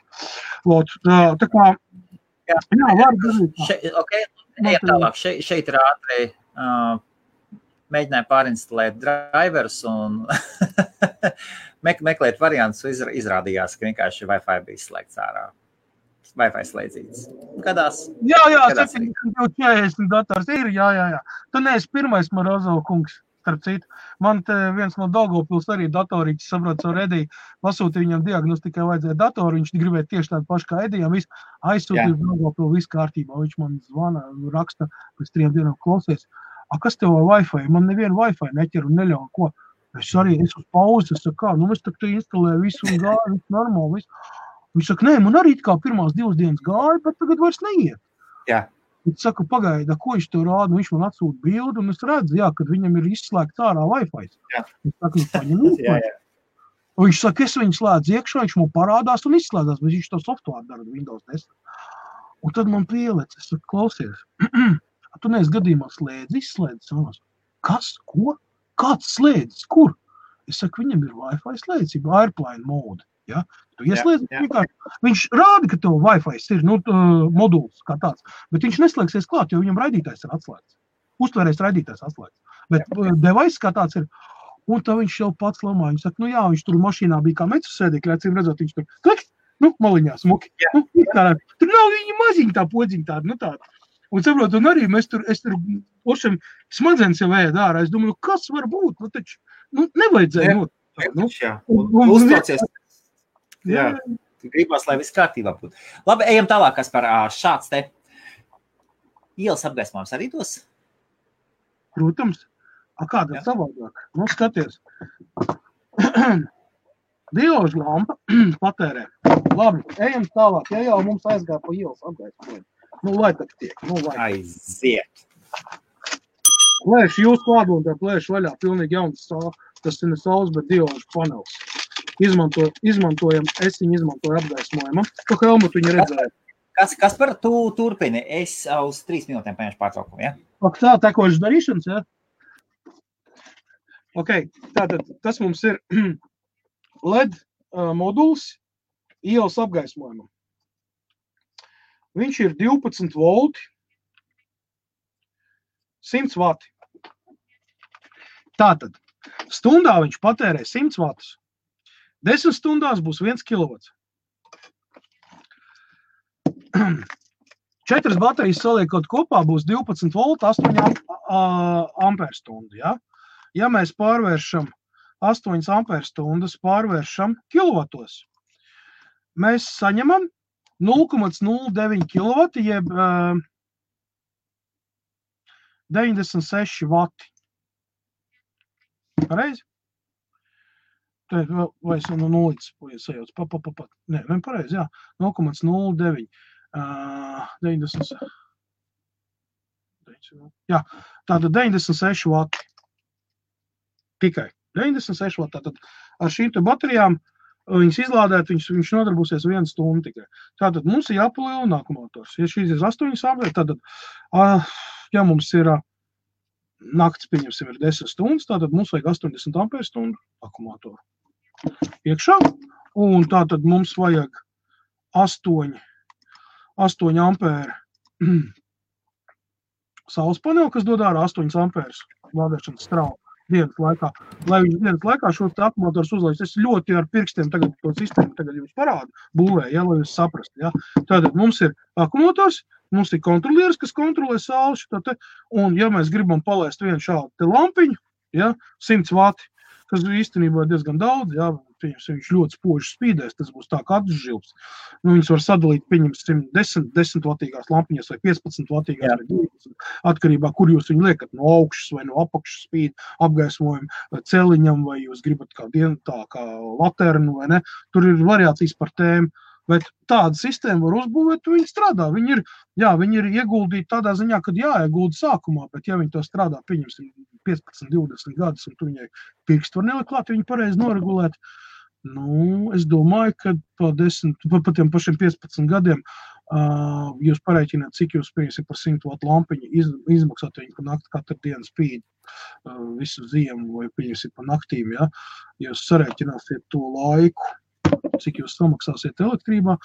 Tā kā, var darīt. Ejam tālāk. Šeit ir ātri mēģināja pārinstalēt driverus un meklēt variantus, izrādījās, ka vienkārši Wi-Fi bija slēgts ārā. Wi-Fi slēdzīts. Gadās? Jā, 740 dators ir, jā. Tu neesi pirmais Morozov kungs, starp citu. Man te viens no Daugavpils arī datorītis, saprot, savu Ediju, pasūtīja viņam diagnostikai vajadzēja datoru, viņš gribēja tieši tādu pašu kā Edijam, aizsūtīja Daugavpil, viss kārtībā, viņš man zvana, raksta, pēc 3 dienām klausies. Kas tev Wi-Fi? Man nevienu Wi-Fi neķer un neļauj, ko? Es uz pauzi, es saku, es tak te instalēju visu un gāju, visu normāli, visu. Viņš saka, nē, man arī kā pirmās 2 dienas gāja, bet tagad vairs neiet. Jā. Viņš saka, pagaida, ko viņš tev rāda, viņš man atsūta bildi, un es redzu, kad viņam ir izslēgts ārā Wi-Fi. Viņš saka, paņem Wi-Fi. Un viņš saka, es viņu slēdzu iekšā, viņš man parādās un izslēdās, bet viņš to software dara Windows 10. Un tad man pielec, es saku, klausies, tu neesi gadījumā izslēdzis? Kas? Ko? Kāds slēdzis? Kur? Es saku, viņam ir Wi-Fi slēdzība, airplane mode. Ja? Tu ieslēdzi, viņš rāda, ka tev Wi-Fi ir moduls kā tāds, bet viņš neslēgsies klāt, jo viņam raidītājs ir atslēgts. Uztvērējs raidītājs atslēgts. Bet device kā tāds ir, un tā viņš jau pats lamā. Viņš saka, viņš tur mašīnā bija kā metru sēdēkļi, acīm redzot, viņš tur kliks, maliņā smuki. Tur nav viņa maziņa tā podziņa tāda, tāda. Un saprot, un arī es tur ošam smadzenes jau ēd ārā. Es domāju, kas var būt? Taču, nevajadzēja. Uztraucies. Jā, gribās, lai viss kārtībā būtu. Labi, ejam tālāk, kas par šāds te ielas apgaismojums arī dos? Protams. Kāda savādāk? Skaties. Diožu lampa patērē. Labi, ejam tālāk. Ja jau mums aizgāja pa ielas apgaismojumu. Lai tak tiek. Aiziet. Plēši jūs klādotā plēši vaļā. Pilnīgi jauns, tas ir ne saules, bet diožu panels. Izmantojam, es viņu izmantoju apgaismojumā. To helmutu viņi redzēja. Kas par tu turpini? Es uz 3 minūtēm paņemšu pārtraukumu, ja? Tā, tekošas darīšanas, ja? Ok, tātad tas mums ir LED moduls ielas apgaismojumam. Viņš ir 12 volti, 100 vati. Tātad, stundā viņš patērē 100 vatus. 10 stundās būs 1 kilovats. 4 baterijas saliekot kopā būs 12 volti, 8 amperstundu. Ja mēs pārvēršam 8 amperstundas, pārvēršam kilovatos, mēs saņemam 0,09 kilovati, jeb 96 vati. Pareizi? Vai es no nulītes sajauc? Nē, pareizi, jā. 0,09. 90. Jā, tātad 96 vati. Tikai 96 vati. Tātad ar šīm te baterijām viņas izlādēt, viņš nodarbosies 1 stundu tikai. Tātad mums ir jāpalielina akumulātors. Ja šīs ir 8 amperes, tad, ja mums ir nakts, pieņemsim, ir 10 stundas, tātad mums vajag 80 amperes stundu akumulātoru iekšā, un tātad mums vajag 8 ampēru saules paneli, kas dod ārā 8 ampērus lādēšanas strāvu dienas laikā. Lai viņš dienas laikā šo akumulātorus uzlaiž, es ļoti ar pirkstiem tagad to sistēmu tagad jums parādu, būvēju, lai jūs saprast. Ja? Tātad mums ir akumulātors, mums ir kontrolieris, kas kontrolē sauli, un ja mēs gribam palaist vienu šādu te lampiņu, ja, 100 vati, kas īstenībā diezgan daudz, jā, viņš ļoti spoži spīdēs, tas būs tā kā atžilps. Viņus var sadalīt, pieņemsim, 10 vatīgās lampiņas vai 15 vatīgās vai 20, atkarībā, kur jūs viņu liekat, no augšas vai no apakšas spīd, apgaismojumu celiņam, vai jūs gribat tā kā laternu vai ne. Tur ir variācijas par tēmu. Bet tāda sistēma var uzbūvēt, viņi strādā. Viņi ir ieguldīti tādā ziņā, kad jāiegulda sākumā, bet ja viņi to strādā, pieņemsim 15, 20 gadus, un tu viņai pirkstu var nelikt klāt, viņi pareizi noregulēt. Es domāju, ka pa tiem pašiem 15 gadiem jūs pareiķināt, cik jūs pieņemsim par 100 vatu lampiņu izmaksāt, viņi pa nakti katru dienu spīd visu ziemu vai pieņemsim pa naktīm, ja? Jūs sareiķināsiet to laiku, cik jūs samaksāsiet elektrībā,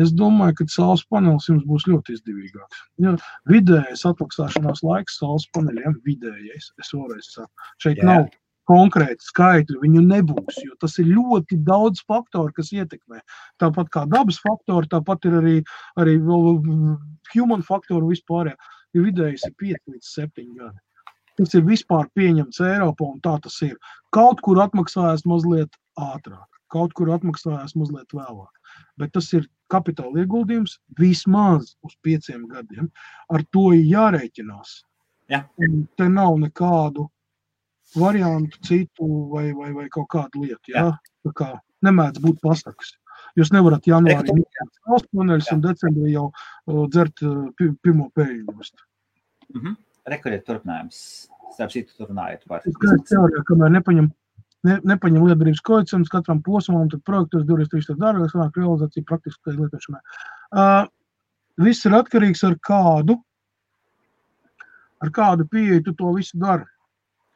es domāju, ka saules panelis jums būs ļoti izdevīgāks. Ja, vidējais atmaksāšanās laiks saules paneļiem, vidējais, es vēlreiz saku, šeit nav konkrēti skaitļi, viņu nebūs, jo tas ir ļoti daudz faktoru, kas ietekmē. Tāpat kā dabas faktori, tāpat ir arī human faktori vispārējā. Ja vidējais ir 5 līdz 7 gadi. Tas ir vispār pieņemts Eiropā, un tā tas ir. Kaut kur atmaksājās mazliet ātrāk. Kaut kur atmaksājās mazliet vēlāk. Bet tas ir kapitāla ieguldījums vismaz uz 5 gadiem. Ar to ir jārēķinās. Ja. Te nav nekādu variantu citu vai kaut kādu lietu. Ja? Tā kā nemēdz būt pasakas. Jūs nevarat janvārī saules paneļus un decembrī jau dzert pirmo pēļņu. Rekuriet turpinājums. Starp citu turpinājot par. Es teorijā, kamēr nepaņem lietderības koeficients katram posmam, tad projektos 23 dārgāk, sanāk realizācija praktiskai lietošanai. Viss ir atkarīgs ar kādu pieeju tu to visu dari.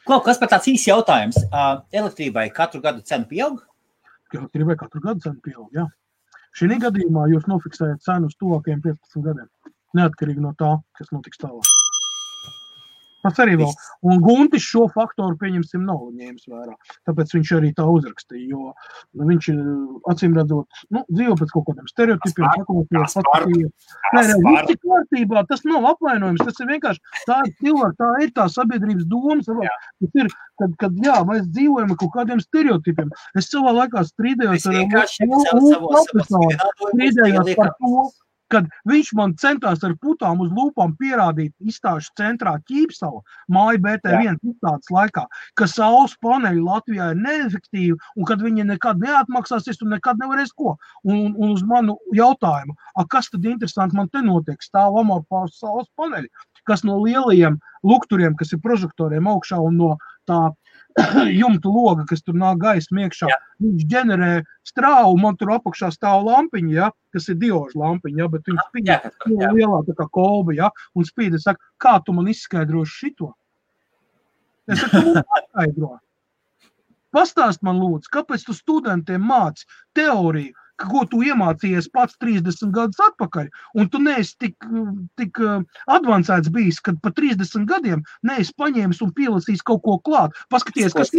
Kas par tāds īsts jautājums? Elektrībai katru gadu cena pieaug? Elektrībai katru gadu cena pieaug, jā. Šī gadījumā jūs nofiksējat cenu uz tuvākajiem 15 gadiem. Neatkarīgi no tā, kas notiks tālāk. Tas arī vēl. Un Guntis šo faktoru, pieņemsim, nav ņēmis vērā. Tāpēc viņš arī tā uzrakstīja, jo viņš acīm redzot, dzīvo pēc kaut kādiem stereotipiem. Viss ir kārtībā, tas nav apvainojums, tas ir vienkārši tā cilvēka, tā ir tā sabiedrības domas. Tas ir, kad mēs dzīvojam ar kaut kādiem stereotipiem. Es savā laikā strīdējos par to, kad viņš man centās ar putām uz lūpām pierādīt izstāžu centrā Ķīpsala, māja BT1 izstādes laikā, ka saules paneļi Latvijā ir neefektīvi un kad viņi nekad neatmaksāsies un nekad nevarēs ko. Un uz manu jautājumu, kas tad interesanti man te notiek, stāv amorfās saules paneļi, kas no lielajiem lukturiem, kas ir prožektoriem augšā un no tā jumtu loga, kas tur nāk gaisma iekšā, viņš ģenerē strāvu, man tur apakšā stāv lampiņa, ja, kas ir dioža lampiņa, ja, bet viņš spīd lielā tā kā kolba, ja, un spīd, es saku, kā tu man izskaidroši šito? Es saku, tu man paskaidro. Pastāst man lūdzu, kāpēc tu studentiem māci teoriju, ko tu iemācījies pats 30 gadus atpakaļ, un tu neesi tik advancēts bijis, kad pa 30 gadiem neesi paņēmis un pielasījis kaut ko klāt. Paskaties, kas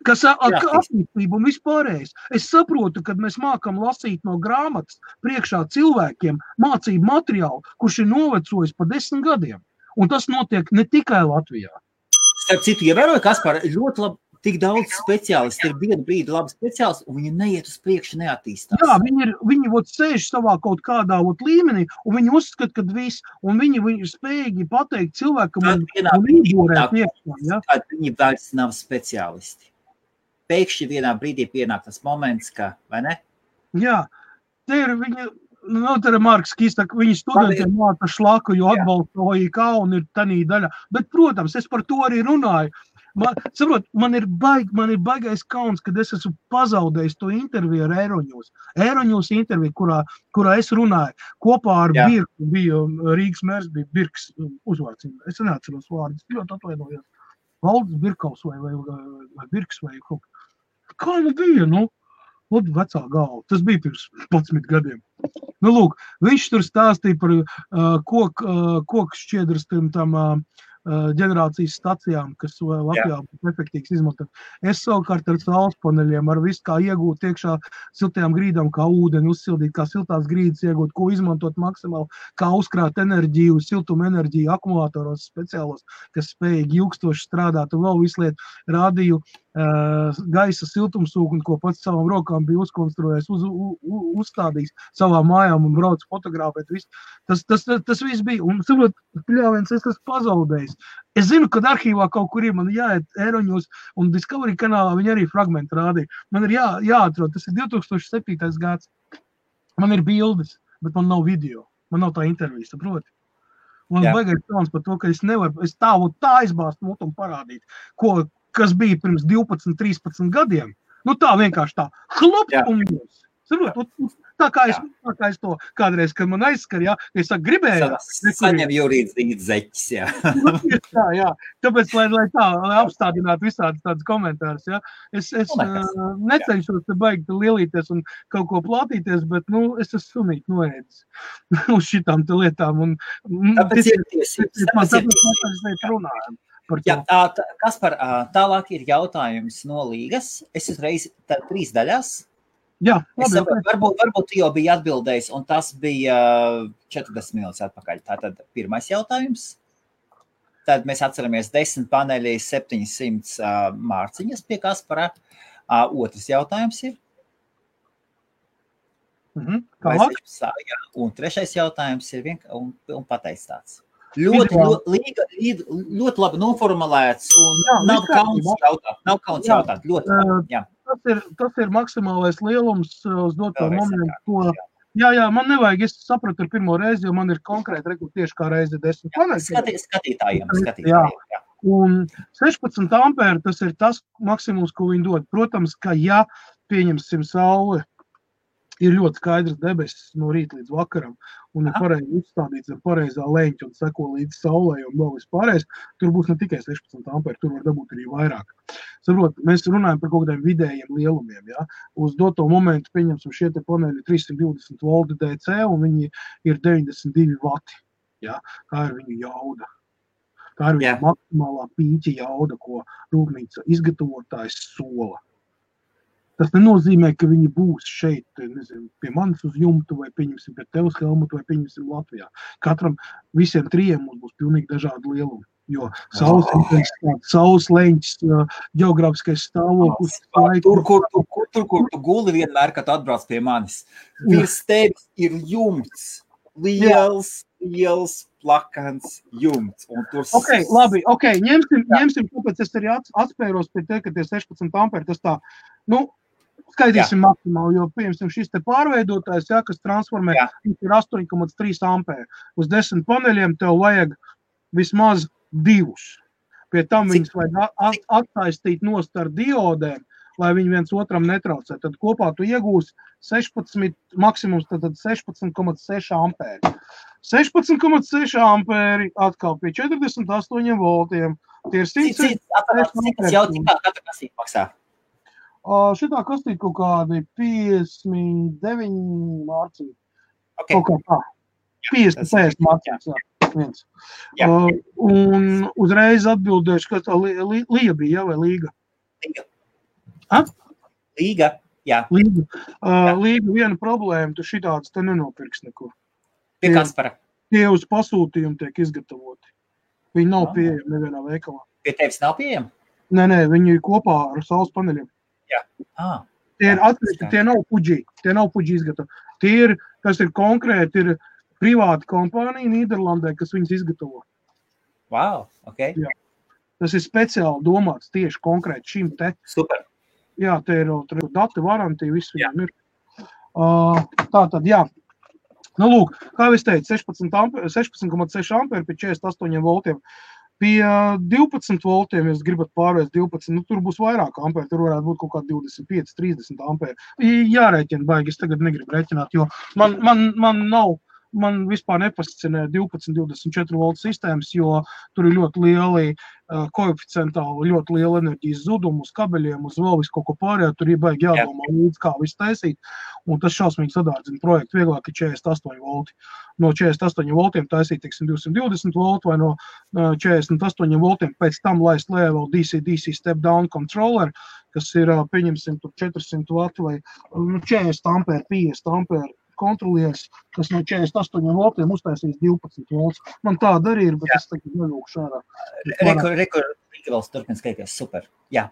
kas attīstība un vispārējais. Es saprotu, kad mēs mākam lasīt no grāmatas priekšā cilvēkiem mācību materiālu, kurš ir novecojis pa 10 gadiem. Un tas notiek ne tikai Latvijā. Starp citu, ievēroju, Kaspar, ļoti labi. Tik daudz speciālisti ir vienu brīdi labi speciālisti, un viņi neiet uz priekšu, neattīstās. Jā, viņi sēž savā kaut kādā līmenī, un viņi uzskata, ka viss, un viņi ir spējīgi pateikt cilvēkam un īborēt iekšā. Ja? Viņi vairs nav speciālisti. Pēkšņi vienā brīdī pienāk tas moments, ka, vai ne? Jā, te ir viņi, te ir Marks Kīstak, viņi studentiem māca šlaku, jo atbalsta OIK un ir tanī daļa. Bet, protams, es par to arī runāju. Man ir baigais kauns, kad es esmu pazaudējis to interviju ar Eiroņūs. Eiroņūs interviju, kurā es runāju. Kopā ar Birku bija Rīgas mērs, bija Birks uzvārds. Es neatceros vārdus, ļoti atvainojos. Valdis Birkaus vai Birks vai kaut kā nu bija, vecā galva. Tas bija pirms 11 gadiem. Lūk, viņš tur stāstīja par koku šķiedras tam ģenerācijas stacijām, kas Latvijā būtu efektīvs izmantot. Es savukārt ar saules paneļiem, ar visu kā iegūt iekšā siltajām grīdām, kā ūdeni uzsildīt, kā siltās grīdas iegūt, ko izmantot maksimāli, kā uzkrāt enerģiju, siltuma enerģiju akumulātoros speciālos, kas spējīgi ilgstoši strādāt un vēl visu lietu rādīju gaisa siltumsūkni, ko pats savām rokām bija uzkonstruējis, uzstādījis savā mājām un brauc fotogrāfēt. Tas viss bija. Un, saprot, pļāviens, es esmu pazaudējis. Es zinu, kad arhīvā kaut kur ir, man jāiet Eiroņos un Discovery kanālā viņi arī fragmenti rādīja. Man ir jāatrod, tas ir 2007. gads. Man ir bildes, bet man nav video. Man nav tā intervija, saproti. Man baigais kauns par to, ka es nevaru, es tāvu tā aizbāzt mutu un parādīt, kas bija pirms 12, 13 gadiem. Nu tā vienkārši tā, hlop un jūs. Saprot, tā kā es to kādreiz, kad man aizskar, es gribēju. Saņem juridzīti zeķis, jā. Tāpēc, lai apstādinātu visādi tādas komentārus, es necenšos te baigi lielīties un kaut ko plātīties, bet, es esmu sunīt noēdis uz šitām te lietām. Tāpēc ir tiesības. Jā, Kaspar, tālāk ir jautājums no līgas. Es uzreiz 3 daļās. Jā, labi. Varbūt jau bija atbildējis, un tas bija 40 minūtes atpakaļ. Tātad pirmais jautājums. Tad mēs atceramies 10 paneļi, 700 mārciņas pie Kaspara. Otrs jautājums ir. Un trešais jautājums ir un pateicis tāds. Ļoti labi noformulēts un nav kauns jautāt. Ļoti, Tas ir maksimālais lielums uz doto momentu. Jā, man nevajag, es sapratu ar pirmo reizi, jo man ir konkrēti tieši kā reizi 10 paneļi. Skatītājiem. Un 16 ampēri tas ir tas maksimums, ko viņi dod. Protams, ka pieņemsim sauli, ir ļoti skaidrs debesis no rīta līdz vakaram, un ir pareizi uzstādīts ar pareizā leņķa un seko līdz saulē un vēl vispārējais, tur būs ne tikai 16 ampēri, tur var dabūt arī vairāk. Saprot, mēs runājam par kaut kādiem vidējiem lielumiem, Uz doto momentu pieņemsim šie te paneļi 320 volti DC, un viņi ir 92 vati, Tā ir viņu jauda. Tā ir viņu maksimālā pīķa jauda, ko rūpnīca izgatavotājs sola. Tas nenozīmē, ka viņi būs šeit, pie manis uz jumtu, vai pieņemsim pie tev uz Helmutu, vai pieņemsim Latvijā. Visiem 3 mums būs pilnīgi dažādi lielumi, jo saules leņķis, ģeogrāfiskais stāvoklis. Tur, kur tu guli vienmēr, kad atbrauc pie manis. Virs tevis ir jumts, liels, plakans jumts. Labi, ņemsim, kāpēc es arī atspēros pie te, ka tie 16 amperi, tas tā, skaitīsim maksimāli, jo, pieņemsim, šis te pārveidotājs, kas transformē, ir 8,3 ampēri. Uz 10 paneļiem tev vajag vismaz 2. Pie tam viņus vajag atsaistīt nost ar diodēm, lai viņi viens otram netraucē. Tad kopā tu iegūsi 16, maksimums tad 16,6 ampēri. 16,6 ampēri atkal pie 48 voltiem. Tie ir 100. Katra kastīte maksā? Šitā kastīte kaut kādi 59 mārciņi. Kaut kā tā. 50 mārciņas, un uzreiz atbildēšu, ka tā Līga bija, vai Līga? Līga, jā. Līga viena problēma, tu šitādas te nenopirks nekur. Pie Kaspara? Tie uz pasūtījumu tiek izgatavoti. Viņi nav pieejami nevienā veikalā. Pie tevis nav pieejami? Nē, viņi ir kopā ar saules paneļiem. Jā. Tie ir atsevišķi, tie nav puģi izgatavi. Tas ir konkrēti, ir privāta kompānija Nīderlandē, kas viņus izgatavo. Wow, ok. Jā. Tas ir speciāli domāts tieši konkrēti šim te. Super. Jā, te ir dati, varantija, viss viņam ir. Tātad, jā. Lūk, kā es teicu, 16,6 amperi pie 48 voltiem. Pie 12 voltiem, ja jūs gribat pārvērst 12, tur būs vairāk amperi, tur varētu būt kaut kā 25, 30 amperi. Jārēķina baigi, es tagad negribu rēķināt, jo man vispār nepascinē 12-24 voltu sistēmas, jo tur ir ļoti lieli koeficientāli, ļoti liela enerģijas zudumu uz kabeļiem, uz vēl visu kaut ko pārējā, tur ir baigi jādomā līdz, kā visu taisīt, un tas šausmīgi sadārdzina projektu, vieglāk ir 48 volti. No 48 voltiem taisīt, 220 voltu vai no 48 voltiem pēc tam laist lejā vēl DC step down controller, kas ir, pieņemsim, tur 400 vati vai 40 amperi, 50 amperi kontrolieris, kas no 48 voltiem uztaisīs 12 volts. Man tāda arī ir, bet es tagad nelūkšu ārā. Rekur, vēl turpin skaities, super. Jā.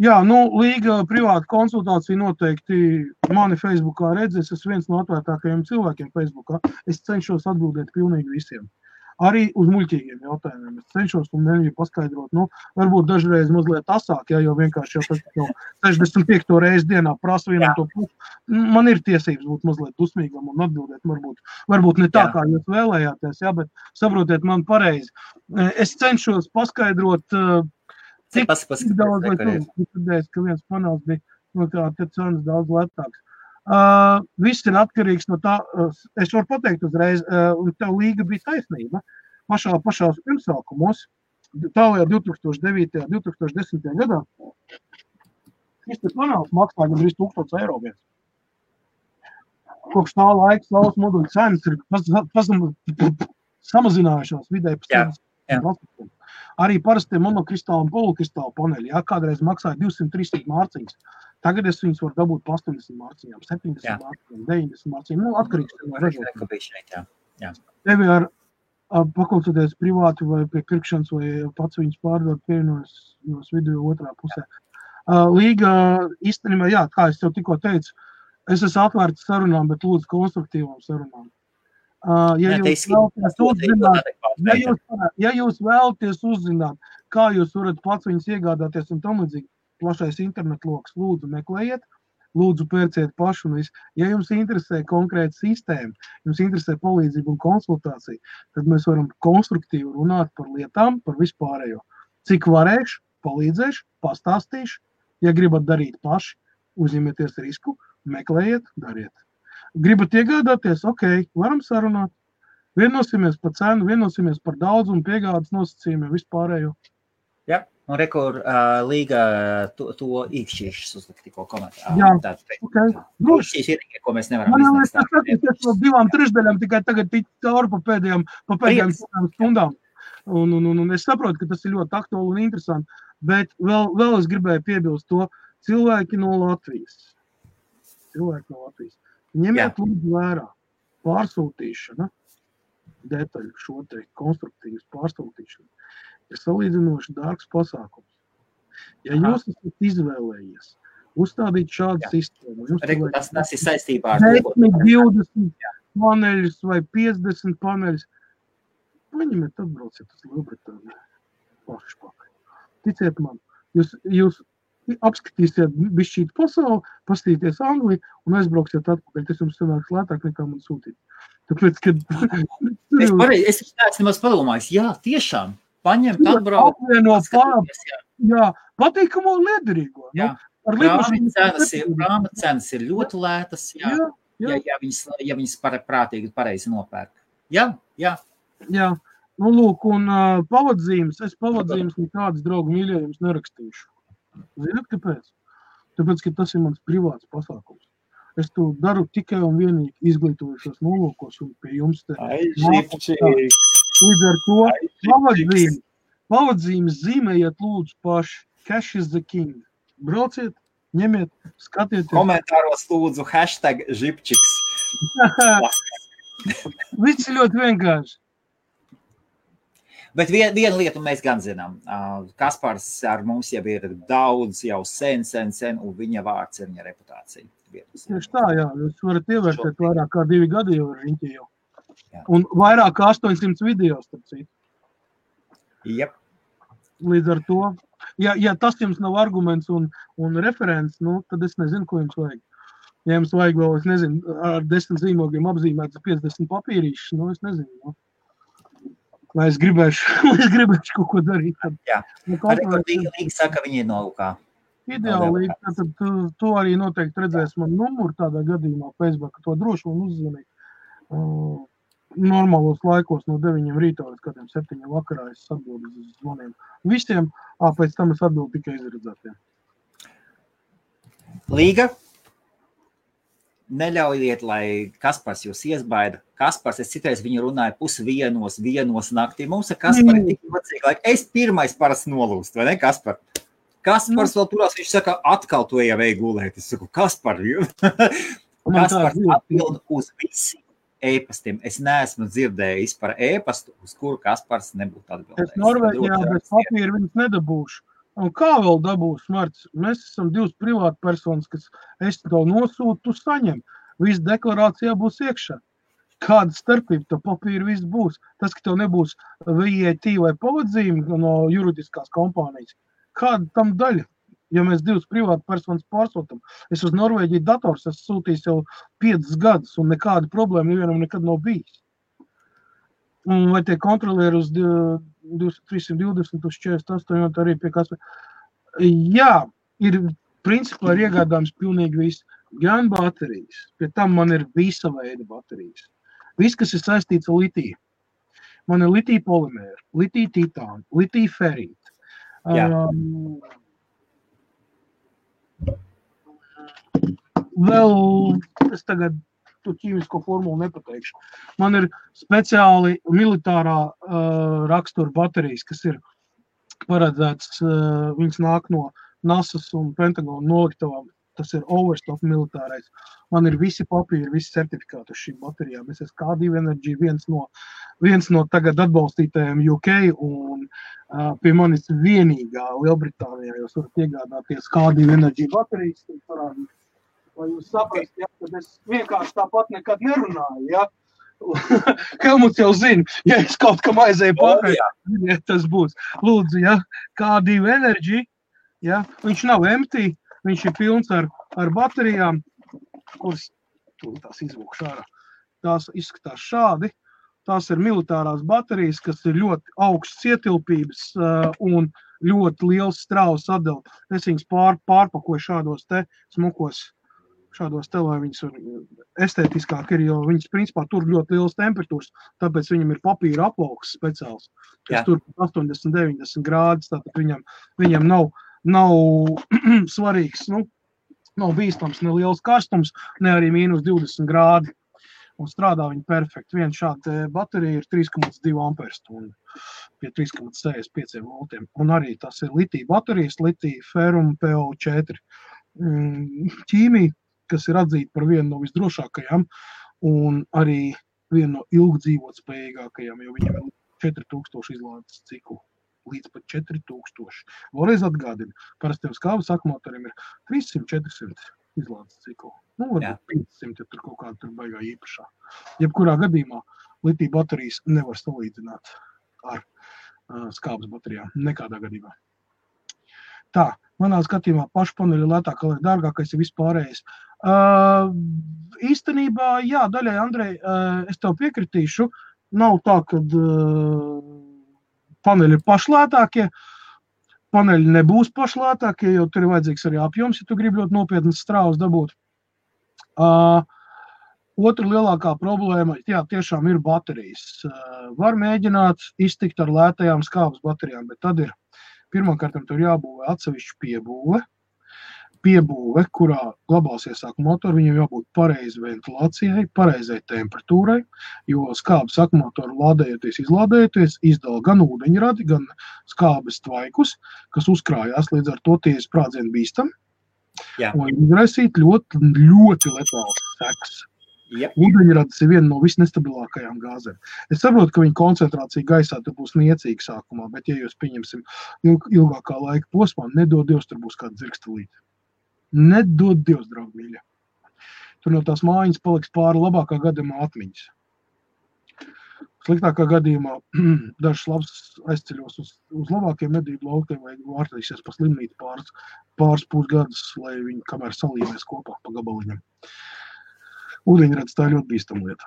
Jā, līga privāta konsultācija noteikti mani Facebookā redzēs. Es viens no atvērtākajiem cilvēkiem Facebookā. Es cenšos atbildēt pilnīgi visiem. Arī uz muļķīgiem jautājumiem. Es cenšos un mēģinu paskaidrot. Varbūt dažreiz mazliet asāk, jo vienkārši jau 65. reizi dienā prasu vienam to pusi. Man ir tiesības būt mazliet dusmīgam un atbildēt. Varbūt ne tā, kā jūs vēlējāties, bet saprotiet man pareizi. Es cenšos paskaidrot, cik daudz, lai tu dzirdēs, ka viens panels bija te cenas daudz lētāks. Viss ir atkarīgs no tā, es varu pateikt uzreiz, un tev līga bija taisnība. Pašās pirmsākumos, tālajā 2009. 2010. gadā, šis te panels maksā gandrīz 1000 eiro viens. Kopš tā laika saules moduļu cenas ir samazinājušās vidēji pa 70%. Arī parastie monokristāli un polukristāli paneļi, kādreiz maksāja 200-300 mārciņas. Tagad es viņus varu dabūt pa 80 mārciņām, 70 mārciņām, 90 mārciņām. Atkarīgs no ražotājiem. Tevi ar pakonsultēties privāti vai pie pirkšanas vai pats viņus pārdot pievienojas video otrā pusē. Līga īstenībā, kā es tev tikko teicu, es esmu atvērts sarunām, bet lūdzu konstruktīvām sarunām. Ja jūs vēlaties uzzināt, kā jūs varat pats viņus iegādāties un tam līdzīgi, plašais internetloks, lūdzu meklējiet, lūdzu pērciet pašu un visu. Ja jums interesē konkrēta sistēma, jums interesē palīdzība un konsultācija, tad mēs varam konstruktīvi runāt par lietām, par vispārējo. Cik varēšu, palīdzēšu, pastāstīšu. Ja gribat darīt paši, uzņemieties risku, meklējiet, dariet. Gribat iegādāties, varam sarunāt. Vienosimies par cenu, vienosimies par daudzumu, piegādes nosacījumiem, vispārējo. Jā, un rekur līga to īkšķīšas uzlikt tikko komentāru. Jā, Īkšķīs ir, ko mēs nevaram izdarīt. Es no 2/3 tikai tagad tik cauri pa pēdējām stundām. Un es saprotu, ka tas ir ļoti aktuāli un interesanti, bet vēl es gribēju piebilst to cilvēki no Latvijas. Ņemiet lūdzu vērā pārsūtīšana, detaļu šo te konstruktīvas pārsūtīšanu, ir salīdzinoši dārgs pasākums. Ja jūs esat izvēlējies uzstādīt šādu sistēmu, tas ir saistībā ar 20 paneļus vai 50 paneļus, paņemiet atbrauciet uz Lielbritāniju paši pakaļ. Ticiet man, jūs apskatīsiet bišķīt pasauli, pastīties Angliju un aizbrauksiet atpakaļ. Tas jums sanāks lētāk nekā man sūtīt. Tāpēc, kad... Es neesmu padomājis. Jā, tiešām. Paņemt, atbraukt. Jā, patīkamo un liederīgo. Prāma cenas ir ļoti lētas. Ja viņas prātīgi pareizi nopērk. Jā. Lūk, un pavadzīmes. Es pavadzīmes nekādas draugu mīļējums nerakstīšu. Zināt, kāpēc? Tāpēc, ka tas ir mans privāts pasākums. Es to daru tikai un vienīgi izglītojušos nolūkos un pie jums te. Līdz ar to pavadzīmes zīmējiet lūdzu paši. Cash is the king. Brauciet, ņemiet, skatieties. Komentāros lūdzu #žipčiks. Viss ir ļoti vienkārši. Bet vienu lietu mēs gan zinām. Kaspars ar mums jau ir daudz, jau sen, un viņa vārds ir viņa reputācija. Tieši tā, jā. Jūs varat ievērtēt vairāk kā 2 gadi jau ar riņķi jau. Un vairāk kā 800 video, starp citu. Jep. Līdz ar to, ja tas jums nav arguments un referents, tad es nezinu, ko jums vajag. Ja jums vajag vēl, es nezinu, ar 10 zīmogiem apzīmētas 50 papīrīšas, es nezinu. Lai es gribēšu kaut ko darīt. Jā, Līga saka, viņi ir nolūkā. Ideāli, tad to arī noteikti redzēs man numuru tādā gadījumā Facebook, to droši man uzzvanīt. Normālos laikos no 9 rītā līdz kādiem 7 vakarā es atbildu uz zvaniem. Visiem, pēc tam es atbildu tikai izredzētiem. Līga? Neļaujiet, lai Kaspars jūs iesbaida. Kaspars, es citreiz viņu runāju 1:30 naktī. Mums ar Kasparu ir tik vecīgi laika. Es pirmais parasti nolūst, vai ne, Kaspar? Kaspars vēl turās, viņš saka, atkal to jau vajag gulēt. Es saku, Kaspar, Kaspars atbild uz visiem e-pastiem. Es neesmu dzirdējis par e-pastu, uz kuru Kaspars nebūtu atbildējis. Es Norvēģijā bez papīra viņus nedabūšu. Un kā vēl dabūs, Marts? Mēs esam divas privāti personas, kas es tev nosūtu, tu saņem. Viss deklarācijā būs iekšā. Kāda starpība, to papīru viss būs. Tas, ka tev nebūs VAT vai pavadzīme no juridiskās kompānijas, kāda tam daļa? Ja mēs divas privāti personas pārsūtam, es uz Norvēģiju dators esmu sūtījis jau 5 gadus, un nekāda problēma nevienam nekad nav bijis. Un vai tie kontrolieri uz 320, uz 48, arī pie kas. Jā, principā ir iegādājums pilnīgi viss. Gan baterijas, pie tam man ir visa veida baterijas. Viss, kas ir saistīts ar litiju. Man ir litija polimēra, litija titāna, litija ferīta. Vēl es tagad tu ķīmisko formulu nepateikšu. Man ir speciāli militārā rakstura baterijas, kas ir paredzēts, viņas nāk no NASA's un Pentagona noliktavām. Tas ir Overstock militārais. Man ir visi papīri, visi certifikāti uz šīm baterijām. Es esmu K2 Energy, viens no tagad atbalstītajiem UK, un pie manis vienīgā Lielbritānijā jūs varat iegādāties K2 Energy baterijas. Lai jūs saprast, ja, kad es vienkārši tāpat nekad nerunāju, ja. Helmuts jau zina, ja es kaut kam aizēju pakaļ, ja tas būs. Lūdzu, ja, K2 Energy, ja, viņš nav empty, viņš ir pilns ar baterijām, kuras tās izvūkšu ārā. Tās izskatās šādi. Tās ir militārās baterijas, kas ir ļoti augsts ietilpības un ļoti liels strāvas atdeva. Es viņas pārpakoju šādos te smukos, šādos te, lai viņas estētiskāk ir, jo viņas principā tur ļoti liels temperatūras, tāpēc viņam ir papīra aplauks speciāls, kas tur 80-90 grādus, tātad viņam nav svarīgs, nav bīstams ne liels karstums, ne arī -20 grādi. Un strādā viņi perfekti. Viena šāda baterija ir 3,2 amperstundu pie 3,65 voltiem. Un arī tas ir litija baterijas, litija ferum PO4 ķīmija, kas ir atzīta par vienu no visdrošākajām un arī vienu no ilgdzīvotspējīgākajām, jo viņam ir 4000 izlādes ciklu. Līdz pat 4000. Vēlreiz atgādina, parastiem skābes akumulatoriem ir 300-400 izlādes ciklu. Varbūt 500, ja tur kaut kāda tur baigā īpašā. Jebkurā gadījumā litija baterijas nevar salīdzināt ar skābes baterijām. Nekādā gadījumā. Tā, manā skatījumā pašpaneļi lētāk, lai dārgākais ir vispārējais. Īstenībā, jā, daļai, Andrej, es tev piekritīšu. Nav tā, kad paneļi ir pašlētākie, paneļi nebūs pašlētākie, jo tur ir vajadzīgs arī apjoms, ja tu gribi ļoti nopietnas strāvas dabūt. Otra lielākā problēma, jā, tiešām ir baterijas. Var mēģināt iztikt ar lētajām skābes baterijām, bet tad ir pirmkārt tur jābūvē atsevišķu piebūve, kurā glabāsies akumulatori, viņam jābūt pareizi ventilācijai, pareizai temperatūrai, jo skābes akumulatori lādējoties, izlādējoties, izdala gan ūdeņradi, gan skābes tvaikus, kas uzkrājās, līdz ar to tie sprādzieni bīstami. Un izraisīt ļoti, ļoti letāls sekas. Ūdeņradis ir viena no visnestabilākajām gāzēm. Es saprotu, ka viņa koncentrācija gaisā tur būs niecīga sākumā, bet ja jūs pieņemsim ilgākā laika posmā, nedod Dievs, tur būs kāda dzirkstelīte. Nedod Dievs, draugi mīļa. Tur no tās mājiņas paliks pāri labākā gadījumā atmiņas. Sliktākā gadījumā dažs labs aizceļos uz labākiem medību laukiem vai vārtīsies pa slimnīti pāris pusgadus, lai viņi kamēr salīmēs kopā pa gabaliņam. Ūdeņradis tā ir ļoti bīstama lieta.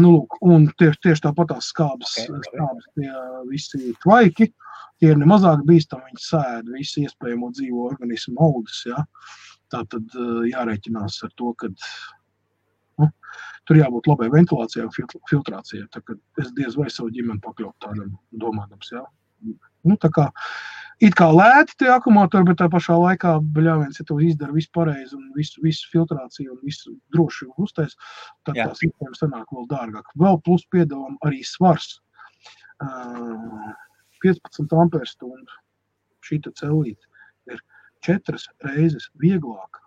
Lūk, un tieši tāpat tās skābes tie visi tvaiki, tie ir nemazāk bīstami, viņi sēd visu iespējamo dzīvo organismu augus, ja. Tātad jārēķinās ar to, ka tur jābūt labai ventilācijai un filtrācijai, tā kad es diez vai savu ģimeni pakļaut tādam domādams, ja. Tā kā it kā lēti tie akumulatori, bet tā pašā laikā, bļāviens, ja tu izdara visu pareizi un visu filtrāciju un visu droši uztais, tad tā sistēma sanāk vēl dārgāk. Vēl plus piedalām arī svars. 15 amperstundu šīta cellīte ir 4 reizes vieglāka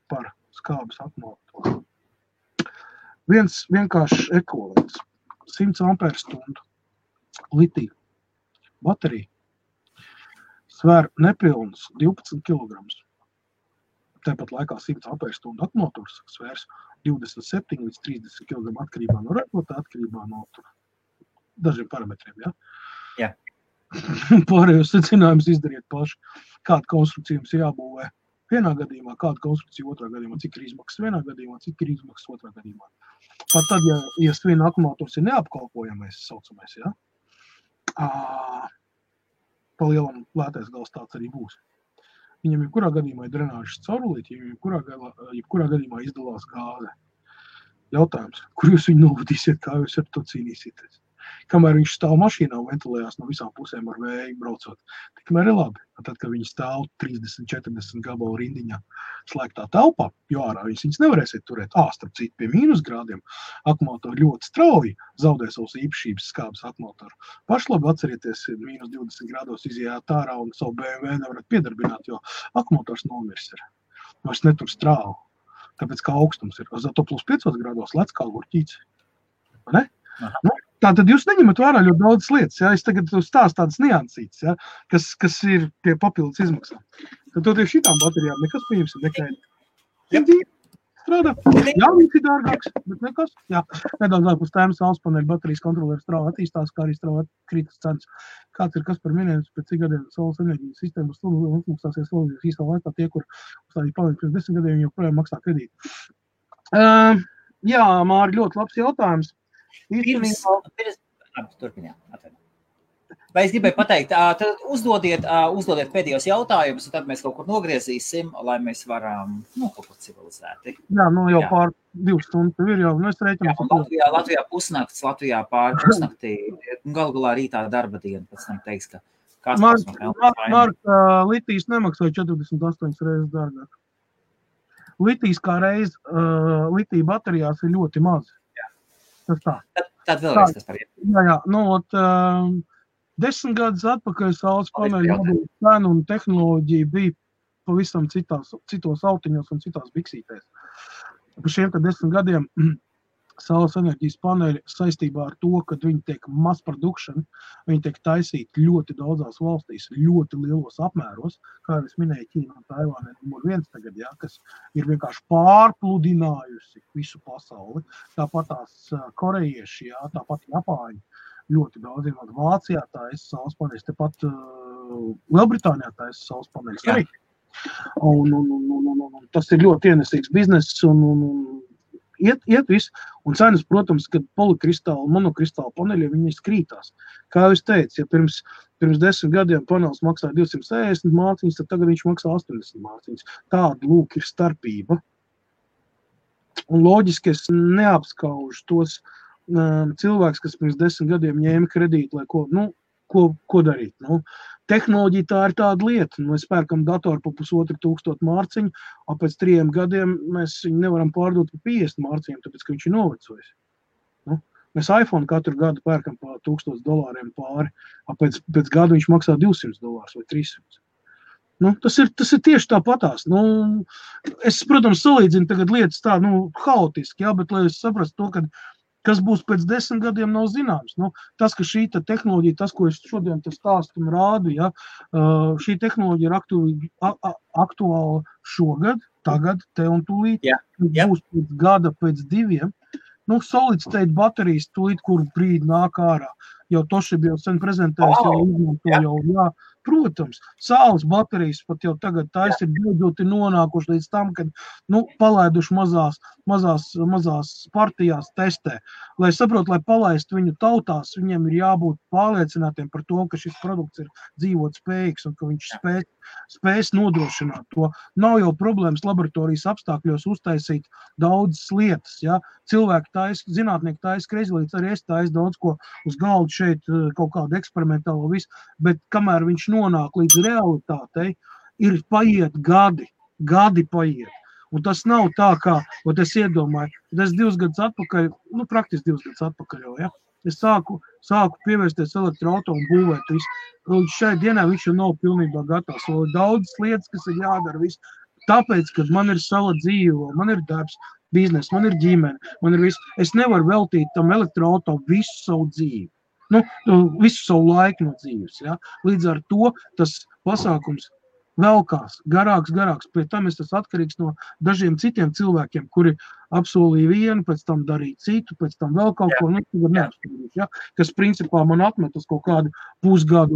par skābes akumulatoru. Viens vienkārši ekvivalents. 100 amperstundu litija baterija svēr nepilnus 12 kg. Tāpat laikā 100 ampērstundu akumulators svērs 27 līdz 30 kg atkarībā no ražotā, atkarībā no dažiem parametriem. Ja? Jā. Pārējos secinājumus izdariet paši. Kāda konstrukcija jums jābūvē vienā gadījumā, kāda konstrukcija otrā gadījumā, cik ir izmaksas vienā gadījumā, cik ir izmaksas otrā gadījumā. Pat tad, ja viena akumulators ir neapkalpojamais, saucamais, ja? Pa lielam lētais gals tāds arī būs. Viņam jebkurā gadījumā ir drenāžas caurulīti, jebkurā gadījumā izdalās gāze. Jautājums, kur jūs viņu novadīsiet, kā jūs ar to cīnīsieties? Kamēr viņš stāv mašīnā un ventilējās no visām pusēm ar vēju braucot, tikmēr ir labi. Tad, kad viņi stāv 30-40 gabalu rindiņā slēgtā telpā, jo ārā viņas nevarēsiet turēt. Starp citu, pie mīnusgrādiem akumulatori ļoti strauji zaudē savus īpašības skābes akumulatoru. Pašlabi atcerieties, mīnus 20 grādos izjāt ārā un savu BMW nevarat piedarbināt, jo akumulators nomirs ir. Vairs netur strāvu, tāpēc kā augstums ir. Zato plus 5 grādos lec kā gurķīts. Ne? Nu, tātad jūs neņemat vērā ļoti daudz lietas, ja? Es tagad stāstu tādas niansītas, ja? kas ir pie papildus izmaksām. Tad tieši šitām baterijām nekas pieņemsim nekaini. Strādā. Jā, viņš ir dārgāks, bet nekas. Jā, nedaudz ārpus tēmas saules paneļa baterijas kontrolieru strauji attīstās, kā arī strauji krītas cenas. Kāds ir kas par minējums, pēc cik gadiem saules enerģijas sistēmas uzmaksāsies vēl īstā laikā tie, kur uzstādīt palīgi pēc 10 gadiem, joprojām maksā kredīti. Jā, Māri, ļoti labs jautājums. Vai es gribēju pateikt, tad uzdodiet pēdējos jautājumus, un tad mēs kaut kur nogriezīsim, lai mēs varam, kaut kur civilizēti. Jā, jau pār 2 stundu tev ir jau, es rēķinu. Latvijā pusnakts, Latvijā pār pusnaktī, galā rītā darba diena, pēc tam teiks, ka Mark, litijas nemaksāja 48 reizes dārgāk. Litijas kā reiz, litija baterijās ir ļoti maz. Tad vēlreiz tas par Jā, 10 gadus atpakaļ saules paneļu cenu un tehnoloģija bija pavisam citos autiņos un citās biksītēs. Pa šiem 10 gadiem saules enerģijas paneļi saistībā ar to, kad viņi tiek mass production, viņi tiek taisīti ļoti daudzās valstīs, ļoti lielos apmēros, kā jau es minēju, Ķīna un Taivāna numur 1 tagad, ja, kas ir vienkārši pārpludinājusi visu pasauli. Tāpat tās korejieši, ja, tāpat Japāņi, ļoti daudz vienot Vācijā taisa saules paneļus, tepat Lielbritānijā taisa saules paneļus arī. Un tas ir ļoti ienesīgs bizness un iet viss, un cenas, protams, kad polikristāli, monokristāli paneļi, viņi skrītās. Kā jau es teicu, ja pirms 10 gadiem panelis maksāja 260 mārciņas, tad tagad viņš maksā 80 mārciņas. Tāda lūk ir starpība. Un loģiski es neapskaužu tos cilvēkus, kas pirms 10 gadiem ņēma kredītu, lai ko darīt. Tehnoloģija tā ir tāda lieta. Mēs pērkam datoru pa 1500 mārciņu, un pēc 3 gadiem mēs viņu nevaram pārdot pa 50 mārciņiem, tāpēc, ka viņš ir novecojis. Mēs iPhone katru gadu pērkam pa $1000 pāri, un pēc gada viņš maksā $200 vai 300. Tas ir tieši tāpatās. Es, protams, salīdzinu tagad lietas tā, haotiski, jā, bet lai es saprastu to, kas būs pēc 10 gadiem, nav zināms. Tas, ka šī tehnoloģija, tas, ko es šodien stāstu un rādu, ja, šī tehnoloģija ir aktuāla šogad, tagad, te un tūlīt, būs pēc gada, pēc 2. Solid state baterijas tūlīt, kur brīdi nāk ārā. Jau Toshiba jau sen prezentējas, jau izmanto jau, protams, saules baterijas pat jau tagad ir beidzot nonākuši līdz tam, kad, palaiduši mazās partijās testē. Lai saprotu, lai palaistu viņu tautās, viņiem ir jābūt pārliecinātiem par to, ka šis produkts ir dzīvot spējīgs un ka viņš spēs nodrošināt to. Nav jau problēmas laboratorijas apstākļos uztaisīt daudzas lietas, ja. Cilvēki zinātnieki taisa kreizlītes, arī es taisu daudz ko uz galdu šeit, kaut kādu eksperimentālo visu, bet kamēr viņš nonāk līdz realitātei, ir paiet gadi paiet. Un tas nav tā, kā, es iedomāju, kad es 2 gadus atpakaļ, praktiski 2 gadus atpakaļ jau, ja, es sāku pievērsties elektroauto un būvēt visu. Līdz šai dienai viņš jau nav pilnībā gatavs. Vēl ir daudzas lietas, kas ir jādara visu. Tāpēc, kad man ir sava dzīve, man ir darbs, biznes, man ir ģimene, man ir viss. Es nevaru veltīt tam elektroauto visu savu dzīvi. Visu savu laiku no dzīves. Ja? Līdz ar to tas pasākums velkās, garāks. Pie tam es tas atkarīgs no dažiem citiem cilvēkiem, kuri apsolīja vienu, pēc tam darīja citu, pēc tam vēl kaut ko, neapstādīšu, ja? Kas principā man atmetas kaut kādu pusgadu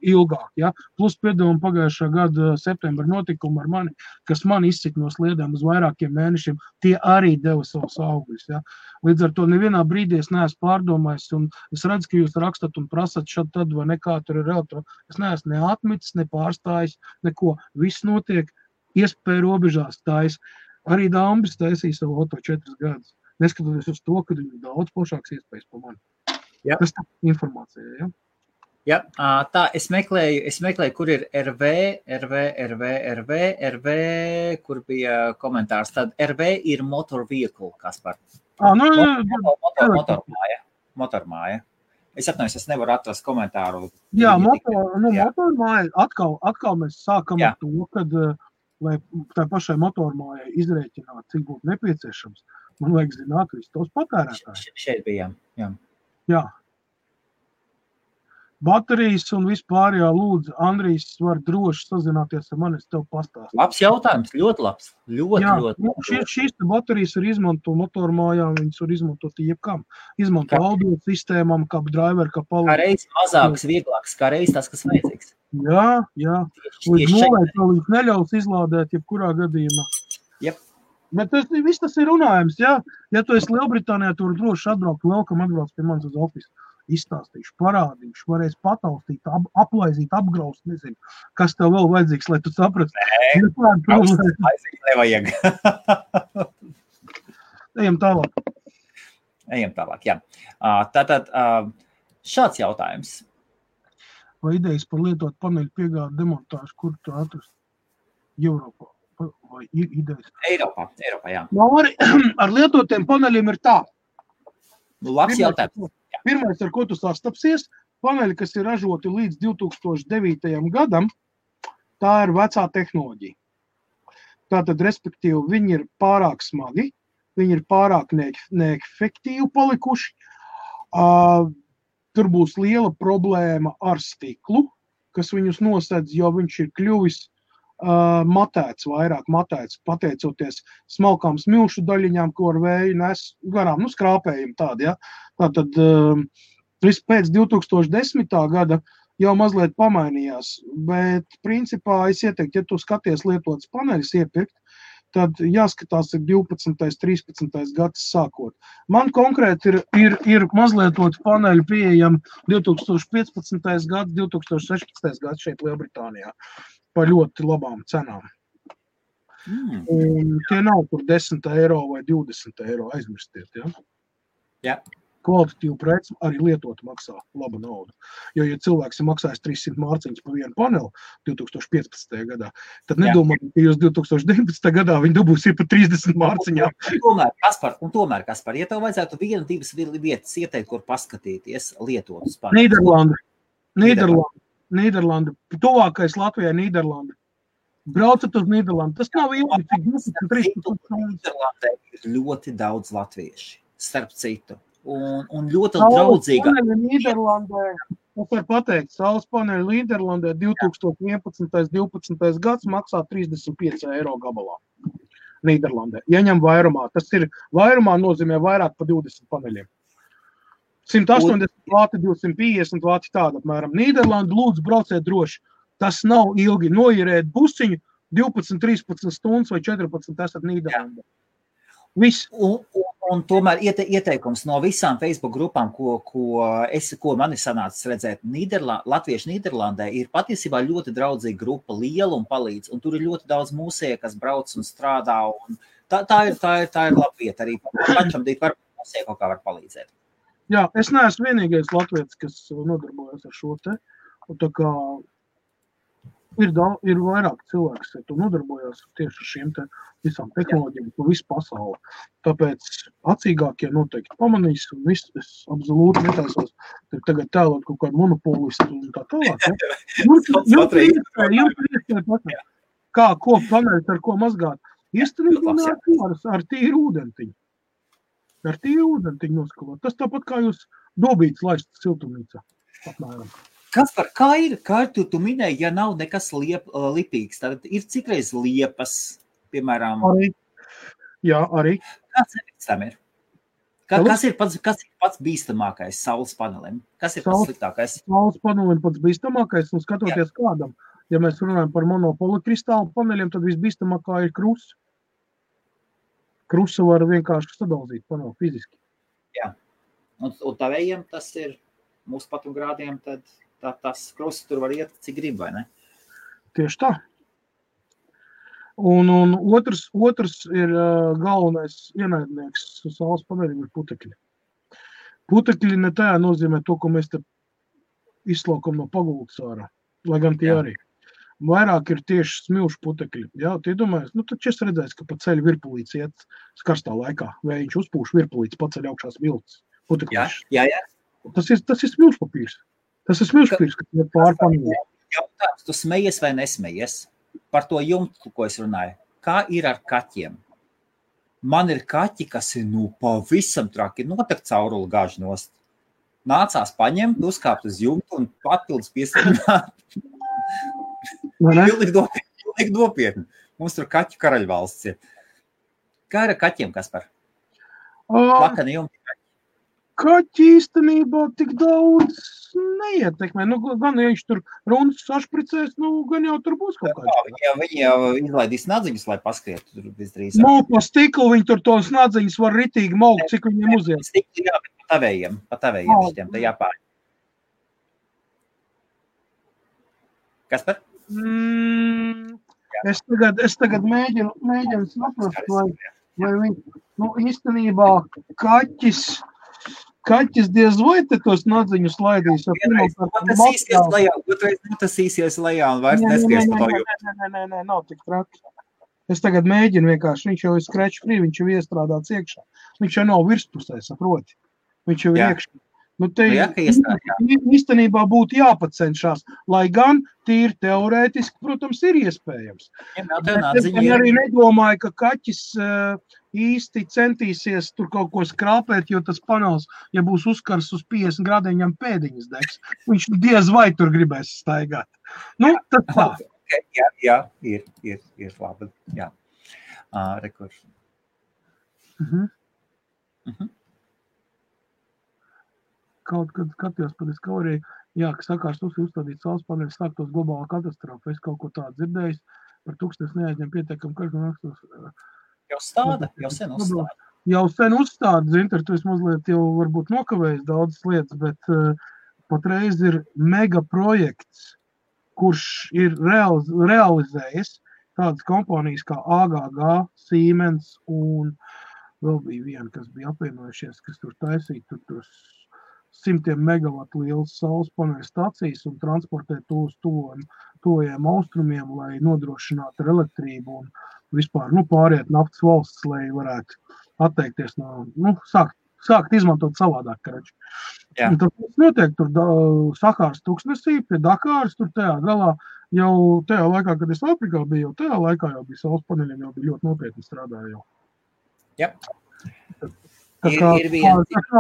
ilgāk. Ja? Plus piedomu pagājušā gada septembra notikumu ar mani, kas man izcik no sliedēm uz vairākiem mēnešiem, tie arī deva savus augļus. Ja? Līdz ar to nevienā brīdī es neesmu pārdomājis, un es redzu, ka jūs rakstat un prasat šad tad vai nekā tur ir relatīvi. Es neesmu ne atmitis, ne pārstājis, neko. Viss notiek iespēju robežās tais. Arī Dambis taisīja savu auto 4 gadus. Neskatoties uz to, ka viņam daudz plašāks iespējas pa mani. Jā. Tas tā informācija, ja? Jā, tā, es meklēju, kur ir RV, kur bija komentārs. Tad RV ir motor vehicle, Kaspar. Motormāja. Es atnājos, es nevaru atrast komentāru. Jā, motormāja, atkal mēs sākam ar to, kad, lai tā pašai motormājai izrēķināt, cik būtu nepieciešams, man vajag zināt visu tos patērētājus. Šeit bija, jā. Jā. Baterijas un vispār, jā, lūdzu, Andrijs var droši sazināties ar mani, es tev pastāstu. Labs jautājums, ļoti labs. Ļoti. Šīs baterijas var izmantot motormājām, viņas var izmantot jebkam. Izmantot audio sistēmām, kā driver, kā palīdz. Kā reiz mazāks, vieglāks, kā reiz tas, kas vajadzīgs. Jā. Līdz nulē līdz neļaus izlādēt jebkurā gadījumā. Jep. Bet tas ir runājums, jā. Ja tu esi Lielbritānijā, tu var droši atbraukt, welcome atbrauc pie manis uz ofisu. Izstāstīšu, parādīšu, varēs pataustīt, aplaizīt, apgraust, nezinu, kas tev vēl vajadzīgs, lai tu saprati. Nevajag. Ejam tālāk, jā. Tātad šāds jautājums. Vai idejas par lietot paneļu piegādu demontāžu, kur tu atrast? Europā. Vai ir idejas? Eiropā, jā. Ar lietotiem paneļiem ir tā. Labs jautājums. Pirmais, ar ko tu sastapsies, paneļi, kas ir ražoti līdz 2009. gadam, tā ir vecā tehnoloģija. Tātad, respektīvi, viņi ir pārāk smagi, viņi ir pārāk neefektīvi palikuši. Tur būs liela problēma ar stiklu, kas viņus nosedz, jo viņš ir kļuvis matēts, pateicoties smalkām smilšu daļiņām, ko ar vēju nes garām, skrāpējumi tādi, ja. Tātad, pēc 2010. gada jau mazliet pamainījās, bet principā es ieteiktu, ja tu skaties lietotas paneļus iepirkt, tad jāskatās ir 12. 13. gads sākot. Man konkrēti ir mazlietotu paneļu pieejami 2015. gads, 2016. gads šeit Lielbritānijā. Par ļoti labām cenām. Un tie nav tur 10 eiro vai 20 eiro aizmirstiet, ja? Jā. Kvalitatīvu preci arī lietot maksā labu naudu. Jo, ja cilvēks ir maksājis 300 mārciņas par vienu paneli 2015. gadā, tad nedomāju, ka jūs 2019. gadā viņi dabūsiet par 30 mārciņām. Kaspar, ja tev vajadzētu 1-2 vietas ieteikt, kur paskatīties lietotus paneļus. Nīderlanda. Tuvākais Latvijai Nīderlanda. Braucat uz Nīderlandu. Tas nav ilgi, cik 23. Nīderlandē ir ļoti daudz latvieši, starp citu. Un ļoti draudzīga. Es varu pateikt, saules paneļi Nīderlandē 2011. 12. gads maksā 35 eiro gabalā. Nīderlandē. Ieņem vairumā. Tas ir vairumā nozīmē vairāk par 20 paneļiem. 180 vāti, 250 vāti tāda apmēram. Nīderlanda, lūdzu, brauciet droši. Tas nav ilgi. Noierēt busiņu 12, 13 stundas vai 14 esat Nīderlandē. Viss. Un tomēr ieteikums no visām Facebook grupām, ko man ir sanācis redzēt, Latviešu Nīderlandē ir patiesībā ļoti draudzīga grupa, liela un palīdz. Un tur ir ļoti daudz mūsēja, kas brauc un strādā. Un tā ir laba vieta arī. Pašam dīt var mūsēja kaut kā var palīdzēt. Jā, es neesmu vienīgais latvietis, kas nodarbojas ar šo te. Un tā kā ir vairāk cilvēks, kas nodarbojas tieši ar šiem te visām tehnoloģijām, pa visu pasauli. Tāpēc acīgākie noteikti pamanīs, un viss es absolūti netaisos tagad tēlot kaut kādu monopolistu un tā tālāk. Ja? Jums ir iespēja ko paneļt, ar ko mazgāt. Iestrādāt ar tīru ūdentiņu. Ar tīru ūdentiņu noskalot. Tas tāpat kā jūs dobītas laist siltumnīcā. Apmēram. Kaspar, kā ir tu minēji, ja nav nekas lipīgs, tad ir cikreiz liepas, piemēram? Arī. Jā, arī. Kāds efekts tam ir? Kas ir pats bīstamākais saules panelim? Kas ir pats sliktākais? Saules panelim pats bīstamākais, un skatoties kādam. Ja mēs runājam par monopolikristālu paneļiem, tad visbīstamākā ir krusts. Krustu var vienkārši sadalzīt paneli fiziski. Jā. Un tavējiem tas ir mūsu patogrādiem, tad tas krusts tur var iet, cik grib, vai ne? Tieši tā. Un otrs ir galvenais ienaidnieks saules paneļiem ir putekļi. Putekļi ne tajā nozīmē to, ko mēs te izslaukam no pagultas ārā, lai gan tie arī. Vairāk ir tieši smilšu putekļi. Jā, tie domājas, taču es redzēju, ka pa ceļu virpulīts iet karstā laikā, vai viņš uzpūš virpulīts, paceļ augšā smilts putekļus. Jā. Tas ir smilšu papīrs. Tas ir smilšu papīrs, kas ir pārpanīja. Jautājums, tu smejies vai nesmejies par to jumtu, ko es runāju? Kā ir ar kaķiem? Man ir kaķi, kas ir pavisam traki, notek cauruli gāž nost. Nācās paņemt, uzkāpt uz jumtu un papildus piesarunāt. Pilnīgi nopietni. Mums tur kaķu karaļvalsts ir. Kā ir ar kaķiem, Kaspar? Lakani jumti kaķi. Kaķi īstenībā tik daudz neietekmē. Gan ja viņš tur runas sašpricēs, gan jau tur būs kaut kāds. Viņi jau izlaidīs nadziņus, lai paskriet tur visdrīzāk. Pa stiklu viņi tur tos nadziņus var ritīgi maukt, cik viņiem uziet. Stikli jā, bet pa tavējiem šitiem, te jāpār. Kaspar? Es tagad mēģinu saprast, vai viņi, īstenībā kaķis diez vai te tos nadziņus laidīs. Tas īsies lejā un vairs neskies pa to jūtu. Nē, nav tik traki. Es tagad mēģinu vienkārši, viņš jau ir scratch free, viņš jau iestrādāts iekšā. Viņš jau nav virspusē, saproti. Viņš jau ir iekšā. Īstenībā būtu jāpacenšās, lai gan tīri teorētiski, protams, ir iespējams. Es arī nedomāju, ka kaķis īsti centīsies tur kaut ko skrāpēt, jo tas panels, ja būs uzkars uz 50 grādiem, viņam pēdiņas degs. Viņš diez vai tur gribēs staigāt. Tas tā. Jā, ir labi. Jā. Rekurs. Kaut kad skatījos par Discovery, ka sakārs uzstādīt saules paneļus, sāktos globālā katastrofa. Es kaut ko tādu dzirdējis, par tūkstnes neaizņem pietiekam, ka Jau stāda, jau sen uzstāda. Jau sen uzstāda, Zinter, tu esi mazliet jau varbūt nokavējis daudzas lietas, bet patreiz ir mega projekts, kurš ir realizējis tādas kompānijas kā AGG, Siemens un vēl bija viena, kas bija apvienojušies, kas tur taisīja tur 100 megavatu lielas saules paneļu stacijas un transportēt to uz tuvajiem austrumiem, lai nodrošinātu ar elektrību un vispār pāriet naftas valsts, lai varētu atteikties no, sākt izmantot savādāk, karači. Tas notiek tur Sahāras tūkstnesī, pie Dakāras, tur tajā galā, jau tajā laikā, kad es Afrikā biju, jau tajā laikā jau bija saules paneļiem, jau bija ļoti nopietni strādāja jau. Jā. Tas nav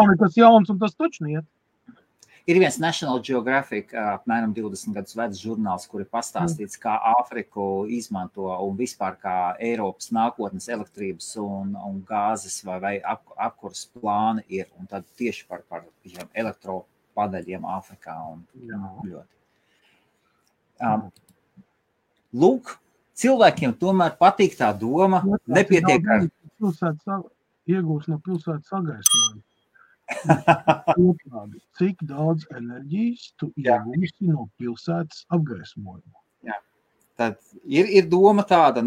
nekas jauns un tas taču niet. Ir viens National Geographic, apmēram 20 gadus vecs žurnāls, kur ir pastāstīts, kā Āfriku izmanto un vispār kā Eiropas nākotnes elektrības un gāzes vai apkuras plāni ir. Un tad tieši par elektropaneļiem Āfrikā un ļoti. Lūk, cilvēkiem tomēr patīk tā doma, nepietiek ar... Iegūs no pilsētas sagaismojumu. Cik daudz enerģijas tu iegūsi no pilsētas apgaismojumu? Jā. Tad ir doma tāda,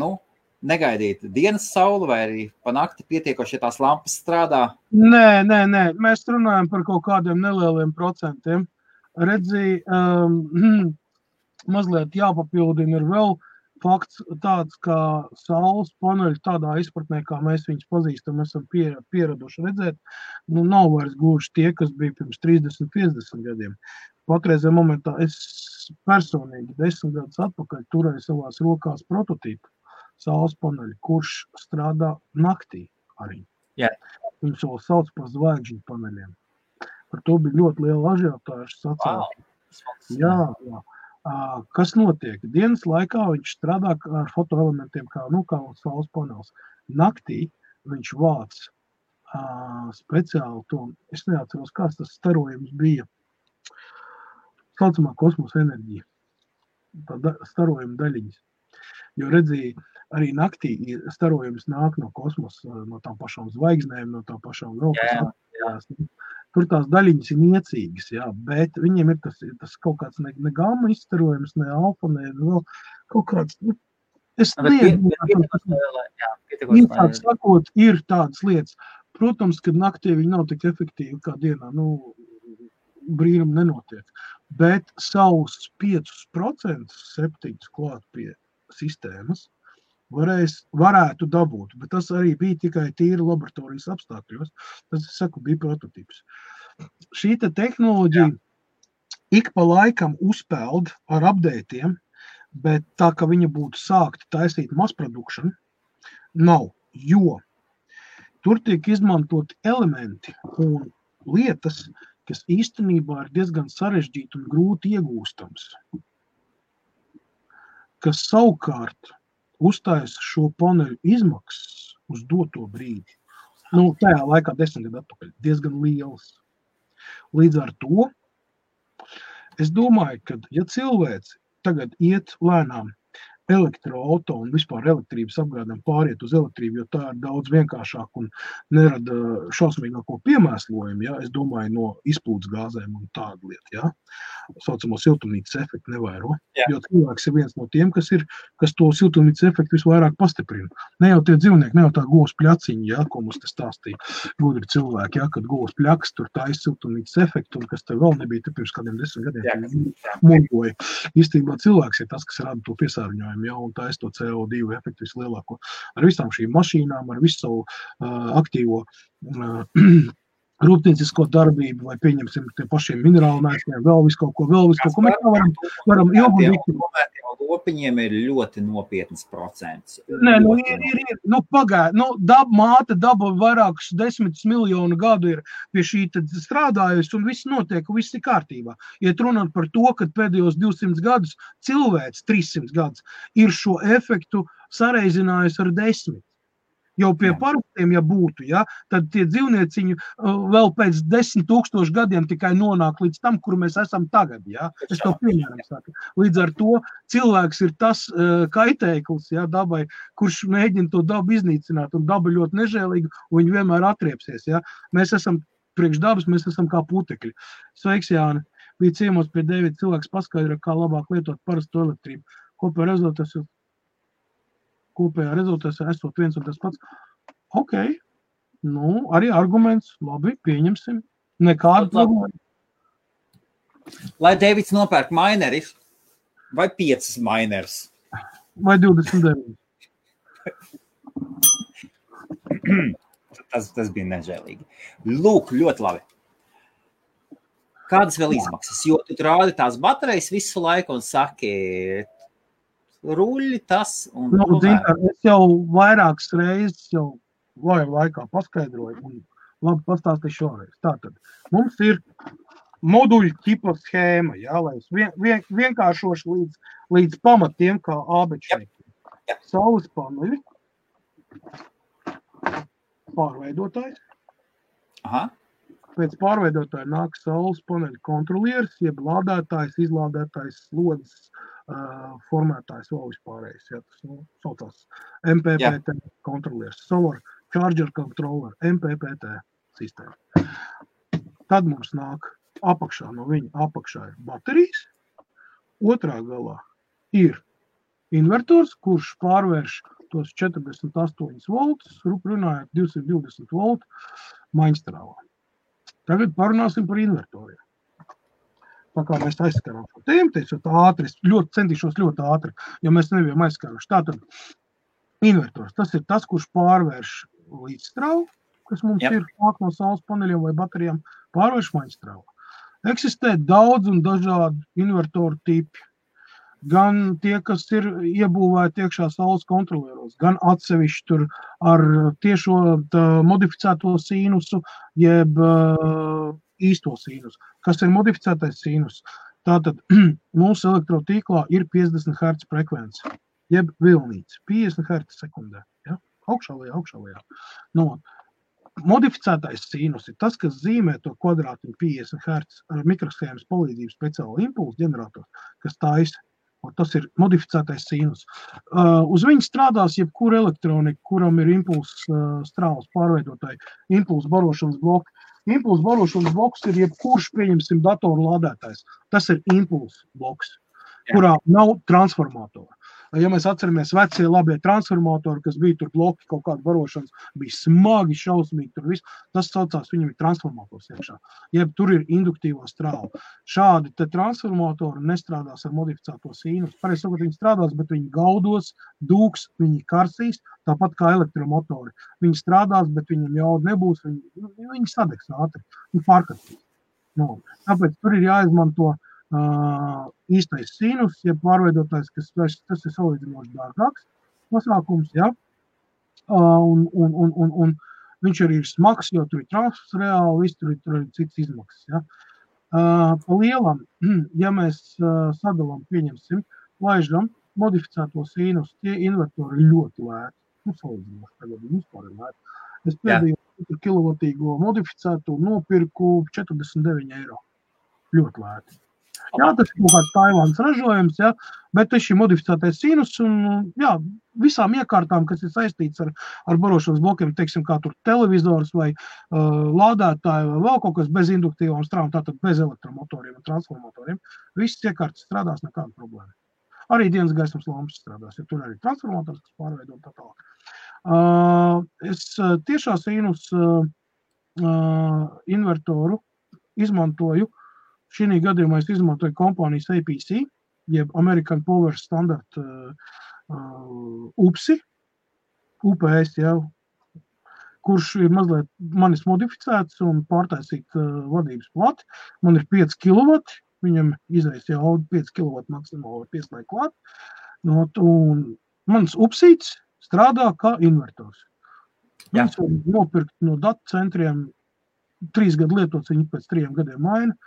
negaidīt dienas sauli vai arī pa nakti pietiekoši, ja tās lampas strādā? Nē. Mēs runājam par kaut kādiem nelieliem procentiem. Redzi, mazliet jāpapildina ir vēl fakts tāds, kā saules paneļi tādā izpratnē, kā mēs viņus pazīstam, esam pieraduši redzēt, nav vairs gluži tie, kas bija pirms 30-50 gadiem. Patreizajā momentā es personīgi 10 gadus atpakaļ turēju savās rokās prototīpu saules paneļi, kurš strādā naktī arī. Yeah. Viņus vēl sauc par zvaigžņu paneļiem. Par to bija ļoti liela ažiotāža sacēlta. Wow. Jā. Kas notiek? Dienas laikā viņš strādā ar fotoelementiem, kā saules panelis. Naktī viņš vāc speciāli to, es neatceros, kāds tas starojums bija, saucamā kosmosa enerģija, tā starojuma daļiņas. Jo redzēja, arī naktī starojums nāk no kosmosa, no tām pašām zvaigznēm, no tām pašām vēl, kas tur tās daļiņas ir niecīgas, jā, bet viņiem ir tas kaut kāds ne gamma izstarojums, ne alfa, ne vēl kaut kāds, es īsāk sakot, ir tādas lietas. Protams, kad naktī viņi nav tik efektīvi kā dienā, brīnum nenotiek, bet savus 5% septiņus klāt pie sistēmas varētu dabūt, bet tas arī bija tikai tīri laboratorijas apstākļos. Tas, es saku, bija prototips. Šī tehnoloģija ik pa laikam uzpeld ar updateiem, bet tā, ka viņa būtu sākta taisīt mass production, nav, jo tur tiek izmantoti elementi un lietas, kas īstenībā ir diezgan sarežģīti un grūti iegūstams, kas savukārt uztaisa šo paneļu izmaksas uz doto brīdi. Tajā laikā 10 gadu atpakaļ diezgan liels. Līdz ar to es domāju, ka ja cilvēks tagad iet lēnām elektroauto un vispār elektrības apgādēm pāriet uz elektrību, jo tā ir daudz vienkāršāk un nerada šausmīgāko piemēslojumu, ja? Es domāju, no izplūdes gāzēm un tādu lietu, ja? Saucamo siltumnīcas efektu nevairo, jo cilvēks ir viens no tiem, kas to siltumnīcas efektu visvairāk pastiprina. Ne jau tie dzīvnieki, ne jau tā govs pļaciņi, ja? Ko mums te stāstīja gudri cilvēki, ja? Kad govs pļaks, tur tā siltumnīcas efektu, un kas te vēl nebija te pirms kādiem 10 gadiem muļoja. Īstenībā cilvēks ir tas, kas rada to piesārņojumu. Ja, un tā to CO2 efektu vislielāko. Ar visām šīm mašīnām, ar visu savu aktīvo rūpniecisko darbību, vai pieņemsim tie pašiem minerālu mēsliem, vēl visu kaut ko. Mēs varam ilgu lopiņiem ir ļoti nopietnas procents. Nē, māte daba vairākus 10 miljonu gadu ir pie šī strādājusi, un viss notiek, viss ir kārtībā. Iet runāt par to, ka pēdējos 200 gadus cilvēks, 300 gadus, ir šo efektu sareizinājusi ar 10. Jau pie parastiem, ja būtu, ja, tad tie dzīvnieciņi vēl pēc 10 000 gadiem tikai nonāk līdz tam, kur mēs esam tagad. Ja. Es to piemēram saku. Līdz ar to cilvēks ir tas kaitēklis, ja, dabai, kurš mēģina to dabu iznīcināt, un daba ļoti nežēlīga, un viņi vienmēr atriepsies. Ja. Mēs esam priekš dabas, mēs esam kā putekļi. Sveiks, Jāni! Bija ciemos pie Dēvida cilvēks paskaidro, kā labāk lietot parastu elektrību. Kopējā rezultātā esot viens un tas pats. Ok, arī arguments, labi, pieņemsim. Nekādu problēmu. Lai Dēvids nopērk mineris, vai 5 mineris? Vai 29? Tas bija nežēlīgi. Lūk, ļoti labi. Kādas vēl izmaksas? Jo tu rādi tās baterijas visu laiku un saki... ruļi tas un... Es jau vairākas reizes jau laikā paskaidroju un labi pastāstīšu šoreiz. Tātad, mums ir moduļu ķipa schēma, jā, lai es vienkāršošu līdz pamatiem kā ābečnieki. Saules paneļi, pārveidotājs. Aha. Pēc pārveidotāja nāk saules paneļu kontrolieris, jeb lādētājs, izlādētājs, slodzes, formētājs vēl vispārējais. Ja, tas saucās MPPT kontrolieris, Solar Charger Controller, MPPT sistēma. Tad mums nāk apakšā, no viņa apakšā ir baterijas, otrā galā ir invertors, kurš pārvērš tos 48 voltus, runājot 220 voltu maiņstrāvā. Tagad parunāsim par invertoriem. Tā kā mēs aizskarām šo tēmu, teicot ātri, es centīšos ļoti ātri, jo mēs nebijām aizskaruši. Tātad invertors, tas ir tas, kurš pārvērš līdzstrāvu, kas mums ir nāk no saules paneļiem vai baterijām, pārvērš maiņstrāvu. Eksistē daudz un dažādi invertoru tipi. Gan tie, kas ir iebūvēti iekšā saules kontrolieros, gan atsevišķi tur ar tiešo modificēto sīnusu, jeb īsto sīnusu. Kas ir modificētais sīnus? Tātad mūsu elektrotīklā ir 50 Hz frekvence, jeb vilnīts, 50 Hz sekundē. Ja? Augšā lejā. No, modificētais sinus ir tas, kas zīmē to kvadrātiņu 50 Hz ar mikroshēmas palīdzību speciālu impulsu ģenerators, kas taisa. Tas ir modificētais sinus. Uz viņu strādās jebkura elektronika, kuram ir impulsu strāles pārveidotāji, impulsu barošanas bloki. Impulsu barošanas bloks ir jebkurš, pieņemsim, datoru lādētājs. Tas ir impulsu bloks, kurā nav transformatora. Ja mēs atceramies vecie labie transformatori, kas bija tur bloki kaut kāda barošanas, bija smagi, šausmīgi tur viss, tas saucās, viņam ir transformators iekšā. Jeb tur ir induktīvā strāla. Šādi te transformatori nestrādās ar modificēto sinus. Pareizi sakot, viņi strādās, bet viņi gaudos, dūks, viņi karsīs, tāpat kā elektromotori. Viņi strādās, bet viņam jauda nebūs, viņi sadegs ātri, viņi pārkastīs. No. Tāpēc tur ir jāizmanto īstais sinus, ja pārveidotājs, tas ir salīdzinoši dārgāks pasākums, ja? Un viņš arī ir smags, jo tur ir transfers reāli, viss tur ir cits izmaksas, ja? Pa lielam, ja mēs sadalām, pieņemsim, laižam modificēto sinus, tie invertori ļoti lēti, salīdzinoši tagad vispār ir lēti. Es pēdējo kilovatīgo modificēto nopirku 49 eiro, ļoti lēti. Jā, tas ir kaut kāds Taivānas ražojums, ja, bet tas ir modificētais sinus un jā, visām iekārtām, kas ir saistīts ar barošanas blokiem, teiksim, kā tur televizors vai lādētāji vai vēl kaut kas bez induktīvām strāvām, tātad bez elektromotoriem un transformatoriem, visas iekārtas strādās nekāda problēma. Arī dienas gaismas lampas strādās, ja tur arī transformators, kas pārveido tā tālāk. Es tiešā sinus invertoru izmantoju. Šī gadījumā es izmantoju kompānijas APC, jeb American Power Standard UPS, ja, kurš ir mazliet manis modificēts un pārtaisīt vadības plati. Man ir 5 kW, viņam izreiz jau 5 kW maksimāli pieslēgt klāt. No, un mans upsīts strādā kā invertors. Viņus var nopirkt no datu centriem, 3 gadu lietots, viņi pēc 3 gadiem maina.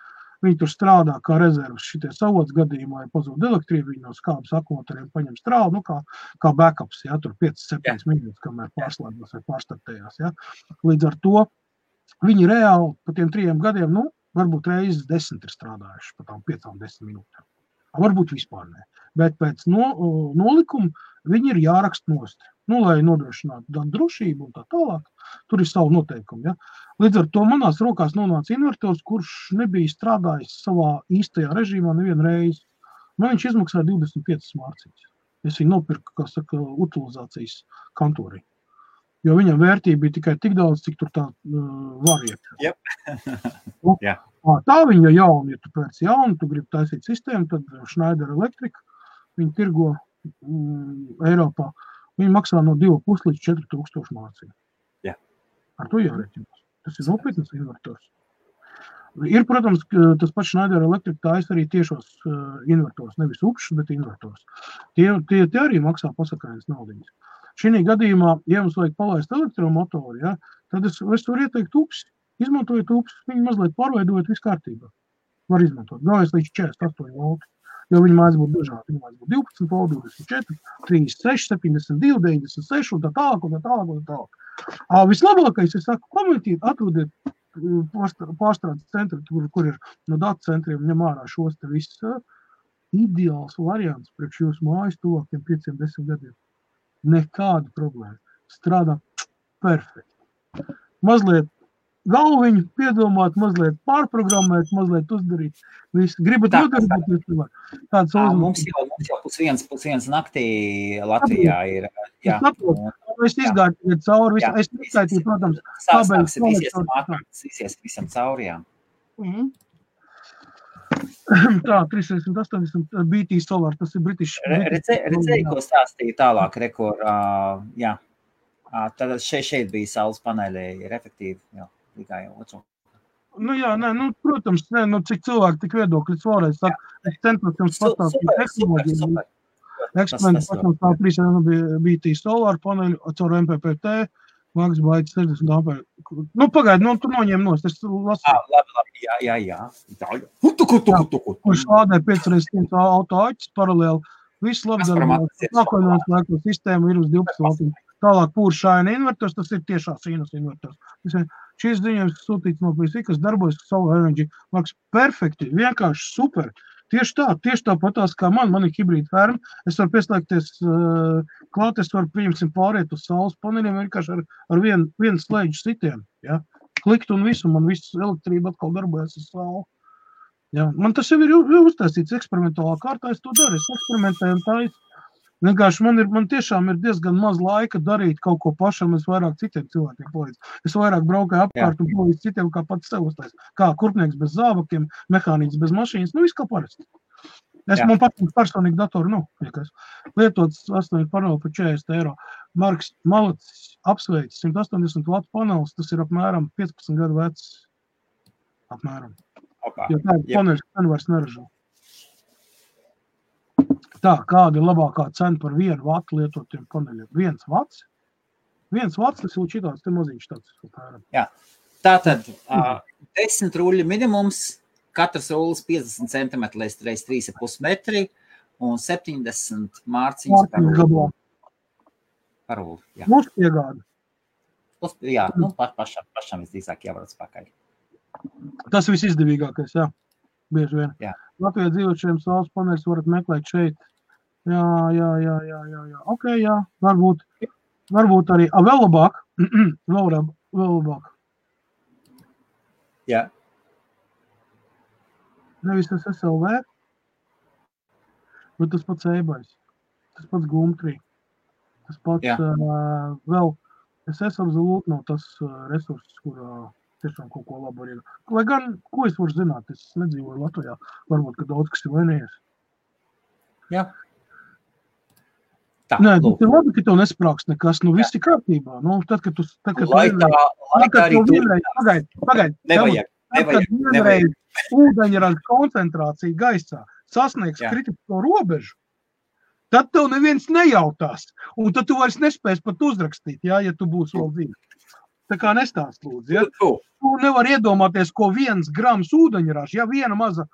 Viņi tur strādā kā rezervas šitie savots gadījumā, ja pazūd elektrību, viņi no skābes akumuļatoriem paņem strālu, kā backups, ja, tur 5-7 minūtes, kamēr pārslēdzās vai pārstartējās, ja. Līdz ar to viņi reāli pa tiem 3 gadiem, varbūt reizes 10 ir strādājuši pa tām 5-10 minūtēm. Varbūt vispār ne. Bet pēc nolikuma viņi ir jārakst nost. Lai nodrošinātu gan drošību un tā tālāk, tur ir savu noteikumu. Ja? Līdz ar to manās rokās nonāca invertors, kurš nebija strādājis savā īstajā režīmā nevienu reizi. Man viņš izmaksāja 25 mārciņas. Es viņu nopirku, kā saka, utilizācijas kantorī. Jo viņam vērtība bija tikai tik daudz, cik tur tā var iet. Yep. Tā viņa jauna, ja tu pēc jaunu, tu gribi taisīt sistēmu, tad Schneider Electric, viņi tirgo Eiropā. Viņi maksā no 2,5 līdz 4,000 mārciņu. Jā. Ar to jāreķinās. Tas ir nopietnas invertors. Ir, protams, tas pats Schneider Electric taisa arī tiešos invertors, nevis upšus, bet invertors. Tie arī maksā pasakainas naudiņas. Šī gadījumā, ja mums vajag palaist elektromotoru, ja, tad es varu ieteikt upsi. Izmantojot upsi, viņi mazliet pārveidojot visu kārtībā. Var izmantot. Galvenais līdz 48 volti. Jo viņi mājas būtu dažādi. Viņi mājas būtu 12 volti, 24, 36, 72, 96 un tā tālāk. Vislabākais, es saku, komentīt, atrodiet pārstrādes centri, kur ir no datu centriem ņem ārā šos te viss ideāls variants priekš jūsu mājas tuvākiem 5-10 gadiem. Nekāda problēma. Strādā perfekti. Mazliet galviņu piedomāt, mazliet pārprogrammēt, mazliet uzdarīt. Visu. Gribat nodarboties, kāds mums jau pusviens naktī Latvijā ir. Jā. Es izgāju cauri, es neskaitīju, protams, sāks visies visam cauri, jā. Tā, 380 BT Solar, tas ir British. Redzēju, ko stāstīja tālāk, rekur, jā. Tad šeit bija saules paneļi, ir efektīvi, jā. Tikai otru. Protams, cik cilvēki tik viedokļus vēlreiz saka, es centos jums pastāstīt tehnoloģiju. Eksperimenti pašam tā 3 BT Solar paneļu caur MPPT, Mags baigi 60 ampēri. Nu, pagaidi, tu noņem nost, es lasīju. Jā. Kurš lādē 5x100 auto-aķis paralēli. Viss labdarījums. Nākamajās laikos sistēma ir uz 12 voltiem. Tālāk pūršāina invertors, tas ir tiešā sinus invertors. Šīs ziņojums sūtīts no PSI, kas darbojas Solar Energy. Mags, perfekti, vienkārši super. Tieši tā patās kā man ir hibrīda ferma. Es varu pieslēgties klāt, es varu, pieņemsim, pāriet uz saules paneļiem vienkārši ar vienu slēdžu sitienu. Ja? Klikt un visu, man viss elektrība atkal darbojas uz sauli. Ja? Man tas jau ir uztaisīts eksperimentālā kārtā, es to daru, es eksperimentēju un taisu. Vienkārši man tiešām ir diezgan maz laika darīt kaut ko pašam, es vairāk citiem cilvēkiem palīdzu. Es vairāk braukāju apkārt un palīdzu citiem, kā pats sev uztais. Kā kurpnieks bez zābakiem, mehāniķis bez mašīnas, viss kā parasti. Man patīk personīgi datoru, lietots 8 paneli par 40 eiro. Marks Malacis apsveic 180 vatu panelis, tas ir apmēram 15 gadu vecs. Apmēram. Jo tā ir paneļs, ka vairs neražo. Tā, kāda ir labākā cena par 1 vatu lietotiem paneļiem? 1 vats? 1 vats, tas ir šitāds, te maziņš tāds. Jā, tātad 10 ruļu minimums, katrs rullis 50 cm līdz 3,5 metri un 70 mārciņas par rulli. Plus piegāda. Jā, pašam visdrīzāk jāvarat pakaļ. Tas viss izdevīgākais, jā. Bieži vien. Jā. Latvijā dzīvošiem saules paneļus varat meklēt šeit. Jā. Ok, jā, varbūt arī. Vēl labāk. Vēl labāk. Jā. Nevis tas SLV, bet tas pats eBay's. Tas pats Gumtree. Tas pats vēl. Es absolūti nav tas resurss, kurā tiešām kaut ko labu arī. Lai gan, ko es varu zināt, es nedzīvoju Latvijā. Varbūt, ka daudz kas ir vainījies. Jā. Tā, nē, tas ir labi, ka tev nesprāks nekas. Viss ir kārtībā. Tad, kad Pagaid. Ūdeņraža koncentrācija gaisā sasniegs kritisko robežu, tad tev neviens nejautās. Un tad tu vairs nespēs pat uzrakstīt, ja tu būsi vēl dzīves. Tā kā nestāst lūdzu. Ja? Tu nevar iedomāties, ko 1 grams ūdeņraža, viena maza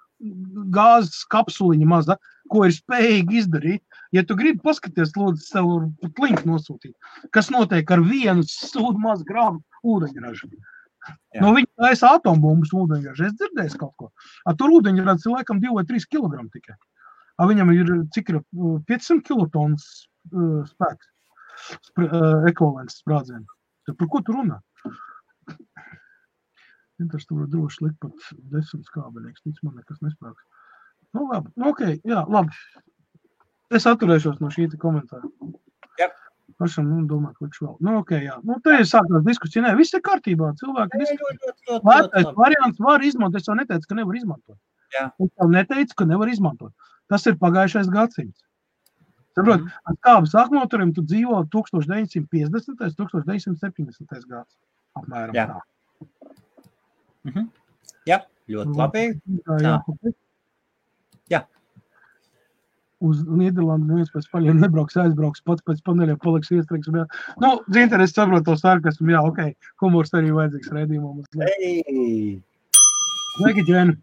gāzes kapsuliņa maza, ko ir spējīgi izdarīt. Ja tu gribi paskaties, lūdzu, sev pat linku nosūtīt, kas notiek ar 1 mazu gramu ūdeņražu. No viņa taisa atombumbas ūdeņraža. Es dzirdēju kaut ko. Tur ūdeņraža ir laikam 2 vai 3 kg tikai. Viņam ir, cik ir 500 kilotonnas spēks, ekvivalents sprādzienu. Par ko tu runā? Tas tu var droši likt pat 10 skābeļieks, tic man nekas nesprāks. Labi, ok, jā, labi. Es atturēšos no šī komentāra. Jā. Pašam, domāju, ka viņš vēl. Ok, jā. Te ir sākās diskusija. Nē, viss ir kārtībā. Cilvēki diskusija. Lētais variants var izmantot. Es jau neteicu, ka nevar izmantot. Jā. Es jau neteicu, ka nevar izmantot. Tas ir pagājušais gadsimts. Saprot, ar kābas akumuļatoriem tu dzīvo 1950. 1970. gads. Apmēram jā. Tā. Jā, ļoti labi. Jā. Uz Nīderlandu neviens pēc paļiem nebrauks, aizbrauks, pats pēc paneļiem paliks iestrīgs. Zinter, es saprotu to sarkasmu, jā, ok, humors arī vajadzīgs raidījumam. Sveiki, Džēni.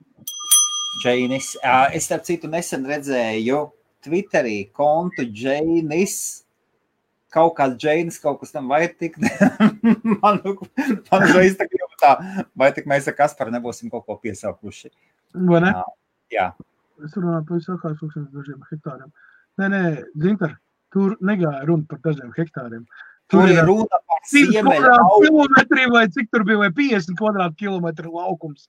Džēnis. Es starp citu nesen redzēju Twitterī kontu Džēnis. Kaut kāds Džēnis, kaut kas tam vai tik. man reiz tā grib tā, vai tik mēs ar Kasparu nebūsim kaut ko piesaukuši. Vai ne? Jā. Es runāju par visākās dažiem hektāriem. Nē, Zinter, tur negāja runa par dažiem hektāriem. Tur ir runa par siemeļa kilometri vai cik tur bija, vai 50 kvadrātkilometru laukums,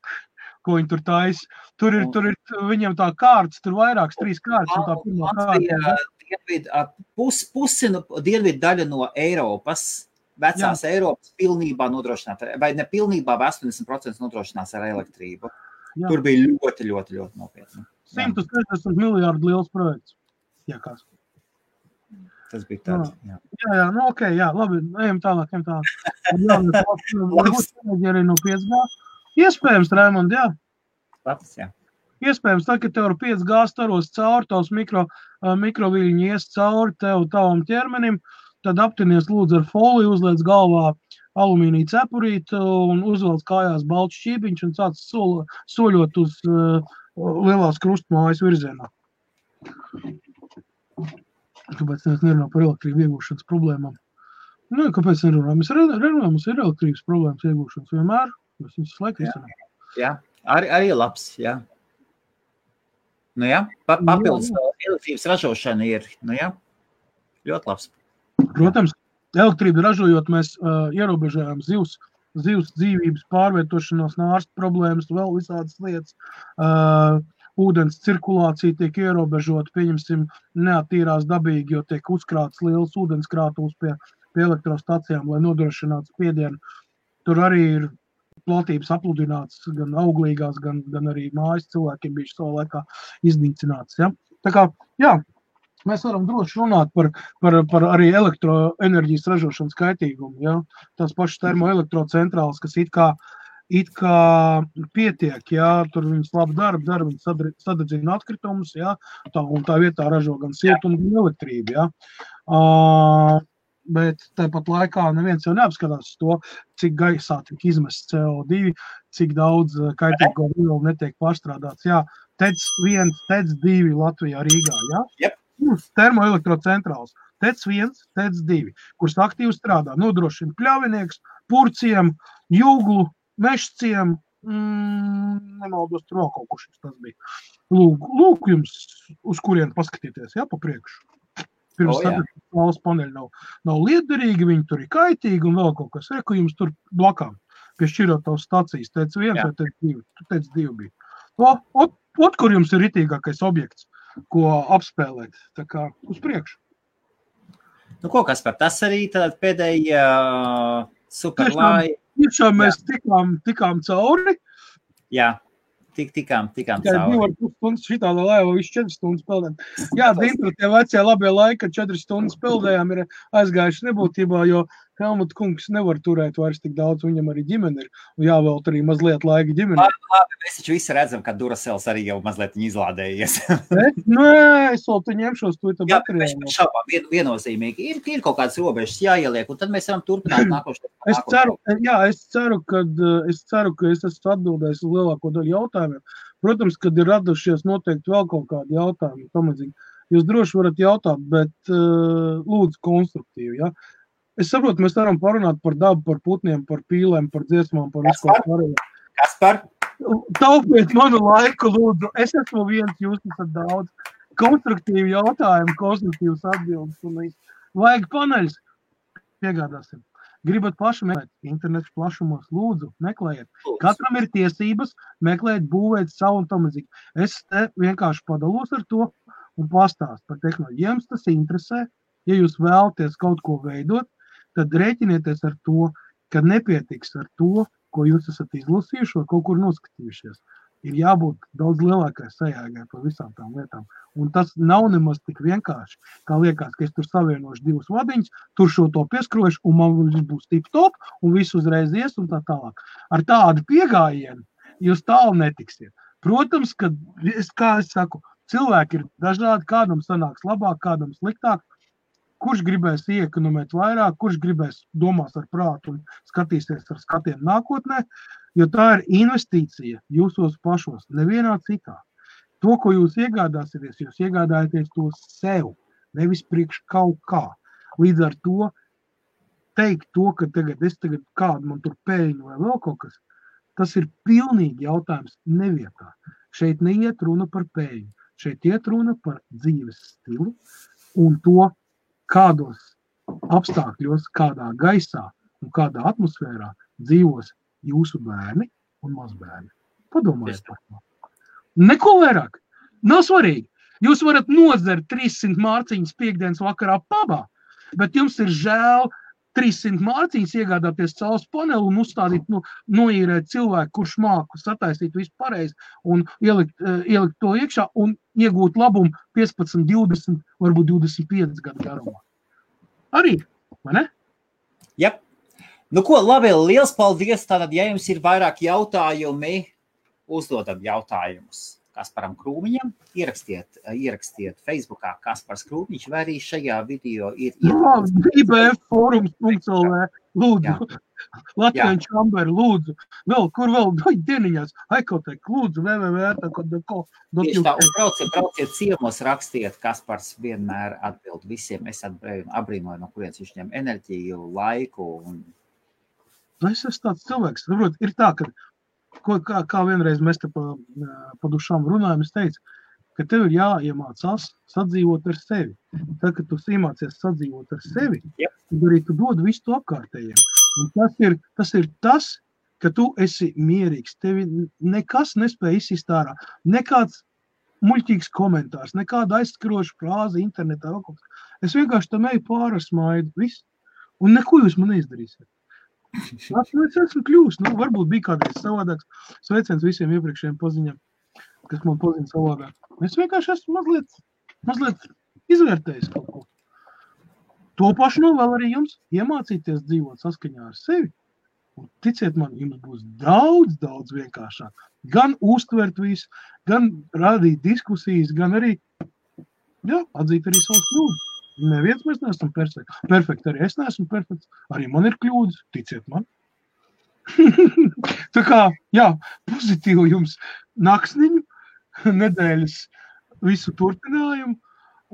ko viņi tur taisa. Tur ir viņam tā kārtas, tur vairākas 3 kārtas. Un tā pirmā kārta. Pusi dienvidu daļa no Eiropas, vecās Eiropas pilnībā nodrošināta, vai ne pilnībā, 80% nodrošinās ar elektrību. Jā. Tur bija ļoti nopietni. 160 miljārdu liels projekts. Jā, kas? Tas bija tāds, jā. Jā, ok, jā, labi, ejam tālāk. Arī no 5G. Iespējams, Raimond, jā. Labs, jā. Iespējams, tā, ka tev ar 5G staros cauri, tavs mikroviļņi ies cauri tavam ķermenim, tad aptinies lūdzu ar foliju, uzliec galvā alumīnija cepurīti un uzvelc kājās balts šķībiņš un sāc soļot uz lielās krustmājas virzienā. Kāpēc mēs nerunājam par elektrību iegūšanas problēmām? Nu, kāpēc nerunājam? Mēs runājam, mums ir elektrības problēmas iegūšanas vienmēr. Mēs viņus laiku izsanām. Jā, arī labs, jā. Nu jā, papildus elektrības ražošana ir, nu jā, ļoti labs. Protams, elektrību ražojot mēs ierobežojam zivs dzīvības pārvietošanos, nārstu problēmas, vēl visādas lietas. Ūdens cirkulācija tiek ierobežota, pieņemsim, neattīrās dabīgi, jo tiek uzkrāts liels ūdenskrātuvs pie elektrostacijām, lai nodrošinātu spiedienu. Tur arī ir platības apludināts gan auglīgās, gan arī mājas cilvēkiem bijuši savā laikā iznīcināts. Ja? Tā kā, jā, mēs varam droši runāt par arī elektroenerģijas ražošanas kaitīgumu. Ja? Tās pašas termoelektrocentrāles, kas it kā pietiek, ja? Tur viņas labi dara, viņas sadedzina atkritumus, ja? Un tā vietā ražo gan siltumu, gan elektrību. Ja? Bet tāpat laikā neviens jau neapskatās to, cik gaisā tiek izmests CO2, cik daudz kaitīgo vielu netiek pārstrādāts. Jā, TEC 1, TEC 2 Latvijā, Rīgā, jā? Yep. Termoelektrocentrāls, TEC 1, TEC 2, kuras aktīvi strādā, nodrošina pļavinieks, purciem, jūglu, mešciem, nemaldos, tur vēl kaut kurš tas bija. Lūk jums, uz kurien paskatieties, jā, pa priekšu. Pirms saules paneļi nav liederīgi, viņi tur ir kaitīgi un vēl kaut kas. Reku jums tur blakām pie šķirotavas stacijas. TEC 1 vai TEC 2. TEC 2 bija. Kur jums ir ritīgākais objekts, ko apspēlēt. Tā kā uz priekšu. Nu, ko kas par tas arī tad pēdējā superlai. Tiešām mēs tikām cauri. Jā. Tikām cauri. 2,5 stundas šitāda laiva, visu 4 stundas peldējām. Jā, Dintra, tie vecie labie laiki, kad 4 stundas peldējām, ir aizgājuši nebūtībā, jo Helmut kungs nevar turēt vairs tik daudz, viņam arī ģimene ir, un jāvēlt arī mazliet laika ģimene. Labi, mēs taču visi redzam, ka Duracels arī jau mazliet izlādējies. Nē, es vēl te ņemšos to baterijā. Jā, šaubām, viennozīmīgi. Ir kaut kādas robežas jāieliek, un tad mēs varam turpināt nākošais. Es ceru, ka es esmu atbildējis uz lielāko daļu jautājumiem. Protams, kad ir radušies noteikti vēl kaut kādi jautājumi, pamazīgi. Jūs droši varat jautāt, bet lūdzu konstruktīvi, ja? Es saprotu, mēs varam parunāt par dabu, par putniem, par pīlēm, par dziesmām, par visu kaut pārējo. Kaspar? Taupiet manu laiku, lūdzu. Es esmu viens, jūs esat daudz. Konstruktīvi jautājumi, konstruktīvas atbildes. Vajag paneļus. Piegādāsim. Gribat paši meklēt internetu plašumos, lūdzu, meklējiet. Katram ir tiesības meklēt, būvēt savu un tamazīgi. Es te vienkārši padalos ar to un pastāstu par tehnoloģiju. Ja jums tas interesē, ja jūs vēlaties kaut ko veidot, tad rēķinieties ar to, ka nepietiks ar to, ko jūs esat izlasījuši vai kaut kur noskatījušies. Ir jābūt daudz lielākai sajēgai par visām tām lietām. Un tas nav nemaz tik vienkārši, kā liekas, ka es tur savienošu divus vadiņus, tur šo to pieskrošu, un man būs tip-top, un viss uzreiz ies un tā tālāk. Ar tādu piegājienu jūs tālu netiksiet. Protams, ka, kā es saku, cilvēki ir dažādi, kādam sanāks labāk, kādam sliktāk. Kurš gribēs iekonomēt vairāk, kurš gribēs domās ar prātu un skatīsies ar skatiem nākotnē, jo tā ir investīcija jūsos pašos, nevienā citā. To, ko jūs iegādāsieties, jūs iegādājaties to sev, nevis priekš kaut kā. Līdz ar to teikt to, ka es tagad kādu man tur pēļņu vai vēl kaut kas, tas ir pilnīgi jautājums nevietā. Šeit neiet runa par pēļņu, šeit iet runa par dzīves stilu un to, kādos apstākļos, kādā gaisā un kādā atmosfērā dzīvos jūsu bērni un mazbērni. Padomājiet par to. Neko vairāk. Nav svarīgi. Jūs varat nodzert 300 mārciņas piekdienas vakarā pabā, bet jums ir žēl 300 mārciņas iegādāties saules paneli un uzstādīt, noīrēt cilvēku, kurš māku sataisīt visu pareizi un ielikt to iekšā un iegūt labumu 15, 20, varbūt 25 gadu garumā. Arī, vai ne? Jā. Nu ko, labi, liels paldies. Tātad, ja jums ir vairāk jautājumi, uzdodam jautājumus Kasparam Krūmiņam, ierakstiet Facebookā Kaspars Krūmiņš, vai arī šajā video ir IBF forums.lv lūdzu, Latvijas čamberi, lūdzu, kur vēl, dieniņās, Aikotek, lūdzu, Tieši tā, un brauciet ciemos, rakstiet, Kaspars vienmēr atbild visiem, es abrīnoju, no kurienes viņš ņem enerģiju, laiku. Es esmu tāds cilvēks, saprot, ir tā, ka, kā vienreiz mēs te pa dušām runājam, es teicu, ka tev ir jāiemācās sadzīvot ar sevi. Tad, kad tu iemācies sadzīvot ar sevi, tad arī tu dod visu to apkārtējiem. Un tas ir tas, ka tu esi mierīgs. Tevi nekas nespēja izsist ārā. Nekāds muļķīgs komentārs, nekāda aizskaroša frāze internetā. Es vienkārši tam eju pāri smaidu, viss. Un neko jūs man neizdarīsiet. Es esmu kļūst. Varbūt bija kādreiz savādāks. Sveiciens visiem iepriekšējiem paziņām, kas man pazina savādāk. Es vienkārši esmu mazliet izvērtējis kaut ko. To pašu novēl arī jums iemācīties dzīvot saskaņā ar sevi. Un ticiet man, jums būs daudz vienkāršāk. Gan uztvert visu, gan rādīt diskusijas, gan arī atzīt arī savus kļūdas. Neviens mēs neesam perfekti. Arī es neesmu perfekts. Arī man ir kļūdas, ticiet man. Tā kā, pozitīvu jums naksniņu, nedēļas visu turpinājumu,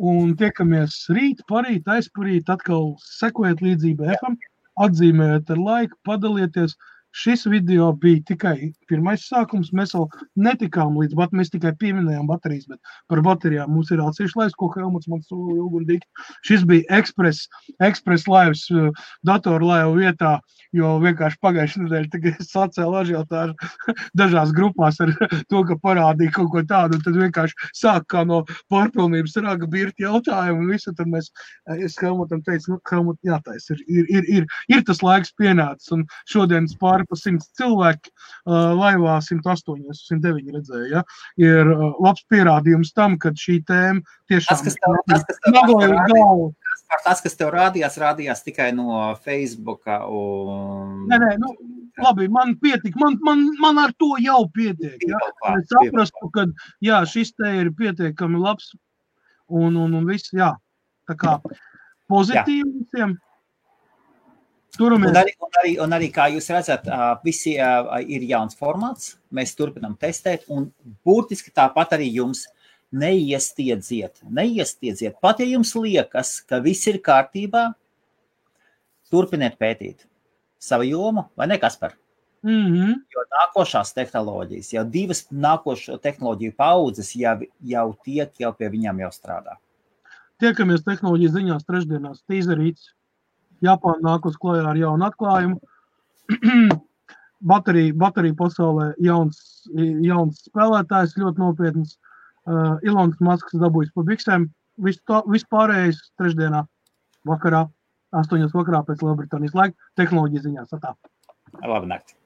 un tiekamies rīt, parīt, aizparīt, atkal sekojiet līdzi BFam, atzīmējiet ar laiku, padalieties. Šis video bija tikai pirmais sākums, mēs vēl netikām līdz, mēs tikai pieminējām baterijas, bet par baterijām mums ir atsevišķi laiks, ko Helmuts man sūla ilgundīgi. Šis bija Express laivs datoru laivu vietā, jo vienkārši pagājušajā nedēļā tagad es sacēlu ažiotāžu dažās grupās ar to, ka parādīja kaut ko tādu, un tad vienkārši sāk kā no pārpilnības raga birti jautājumu, un visu, tad es Helmutam teicu, Helmut, jātais, ir tas laiks pienācis, un šodienas pāri pa 100 cilvēki, laivā 108, 109 redzēja, ir labs pierādījums tam, ka šī tēma tiešām Tas, kas tev rādījās tikai no Facebooka un... Nē, labi, man pietik, man ar to jau pietiek, Es saprastu, ka, šis te ir pietiekami labs un viss, tā kā pozitīvi visiem. Un arī, kā jūs redzat, visi ir jauns formāts, mēs turpinām testēt, un būtiski tāpat arī jums neiestiedziet. Pat ja jums liekas, ka viss ir kārtībā, turpiniet pētīt savu jomu, vai ne, Kaspar? Jo nākošās tehnoloģijas, jau 2 nākošo tehnoloģiju paudzes jau pie viņām jau strādā. Tiekamies tehnoloģijas ziņās trešdienās, tīzerīts. Japāna nāk uz klājā ar jaunu atklājumu. Baterija pasaulē jauns spēlētājs, ļoti nopietns. Ilons Masks dabūjis pa biksēm. Viss pārējais trešdienā vakarā, 8 vakarā pēc Lielbritānijas laika, tehnoloģijas ziņās. Labi nakti.